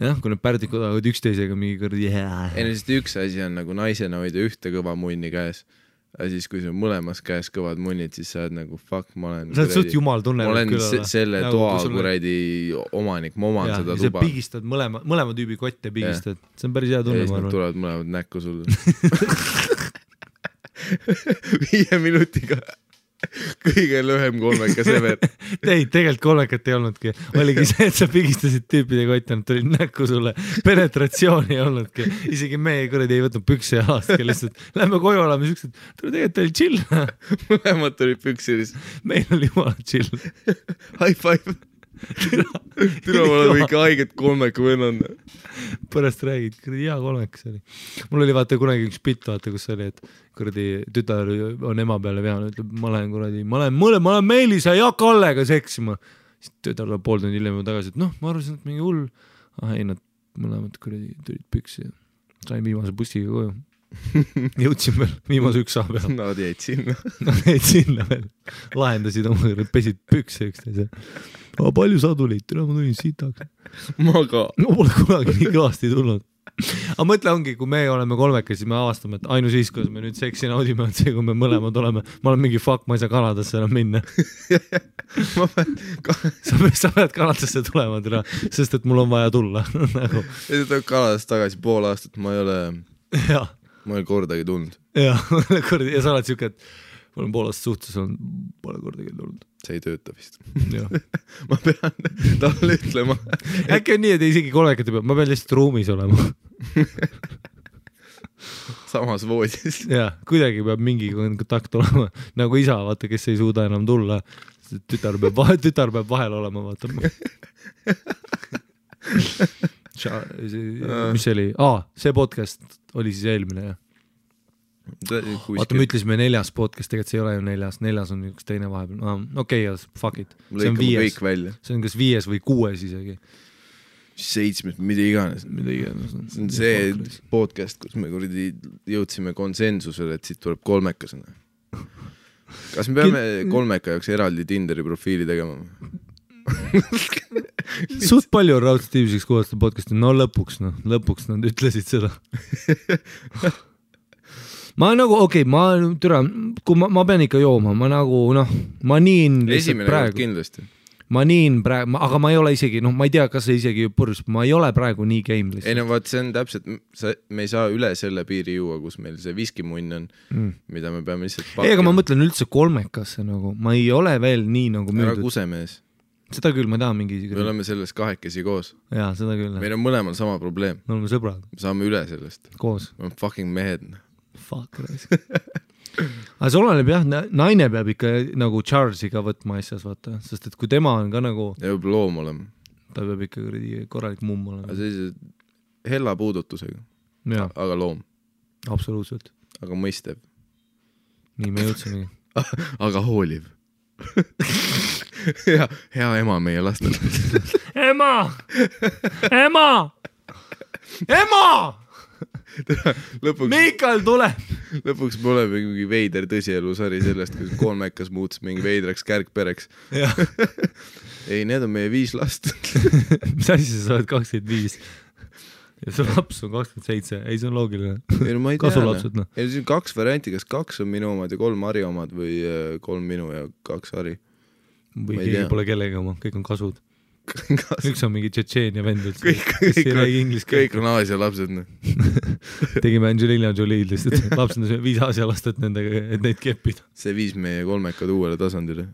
jah, kui need pärdikud tahavad üksteisega mingi kuradi Ei, sest üks asi on nagu naisena hoida ühte kõva munni käes. Ja siis, kui sul mõlemas käes kõvad munnid, siis sa oled nagu, fuck, ma olen... Sa oled suht jumal tunne. Ma olen selle nagu, toa kuradi omanik, ma oman seda tuba. Ja sa pigistad mõlema tüübi kotte pigistad. See on päris hea tunne, ma arvan. Tulevad mõlemad näkku sulle. 5 minutiga. Kõige lühem 3 sever. Tegelikult 3 ei olnudki. Oligi see, et sa pigistasid tüüpide kotti, nad tulid näkku sulle. Penetratsiooni ei olnudki. Isegi me kuradi ei võtnud pükse jalastki lihtsalt. Lähme koju olema siuksed. Tegelikult oli chill. Mõlemad tulid püksiris. Meil oli jumala chill. High five. Tule ma olen ikka haiget 3 vennan. Pärast räägid, kuradi hea 3 see oli. Mul oli vaata kunagi üks pitt, vaata, kus oli, et kuradi tütar on ema peale veanud, ütleb, ma olen Meelisa ja Kallega seksima. Siis tütar tuleb 3 tundi hiljem tagasi, et noh, ma arvasin, et mingi hull. Ei, nad mõlemad kuradi tulid püksi ja sain viimase bussiga koju. Jõudsin veel viimase 1 saa peal. Nad jäid sinna. Nad jäid sinna veel. Lahendasid oma, pesid pükse üksteise. Palju sa tulid? Ma tulin sitaks. Ma ka. Ma pole kunagi nii kõvasti tulnud. Aga mõtle ongi, kui me oleme kolmekesi, me avastame, et ainus siis, kus me nüüd seksi naudime, on see, kui me mõlemad oleme. Ma olen mingi fuck, ma ei saa Kanadasse enam minna. Sa pead Kanadasse tulema, sest et mul on vaja tulla. Ja sa tuleb Kanadast tagasi pool aastat, ma ei ole kordagi tulnud. Ja sa oled siuke, et ma olen pool aastat suhtes, pole kordagi tulnud. See ei tööta vist. Ma pean talle ütlema. Äkki on nii, et isegi kolmekati peab, ma pean lihtsalt ruumis olema. Samas voodis. Ja, kuidagi peab mingi kontakt olema. Nagu isa, vaata, kes ei suuda enam tulla. Tütar peab vahel olema, vaata. Mis see oli? See podcast oli siis eelmine, jah. Vaata, me ütlesime 4. podcast, tegelikult see ei ole ju 4. on üks teine vahepeal. Okei, fuck it. See on 5. See on kas 5 või 6 isegi. 7, mida iganes. See on see podcast, kus me jõudsime konsensusele, et siit tuleb kolmekasena. Kas me peame kolmeka jaoks eraldi Tinderi profiili tegema? Suht palju on raudselt tiiviseks kuulata podcasti. No lõpuks nad ütlesid seda. Ma nagu, kui ma pean ikka jooma, ma nagu, ma niin lihtsalt praegu. Kindlasti. Ma niin praegu, aga ma ei ole isegi, ma ei tea, kas see isegi purus, ma ei ole praegu nii game lihtsalt. Ei no vaat, see on täpselt, me ei saa üle selle piiri juua, kus meil see viskimunn on, mida me peame lihtsalt pakkima. Aga ma mõtlen üldse kolmekasse nagu, ma ei ole veel nii nagu müüdud. Ära kusemees. Seda küll, ma tahan mingi... Me oleme selles kahekesi koos. Jaa, seda küll. Meil on mõlemal sama probleem. Me oleme sõbrad. Me saame üle sellest. Koos. Me oleme fucking mehed. Fuck, raisk. Aga see oleneb jah, naine peab ikka nagu Charlesiga võtma asjas, vaata. Sest et kui tema on ka nagu... Ta peab loom olema. Ta peab ikka korralik mumm olema. Aga sellise hella puudutusega. Ja. Aga loom. Absoluutselt. Aga mõistev. Nii me jõudsimegi. Aga hooliv. Hea ema meie lastel. Ema! Ema! Ema! Miikal tuleb! Lõpuks me oleme mingi veider tõsielusari sellest, kus kolmekas muutus mingi veidraks kärgpereks. Ei, need on meie 5 last. Mis asi sa oled 25? Ja su laps on 27. Ei, see on loogiline. Kasulapsed, Ei, see on 2 varianti, kas 2 on minu omad ja 3 Harri omad või 3 minu ja 2 Harri. Või keegi pole kellegi oma, kõik on kasud. Üks on mingi Tšetšeenia vendud. Kõik on Aasia lapsed. Tegime Angelina Jolie'd lihtsalt. Lapsed on 5 Aasia lastet nendega, et neid keppida. See viis meie kolmekad uuele tasandile.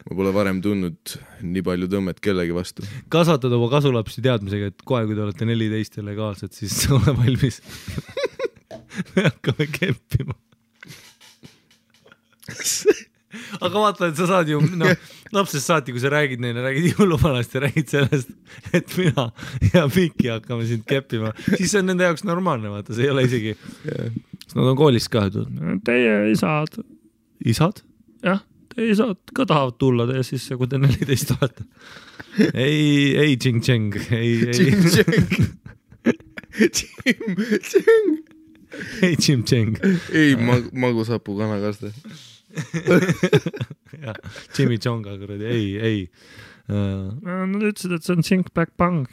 Ma pole varem tundnud nii palju tõmmet kellegi vastu. Kasvatad oma kasulapsi teadmisega, et kohe, kui te olete 14 ja legaalsed, siis ole valmis. Me hakkame keppima. Aga vaata, et sa saad ju, lapsest saati, kui sa räägid neile, räägid jõuluvanast ja räägid sellest, et mina ja Miki hakkame sind keppima, siis see on nende jaoks normaalne, vaata, see ei ole isegi. Nad on koolis ka, teie isad? Isad? Jah, teie isad ka tahavad tulla teie sisse, kui te 14 olete. Ei, Ching-Cheng. Ei, Ching-Cheng. Ei, magusapu kanakaste. Ja, Jimmy Jonga kuradi, ei. Nad ütlesid, et see on Think Back Bang.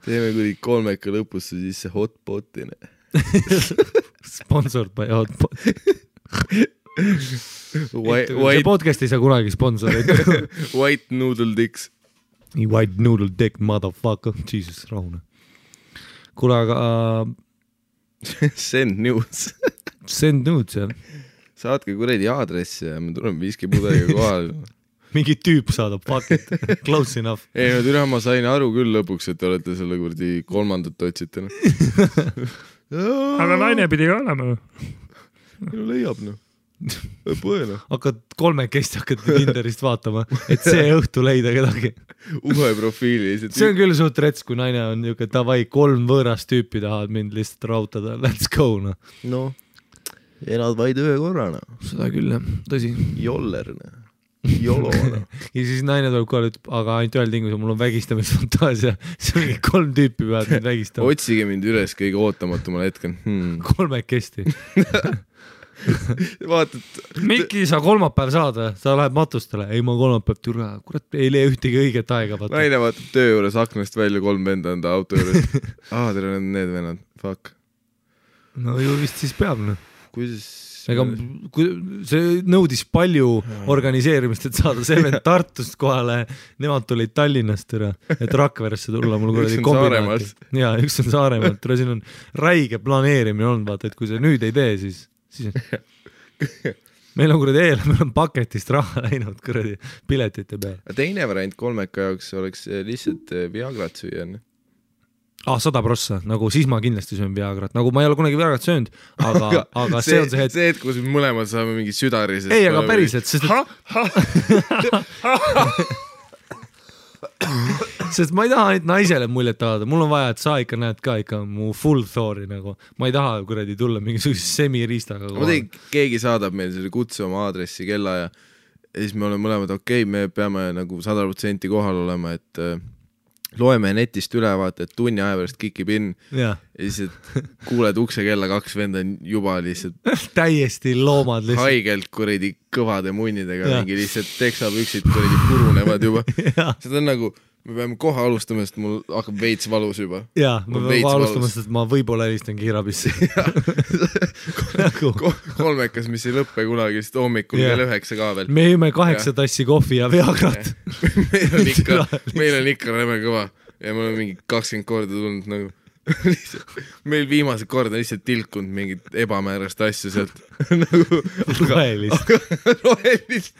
Teeme kuni kolmeka lõpusse sisse hotpotine. Sponsored by hotpot. See podcast ei saa kunagi sponsorid. White noodle dicks. White noodle dick, motherfucker. Jesus, rahune. Kuule, aga... Send news. Send news, jah. Saatke kuredi aadressi ja me tuleme viskipudeliga kohal. Mingi tüüp saadab, fuck it. Close enough. Ei, no türa, ma sain aru küll lõpuks, et te olete selle kurdi 3. otsite. Aga naine pidi ka olema. No leiab, noh. Põena. Hakkad 3 hakkad Tinderist vaatama, et see õhtu leida kedagi. Uue profiili. See on küll suht rets, kui naine on niuke, davai, 3 võõrast tüüpi tahavad mind lihtsalt rautada. Let's go, noh. No, elad vaid ühe korrana. Seda küll, jah. Tõsi. Joller, noh. Jolo. Ja siis naine tuleb kohale, ütleb, aga ainult ühel tingus, mul on vägistamisfantaasia. See on mingi 3 tüüpi peavad mind vägistama. Otsige mind üles kõige ootamatumale hetkel. 3 kesti. Vaatad. Mikki, sa kolmapäev saad, sa lähed matustele. Ei, ma kolmapäev türa. Kurat, ei lee ühtegi õiget aega. Naine vaatab töö juures aknast välja 3 venda enda auto juures. Tere, need vennad. Fuck. No ju vist siis peab. Kuidas... Ega see nõudis palju organiseerimist, et saada see vend Tartust kohale. Nemad tulid Tallinnast, et Rakveresse tulla. Mul üks on Saaremaalt. Ja, üks on Saaremaalt. Siin on räige planeerimine olnud, vaata, et kui see nüüd ei tee, siis meil on kuradi meil on paketist raha läinud kuradi piletite peal. Teine variant kolmeka jaoks oleks lihtsalt Viagrat süüa. 100%, nagu siis ma kindlasti söön Viagrat, nagu ma ei ole kunagi Viagrat söönud, aga see on see hetk. See hetk, kus me mõlemad saame mingi südari. Ei, aga päriselt, sest ma ei taha ainult naisele muljet avada, mul on vaja, et sa ikka näed ka ikka mu full Thori nagu, ma ei taha kuradi tulla mingisuguse semiriistaga. Ma tein, keegi saadab meil selle kutse oma aadressi kella ja siis me oleme mõlemad okei, me peame nagu 100% kohal olema, et loeme netist üle, vaata, et tunni aja pärast kikib in ja siis kuuled ukse kella 2 venda juba lihtsalt täiesti loomad lihtsalt. Haigelt kuradi kõvade munnidega mingi lihtsalt teksapüksid kuradi purunevad juba. Seda on nagu, me peame kohe alustama, sest mul hakkab veits valus juba. Jaa, me peame alustama, sest ma võib-olla helistan kiirabisse. Kolmekas, mis ei lõppe kunagi, sest hommikul kell 9 ka veel. Me jõime 8 tassi kohvi ja Viagrat. meil on ikka räme kõva ja me oleme mingi 20 korda tulnud nagu meil viimase korda lihtsalt tilkunud mingit ebamäärast asja sealt nagu rohelist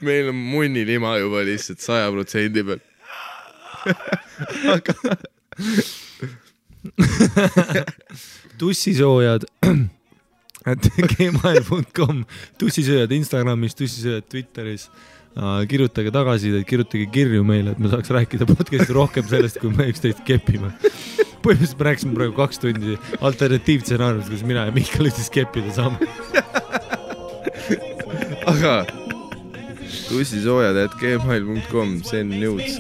meil on munnilima juba lihtsalt 100% peal tussisoojad gmail.com tussisööjad Instagramis, tussisööjad Twitteris. Kirjutage tagasi, kirjutage kirju meile, et me saaks rääkida podcasti rohkem sellest, kui me üksteist kepime. Põhimõtteliselt me rääksime praegu 2 tundi alternatiivstsenaariumist, kus mina ja Mihkel üksteist keppida saame. Aga tussisoojad@gmail.com, send nudes.